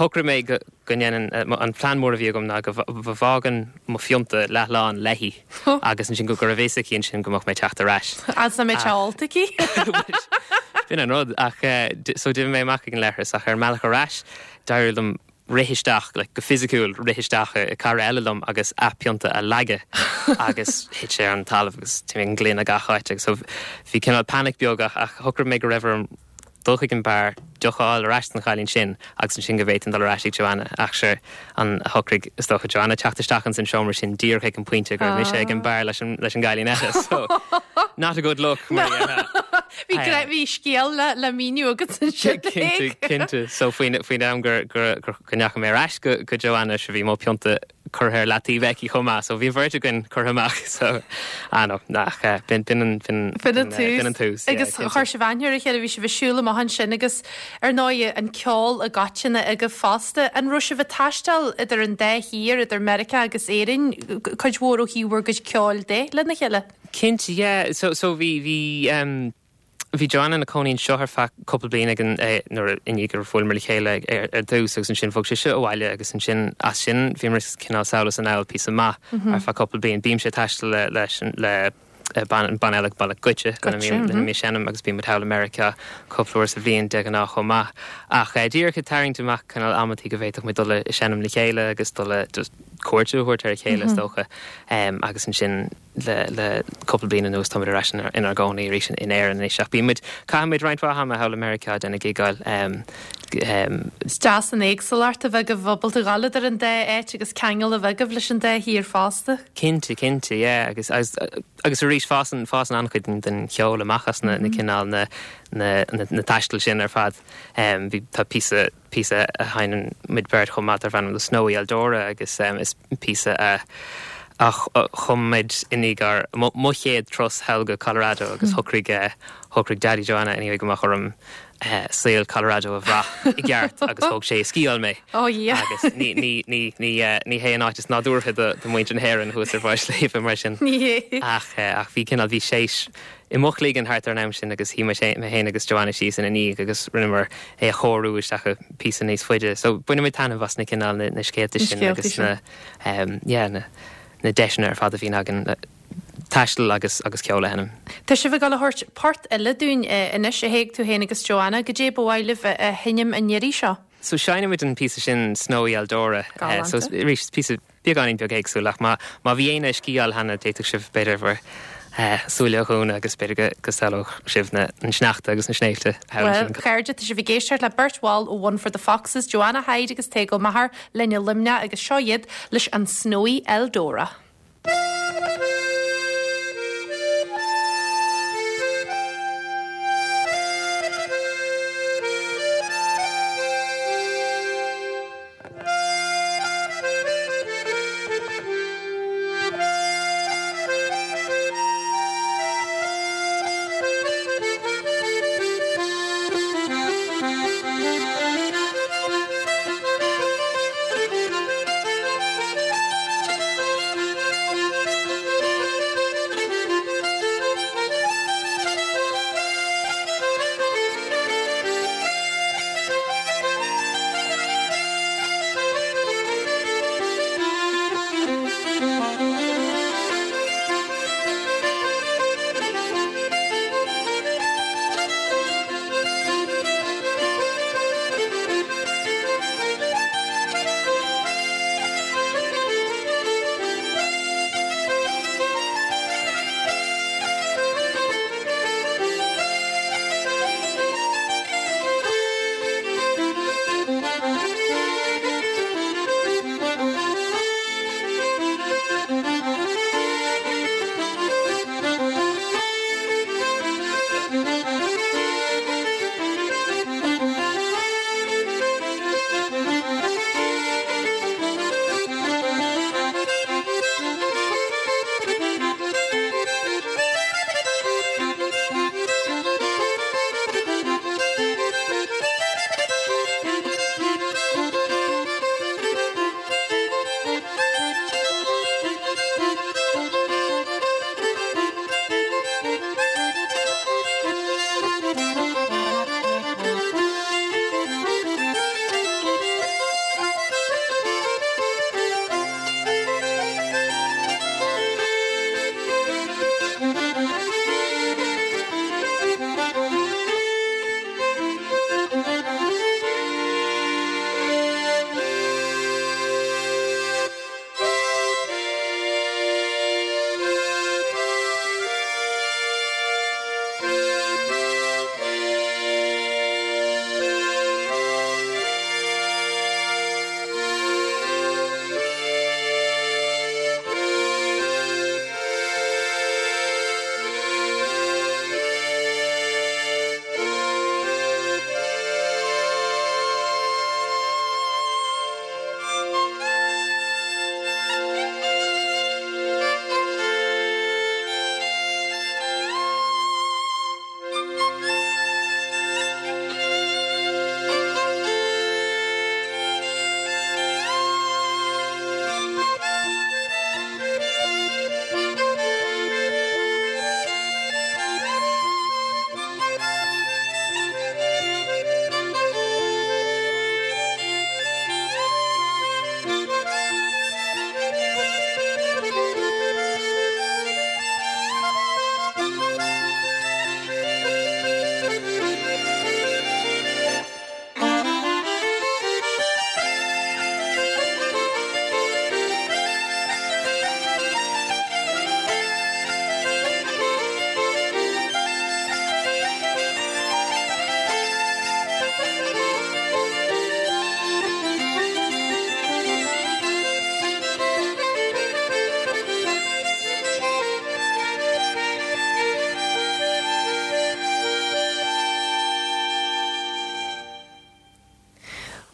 shocraigh mé go go ndéanfainn, an plean mór a bhí agam ná go bhfágainn mo phionta leathlán léi agus ansin go raibh a fhios aici ansin go mbeadh mé ag teacht ar ais. Agus nach mbeadh sé ólta aici? B'in an rud. Ach so d'imigh mé amach ag an leithreas ach ar an mbealach ar ais d'éirigh liom rith isteach, like go fisiciúil, rith isteach i cara eile liom agus a phionta a leagadh agus thit sé ar an talamh agus d'imigh an gloine gach áit agus so bhí cineál panic beag ach shocraigh mé go raibh orm dul chuig an beár, deoch a fháil ar ais don chailín sin agus ansin go bhféadfainn dul ar ais ag Joanna. Ach sure, an shocraigh, is dócha, Joanna teacht isteach ins an seomra sin díreach ag an pointe go raibh mise ag an beár leis an leis an gcailín eile. So, not a good look, mar a déarfá. Bhí gra- bhí scéal le le míniú agat ansin. Cinnte, cinnte. So faoin faoin am gur gur gur go ndeachaigh mé ar ais go go Joanna, sure bhí mo phionta curtha ar leataobh aici chomh maith so bhí an bheirt againn curtha amach so ah no ach eh, b'in b'in an b'in B'in an tús. b'in an tús yeah, Agus cinnte. chuir sibh aithne ar a chéile, bhí sibh ag siúl amach ansin agus ar ndóigh an ceol i gcoitinne agaibh fosta. An raibh sibh ag taisteal idir an dá thír, idir Meiriceá agus Éirinn, cuid mhór ó thaobh bhur gcuid ceoil de lena chéile? Cinnte yeah so so bhí bhí um, Bhí Joanna ina cónaí anseo ar feadh cúpla bliain ag an nuair i ndiaidh gur bhuaileamar le chéile ar dtús agus ansin bhog sise abhaile agus ansin as sin bhíomar cineál sall is anall píosa maith ar feadh cúpla bliain. Bímse ag taisteal le leis an le banna eile banna Goitse lena mbím lena mbím ag seinm agus bíonn muid thall i Meiriceá cúpla uair sa bhliain de ghnáth chomh maith. Ach díreach ag tarraingt amach cineál amantaí go bhféadfadh muid dul ag seinm le chéile agus dul a just cuairt a thabhairt ar a chéile is dócha agus ansin Le cúpla bliain anuas táimid ar ais inár gcónaí arís in Éirinn anois ach bíonn muid, caitheann muid roinnt mhaith ama thall i Meiriceá ag déanamh gigeáil. Is deas an éagsúlacht a bheith agaibh ábalta dhul idir an dá áit agus ceangal a bheith agaibh leis an dá thír fosta. Cinnte, cinnte, yeah agus agus arís fásann fásann an-chuid den cheol amach as na cineál na na taistil sin ar fad. Bhí tá píosa píosa a sheinneann muid beirt chomh maith darb ainm The Snowy Eldora agus is píosa a a chum muid i ndiaidh ár mo chéad turas thall go Colorado agus shocraigh shocraigh Daddy Joanna anyway go mbeadh orm saol Colorado a bhrath i gceart agus thóg sé ag sciáil mé Oh yeah. agus ní ní ní ní ní hé an áit is nádúrtha do do mhuintir na hÉireann thuas ar bharr sléibhe mar sin. Ní hé. Ach ach bhí cineál bhí séis i mo chloigeann thart ar an am sin agus shuigh mé féin agus Joanna síos ina ndiaidh agus rinneamar é a chóiriú isteach i píosa níos faide. So bainimid taitneamh as na cineál na na scéalta sin agus na yeah na na deiseanna ar fad a bhíonn againn le taisteal agus agus ceol a sheinm. Tá sibh ag dul a thabhairt port eile dúinn anois, a Thaidhg, tú féin agus Joanna. Goidé ba mhaith libh a sheinm an iarraidh seo? So seinnimid an píosa sin Snowy Eldora. So arís is píosa beagáinín beag éagsúil ach má má bhí éinne ag sciáil cheana d'fhéadfadh sibh b'fhéidir bhur súile a dhúnadh agus b'fhéidir go go samhlódh sibh na an sneachta agus na sléibhte thall Bhuel, ansin. chairde, tá sibh ag éisteacht le beirt bhall ó One for the Foxes, Joanna Hyde agus Tadhg Ó Meachair, linn i Luimneach agus seo iad leis an Snowy Eldora.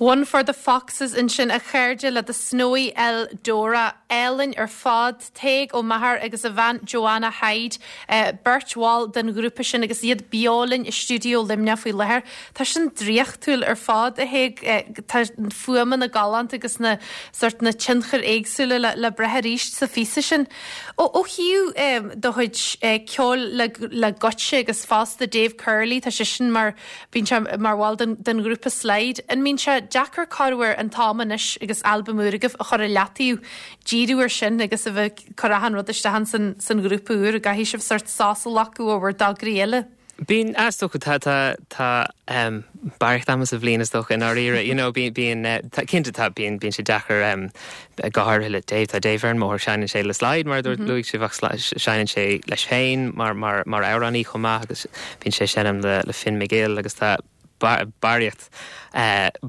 One for the Foxes ansin a chairde le The Snowy Eldora. Álainn ar fad. Tadhg Ó Meachair agus a bhean Joanna Hyde, beirt bhall den ghrúpa sin agus iad beo linn i stiúideo Luimneach faoi láthair. Tá sin draíochtúil ar fad, a Thaidhg. Tá na fuaimeanna galánta agus na sort na tionchair éagsúla le le brath arís sa phíosa sin. Ó ó thaobh do chuid ceoil le le Goitse agus fosta Dave Curley, tá seisean mar Bíonn sé mar bhall den den ghrúpa Slide. An mbíonn sé deacair corruair an t-am anois agus albam úr agaibh a chur i leataobh, díriú ar sin agus a bheith ag cur achan rud isteach in san san ghrúpa úr? An gcaithfidh sibh sort sos a ghlacadh ó bhur dtograí eile? Bíonn, is dócha, tá tá tá ehm barraíocht ama sa bhliain is dócha i ndáiríre, you know, bíonn bíonn eh tá cinnte tá bíonn bíonn sé deacair ehm go háirithe le Dave, tá Dave ar an mbóthar, seinneann sé le Slide mar a dúirt luaigh sibh ach seinneann sé leis féin mar mar mar amhránaí chomh maith agus bíonn sé ag seinm le le Finn McGill agus tá barraíocht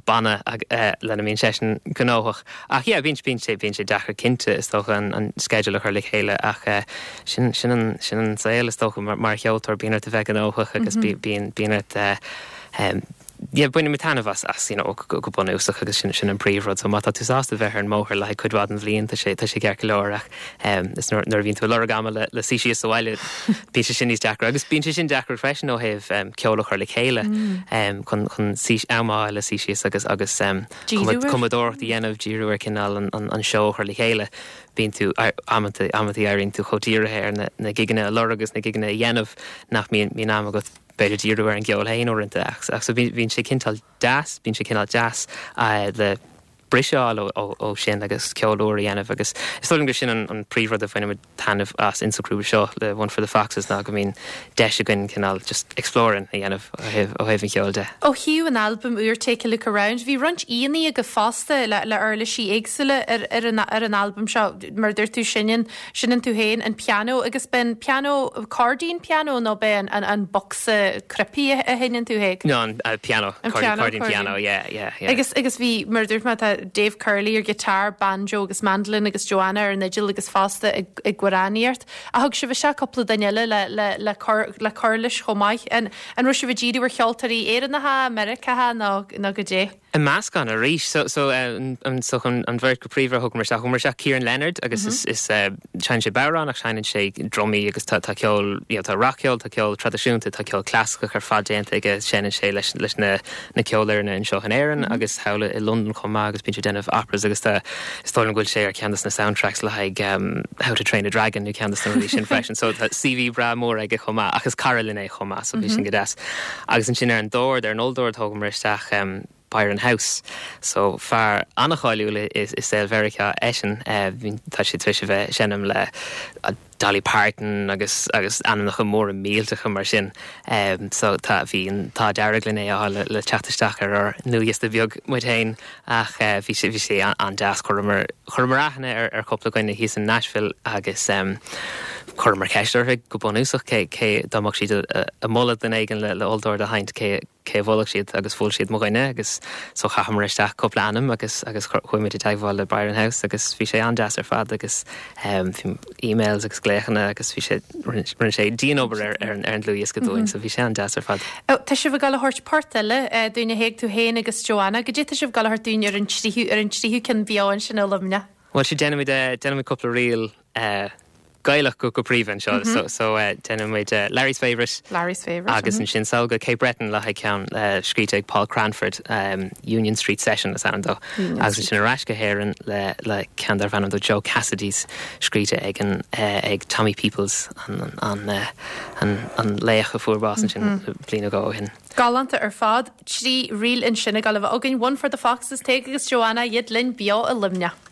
banna lena mbíonn seisean gnóthach. Ach yeah bíonn bíonn sé bíonn sé deacair cinnte is dócha an an sceideal a chur le chéile ach sin sin an sin an saol is dócha mar mar cheoltóir bíonn ort a bheith gnóthach agus bíonn bíonn ort yeah, bainimid taitneamh as, as, you know, go, go bunúsach agus sin, sin an príomhrud. So má tá tú sásta bheith ar an mbóthar le haghaidh cuid mhaith den bhliain, tá sé, tá sé ceart go leor ach um, is nuair, nuair a bhíonn tú ag lorg ama le, le suí síos sa bhaile, bíonn sé sin níos deacra. Agus bíonn sé sin deacair freisin ó thaobh um, ceol a chur le chéile mm. um, chun, chun suí, am a fháil le suí síos agus, agus um, cumadóireacht a dhéanamh, díriú ar cineál an, an, an seó a chur le chéile. Bíonn tú, amanta, amanta éiríonn tú chomh dírithe ar na, na gigeanna a lorg agus na gigeanna a dhéanamh nach mbíonn, mbíonn am agat b'fhéidir díriú ar an gceol féin uaireanta ach ach so bíonn sé cineál deas, bíonn sé cineál deas le briseadh a fháil ó ó sin agus ceol úr a dhéanamh agus is dóigh liom gur sin an an príomhrud a bhainimid taitneamh as insa ghrúpa seo le One for the Foxes ná go mbíonn deis againn cineál just exploring a dhéanamh ó thaobh ó thaobh an cheoil de. Ó thaobh an albaim úr Take a Look Around, bhí roinnt aíonna agaibh fosta le le uirlisí éagsúla ar ar an ar an albam seo, mar a dúirt tú seinneann Seinneann tú féin an pianó agus b'é an pianó, cairdín pianó nó b'é an, an, an bocsa cnaipí a sheinneann tú Thaidhg? No, an pianó, An pianó, cairdín pianó, yeah, yeah, yeah. Agus, agus bhí, mar a dúirt mé, tá Dave Curley ar guitar, banjo agus mandolin agus Joanna ar an fhidil agus fosta ag, ag amhránaíocht. Ach thug sibh isteach cúpla duine eile le, le, le cur, le cur leis chomh maith. An, an raibh sibh ag díriú ar cheoltóirí Éireannacha, Meiriceácha nó, nó goidé? I meascán arís. So, so, an, so an, an bheirt go príomha a thugamar isteach, thugamar isteach Ciaran Leonard agus is, is, seinneann sé bodhrán ach seinneann sé drumaí agus tá, tá ceol, you know, tá rac-cheol, tá ceol traidisiúnta, tá ceol clasaiceach ar fad déanta aige, seinneann sé leis, leis na, na ceolfhoirne anseo in Éirinn agus thall i Londain chomh maith agus bíonn sé ag déanamh operas agus tá, is dóigh liom go bhfuil sé ar ceann de na soundtracks le haghaidh How to Train a Dragon nó ceann de na rudaí sin freisin. So tá CV breá mór aige chomh maith ach is cara linn é chomh maith so bhí sin go deas. Agus ansin ar an dord, ar an olldord thógamar isteach Byron House. So fear an-cháiliúil i saol Mheiriceá eisean. Tá sé tar éis a bheith ag seinm le Dolly Parton agus agus ainmneacha móra millteacha mar sin. So tá, bhí an t-ádh dearg linn é a fháil le teacht isteach ar ár ndlúthdhiosca beag muid féin ach bhí sé, bhí sé an-deas. Chuireamar, chuireamar aithne ar ar chúpla dhuine thíos in Nashville agus chuireamar ceist orthu go bunúsach cé, cé, dá mbeadh siad ag moladh duine éigin le le olldord a sheinnt cé, cé a mholfadh siad agus mhol siad mo dhuine agus so chaitheamar isteach cúpla ainm agus agus chuaigh muid i dteagmháil le Byron House agus bhí sé an-deas ar fad agus bhí emails agus glaochanna agus bhí sé rinne sé dian-obair ar ar an ar an dlúthdhiosca dúinn so bhí sé an-deas ar fad. Tá sibh ag dul a thabhairt port eile dúinn a Thaidhg, tú féin agus Joanna. Goidé tá sibh ag dul a thabhairt dúinn ar an tríú ar an tríú ceann beo ansin i Luimneach? Bhuel sea déanfaimid déanfaimid cúpla ríl Gaelach go príomha anseo so so déanfaidh muid Larry's Favourite Larry's Favourite agus ansin sall go Cape Breton le haghaidh ceann scríte ag Paul Cranford Union Street Session is ainm dó agus ansin ar ais go hÉirinn le le ceann darbh ainm dó Joe Cassidy's scríte ag an ag Tommy Peoples an an an an laoch a fuair bás ansin bliain nó dhó ó shin. Galánta ar fad. 3 ríl ansin ag dul a bheith againn, One for the Foxes, Tadhg agus Joanna, iad linn beo i Luimneach.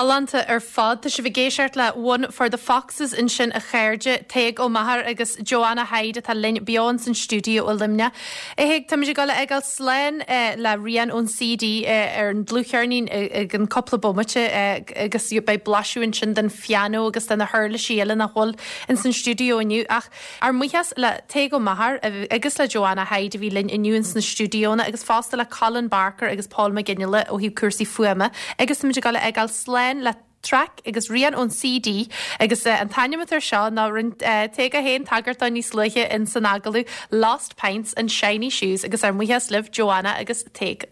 Galánta ar fad. Tá sibh ag éisteacht le One for the Foxes ansin a chairde, Tadhg Ó Meachair agus Joanna Hyde atá linn beo ins an stiúideo i Luimneach. A Thaidhg, táimid ag dul a fhágáil slán le Rian ón CD ar an dlúthcheirnín i gceann cúpla bomaite agus beidh blaiseadh ansin den phianó agus de na huirlisí eile nach bhfuil ins an stiúideo inniu ach ár mbuíochas le Tadhg Ó Meachair agus le Joanna Hyde a bhí linn inniu ins na stiúideonna agus fosta le Colin Barker agus Paul Mac Fhionnghaile ó thaobh cúrsaí fuaime agus táimid ag dul a fhágáil slán le traic agus rian ón CD agus an t-ainm atá air seo ná rinne Tadhg é féin tagairt dó níos luaithe ins an agallamh, Lost Pints and Shiny Shoes agus ár mbuíochas libh Joanna agus Tadhg.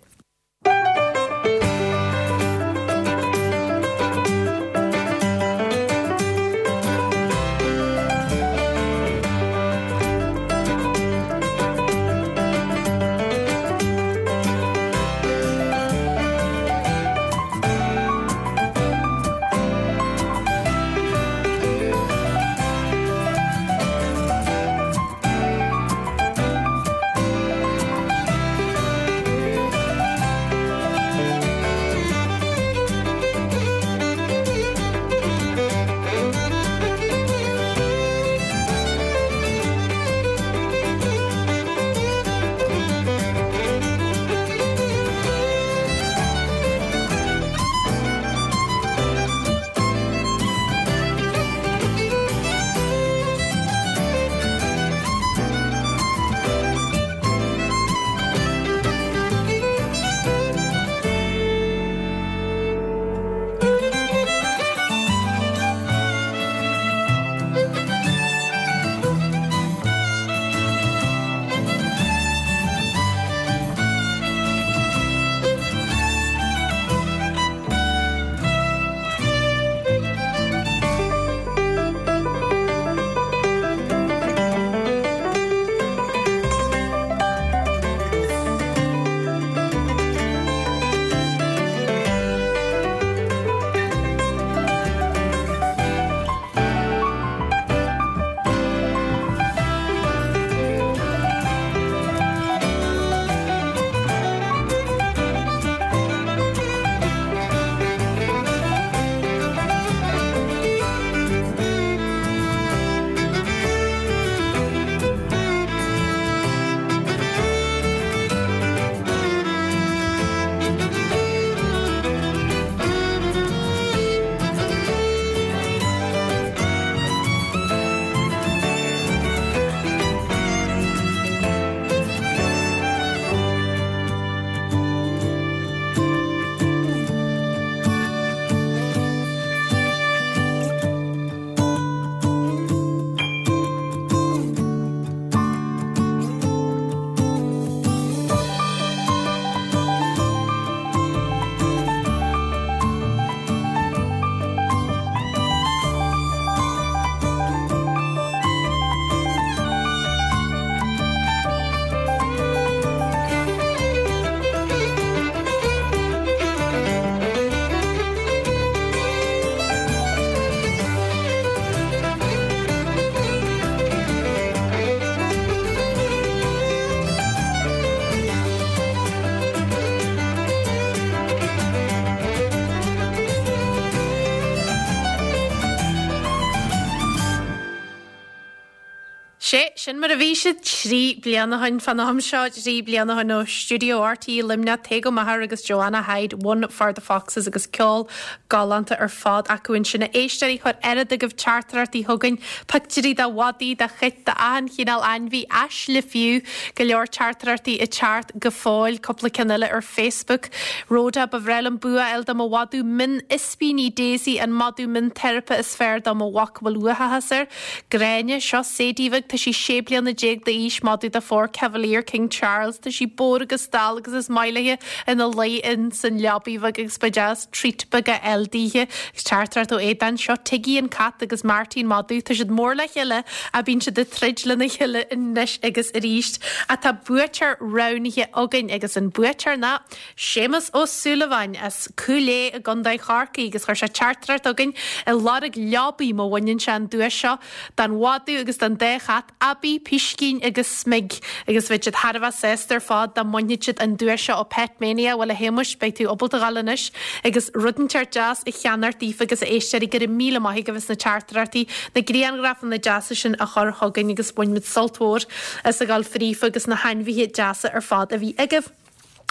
Sé sin mar a bhí siad 3 bliana ó shin fán am seo, 3 bliana ó shin ó Stiúideo RTÉ Luimneach, Tadhg Ó Meachair agus Joanna Hyde, One for the Foxes agus ceol galánta ar fad acu ansin. A éisteoirí, chuir oiread agaibh teachtaireachtaí chugainn, pictiúirí de mhadaí, de chait, d'achan chineál ainmhí, aisle fiú, go leor teachtaireachtaí ag teacht go fóill, cúpla ceann eile ar Facebook. Rhoda, ba bhreá liom bua a fháil do mo mhadadh mion ispíní Daisy, an madadh mion teiripe is fearr do mo mhac a bhfuil uathachas air. Gráinne, Seo Sadie bheag, tá sí 16 bliana d'aois, madadh de phór Cavalier King Charles. Tá sí bodhar agus dall agus is maith léi ina luí in san leabaidh bheag agus ba deas treat beag a fháil daoithe. Agus teachtaireacht ó Aodán, Seo Tiggy an cat agus Marty an madadh. Tá siad mór le chéile ach bíonn siad ag troid lena chéile anois agus arís. Ach tá buaiteoir roghnaithe againn agus an buaiteoir ná Séamus Ó Súilleabháin as Cúil Aodha i gContae Chorcaí agus chuir sé teachtaireacht chugainn ag lorg leabaidh má bhaineann sé an duais seo don mhadadh agus don dá chat. Abby, Piscín agus Smig agus bheadh siad thar a bheith sásta ar fad dá mbainfeadh siad an duais seo ó Pet Mania. Bhuel a Shéamuis, beidh tú ábalta a ghabháil anois agus rud inteacht deas a cheannacht daofa agus a éisteoirí, go raibh míle maith agaibh as na teachtaireachtaí, na grianghrafanna deasa sin a chur chugainn agus bhain muid sult mhór as a ghabháil fríofa agus na hainmhithe deasa ar fad a bhí agaibh.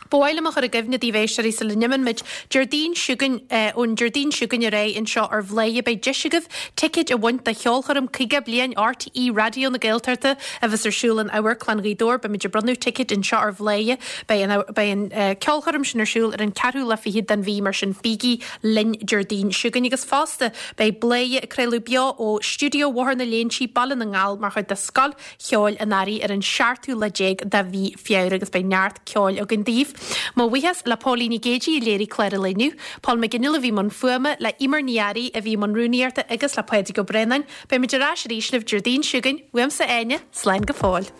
Ba mhaith liom a chur i gcuimhne daoibh éisteoirí sula n-imíonn muid, Déardaoin seo chugainn, ón Déardaoin seo chugainn ar aghaidh anseo ar Bhladhaire beidh deis agaibh ticéid a bhaint do cheolchoirm 50 bliain RTÉ Raidió na Gaeltachta a bheas ar siúl in Amharclann Ghaoth Dobhair. Beimid ag bronnadh ticéid anseo ar Bhladhaire. Beidh an beidh an ceolchoirm sin ar siúl ar an ceathrú lá fichead den mhí mar sin bígí linn Déardaoin seo chugainn agus fosta beidh Bladhaire ag craoladh beo ó stiúideo Bhóthar na Léinsí, Baile na nGall mar chuid de Scoil Cheoil an Earraigh ar an seachtú lá déag de mhí Feabhra agus beidh neart ceoil againn daoibh. Mo bhuíochas le Póilín Nic Géidigh a léirigh clár an lae inniu, Paul McGinley a bhí i mbun fuaime, le Eimear Ní Fhearraigh a bhí i mbun rúnaíochta agus le Pádraig Ó Braonáin. Beidh muid ar ais arís libh Déardaoin seo chugainn. Uaimse Áine, slán go fóill.